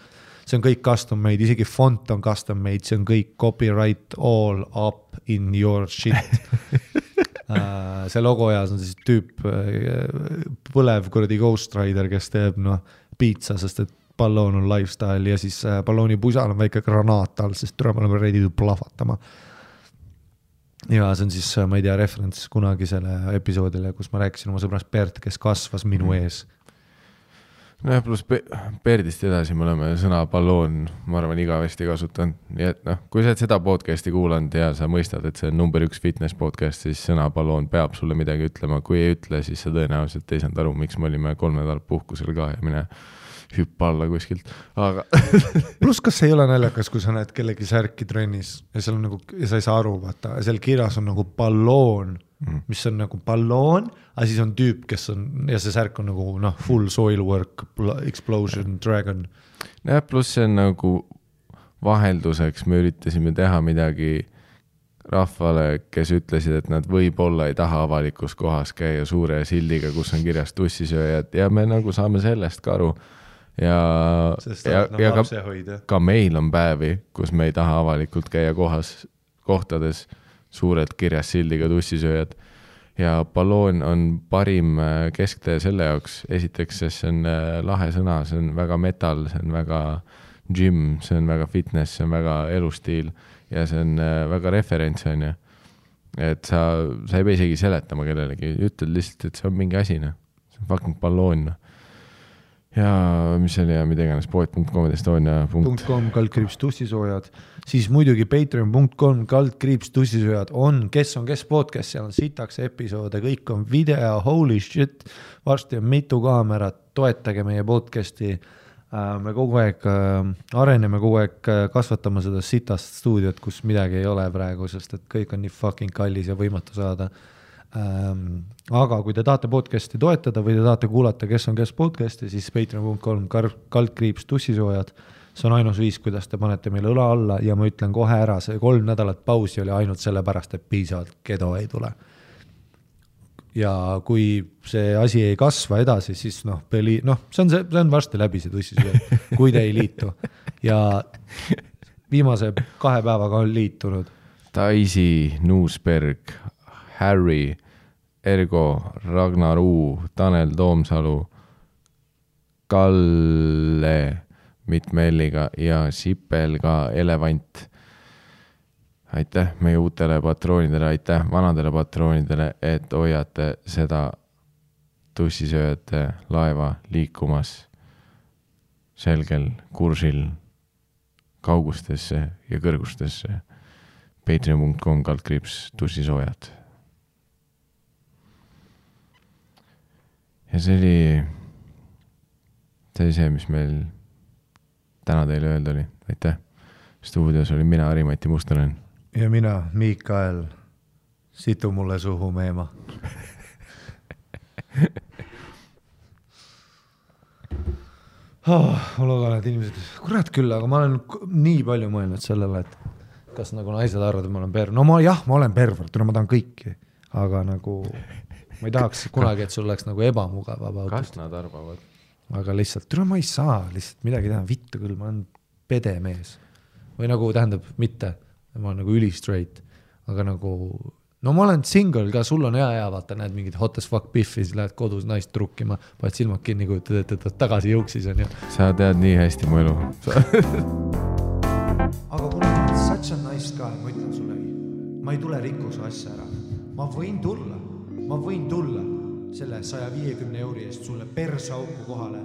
See on kõik custom made, isegi font on custom made, see on kõik copyright all up in your shit. See logo ajas on siis tüüp põlev kuradi Ghost Rider, kes teeb piitsa, sest et balloon on lifestyle ja siis ballooni pusal on väike granaat all, sest me oleme ready plahvatama. Ja see on siis, ma ei tea, referents kunagisele episoodile, kus ma rääkisin oma sõbrast Bert, kes kasvas minu ees. No ja pluss Berdist edasi me oleme sõna balloon, ma arvan, igavesti kasutanud. Nii et kui sa seda podcasti kuulanud ja sa mõistad, et see on number 1 fitness podcast, siis sõna balloon peab sulle midagi ütlema. Kui ei ütle, siis sa tõenäoliselt ei saanud aru, miks me olime 3 nädalat puhkusel ka ja mine hüppa alla kuskilt. Aga Plus kas ei ole naljakas, kui sa näed kellegi särki trennis ja seal on ja sa ei saa aru, vaata, seal kirjas on balloon, mis on balloon, aga siis on tüüp, kes on, ja see särk on full soil work, explosion, dragon. Ja pluss see on vahelduseks, me üritasime teha midagi rahvale, kes ütlesid, et nad võib-olla ei taha avalikus kohas käia suure sildiga, kus on kirjas tussisööjad ja me saame sellest ka aru. Ja ka meil on päevi, kus me ei taha avalikult käia kohtades suurelt kirjas sildiga tussisööjad ja balloon on parim kesktee selle jaoks. Esiteks, see on lahe sõna, see on väga metal, see on väga gym, see on väga fitness, see on väga elustiil ja see on väga referents on ju. Et sa ei pea isegi seletama kellelegi, ütled lihtsalt, et see on mingi asi, see on fucking balloon. Ja mis oli ja mida iganes poet.com/Estonia.com /tussisoojad, siis muidugi patreon.com/tussisoojad on kes podcast, seal on sitaks episoode, kõik on video, holy shit, varsti on mitu kaamerat, toetage meie podcasti, me kogu aeg areneme, kogu aeg kasvatame seda sitast stuudiot, kus midagi ei ole praegu, sest et kõik on nii fucking kallis ja võimatu saada. Aga kui te tahate podcasti toetada või te tahate kuulata kes podcasti, siis patreon.com/tussisoojad, see on ainus viis, kuidas te panete meile õla alla ja ma ütlen kohe ära, see 3 nädalat pausi oli ainult sellepärast, et piisavalt kedo ei tule. Ja kui see asi ei kasva edasi, siis see on varsti läbi see tussisööjad, kui te ei liitu. Ja viimase 2 päevaga on liitunud Daisy, Nuusberg, Harry, Ergo, Ragnar U, Tanel Toomsalu, Kalle mitmelliga ja Sipel ka Elevant. Aitäh meie uutele patroonidele, aitäh vanadele patroonidele, et hoiate seda tussisööjate laeva liikumas selgel kursil kaugustesse ja kõrgustesse. patreon.com/tussisoojad. Ja see oli see, mis meil täna teile öelda oli. Aitäh. Stuudios oli mina, Harimati Mustonen. Ja mina, Mikael. Situ mulle suhu meema. Ma loodan, et inimesed, kurat küll, aga ma olen nii palju mõelnud sellele, et kas naised arvad, et ma olen pervert. No ma olen pervert, ma tahan kõiki, aga ma ei tahaks kunagi, et sul oleks ebamugav. Kas nad arvavad? Aga lihtsalt, ma ei saa lihtsalt midagi teha, vittu küll, ma olen pede mees. Või tähendab, mitte, ma olen üli-straight, aga ma olen single ka, sul on hea, vaata, näed mingid hot as fuck biffis, lähed kodus naist trukkima, paned silmad kinni, kujutad, et tagasi jõuksis on ju. Sa tead nii hästi mu elu. Aga kuna ma olen such a nice guy, ma ütlen sulle, ma ei tule rikku su asja ära. Ma võin tulla selle 150 euri eest sulle persauku kohale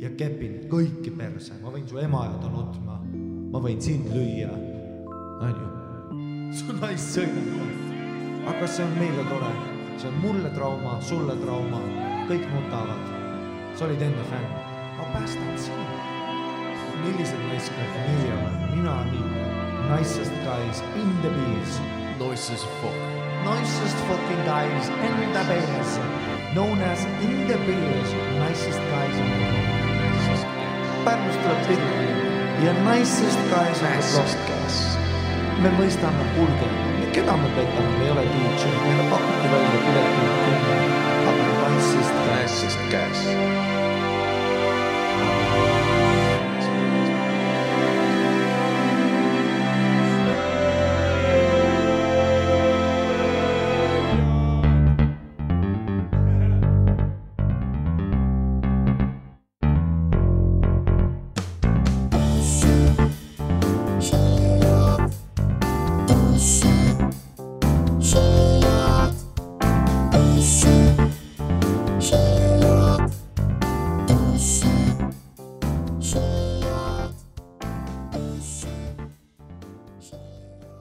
ja kepin kõiki perse. Ma võin su ema ja ta nutma. Ma võin sind lüüa. On ju? Su naist sõidab. aga see on meile tore. See on mulle trauma, sulle trauma. Kõik nutavad. Sa olid enne fänn. Ma päästan sinu. Millised naiskad meie oleme? Mina nii. Nicest guys in the beers. Nicest fuck. Nicest fucking guys in the beers. Known as in the beers. Nicest guys in the beers. Pärnust tuleb pilli ja nicest guys on the block. Me mõistame kulge, keda me petame, me ei ole DJ, meile pakuti välja pileti kümme, aga nicest guys.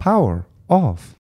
Power off.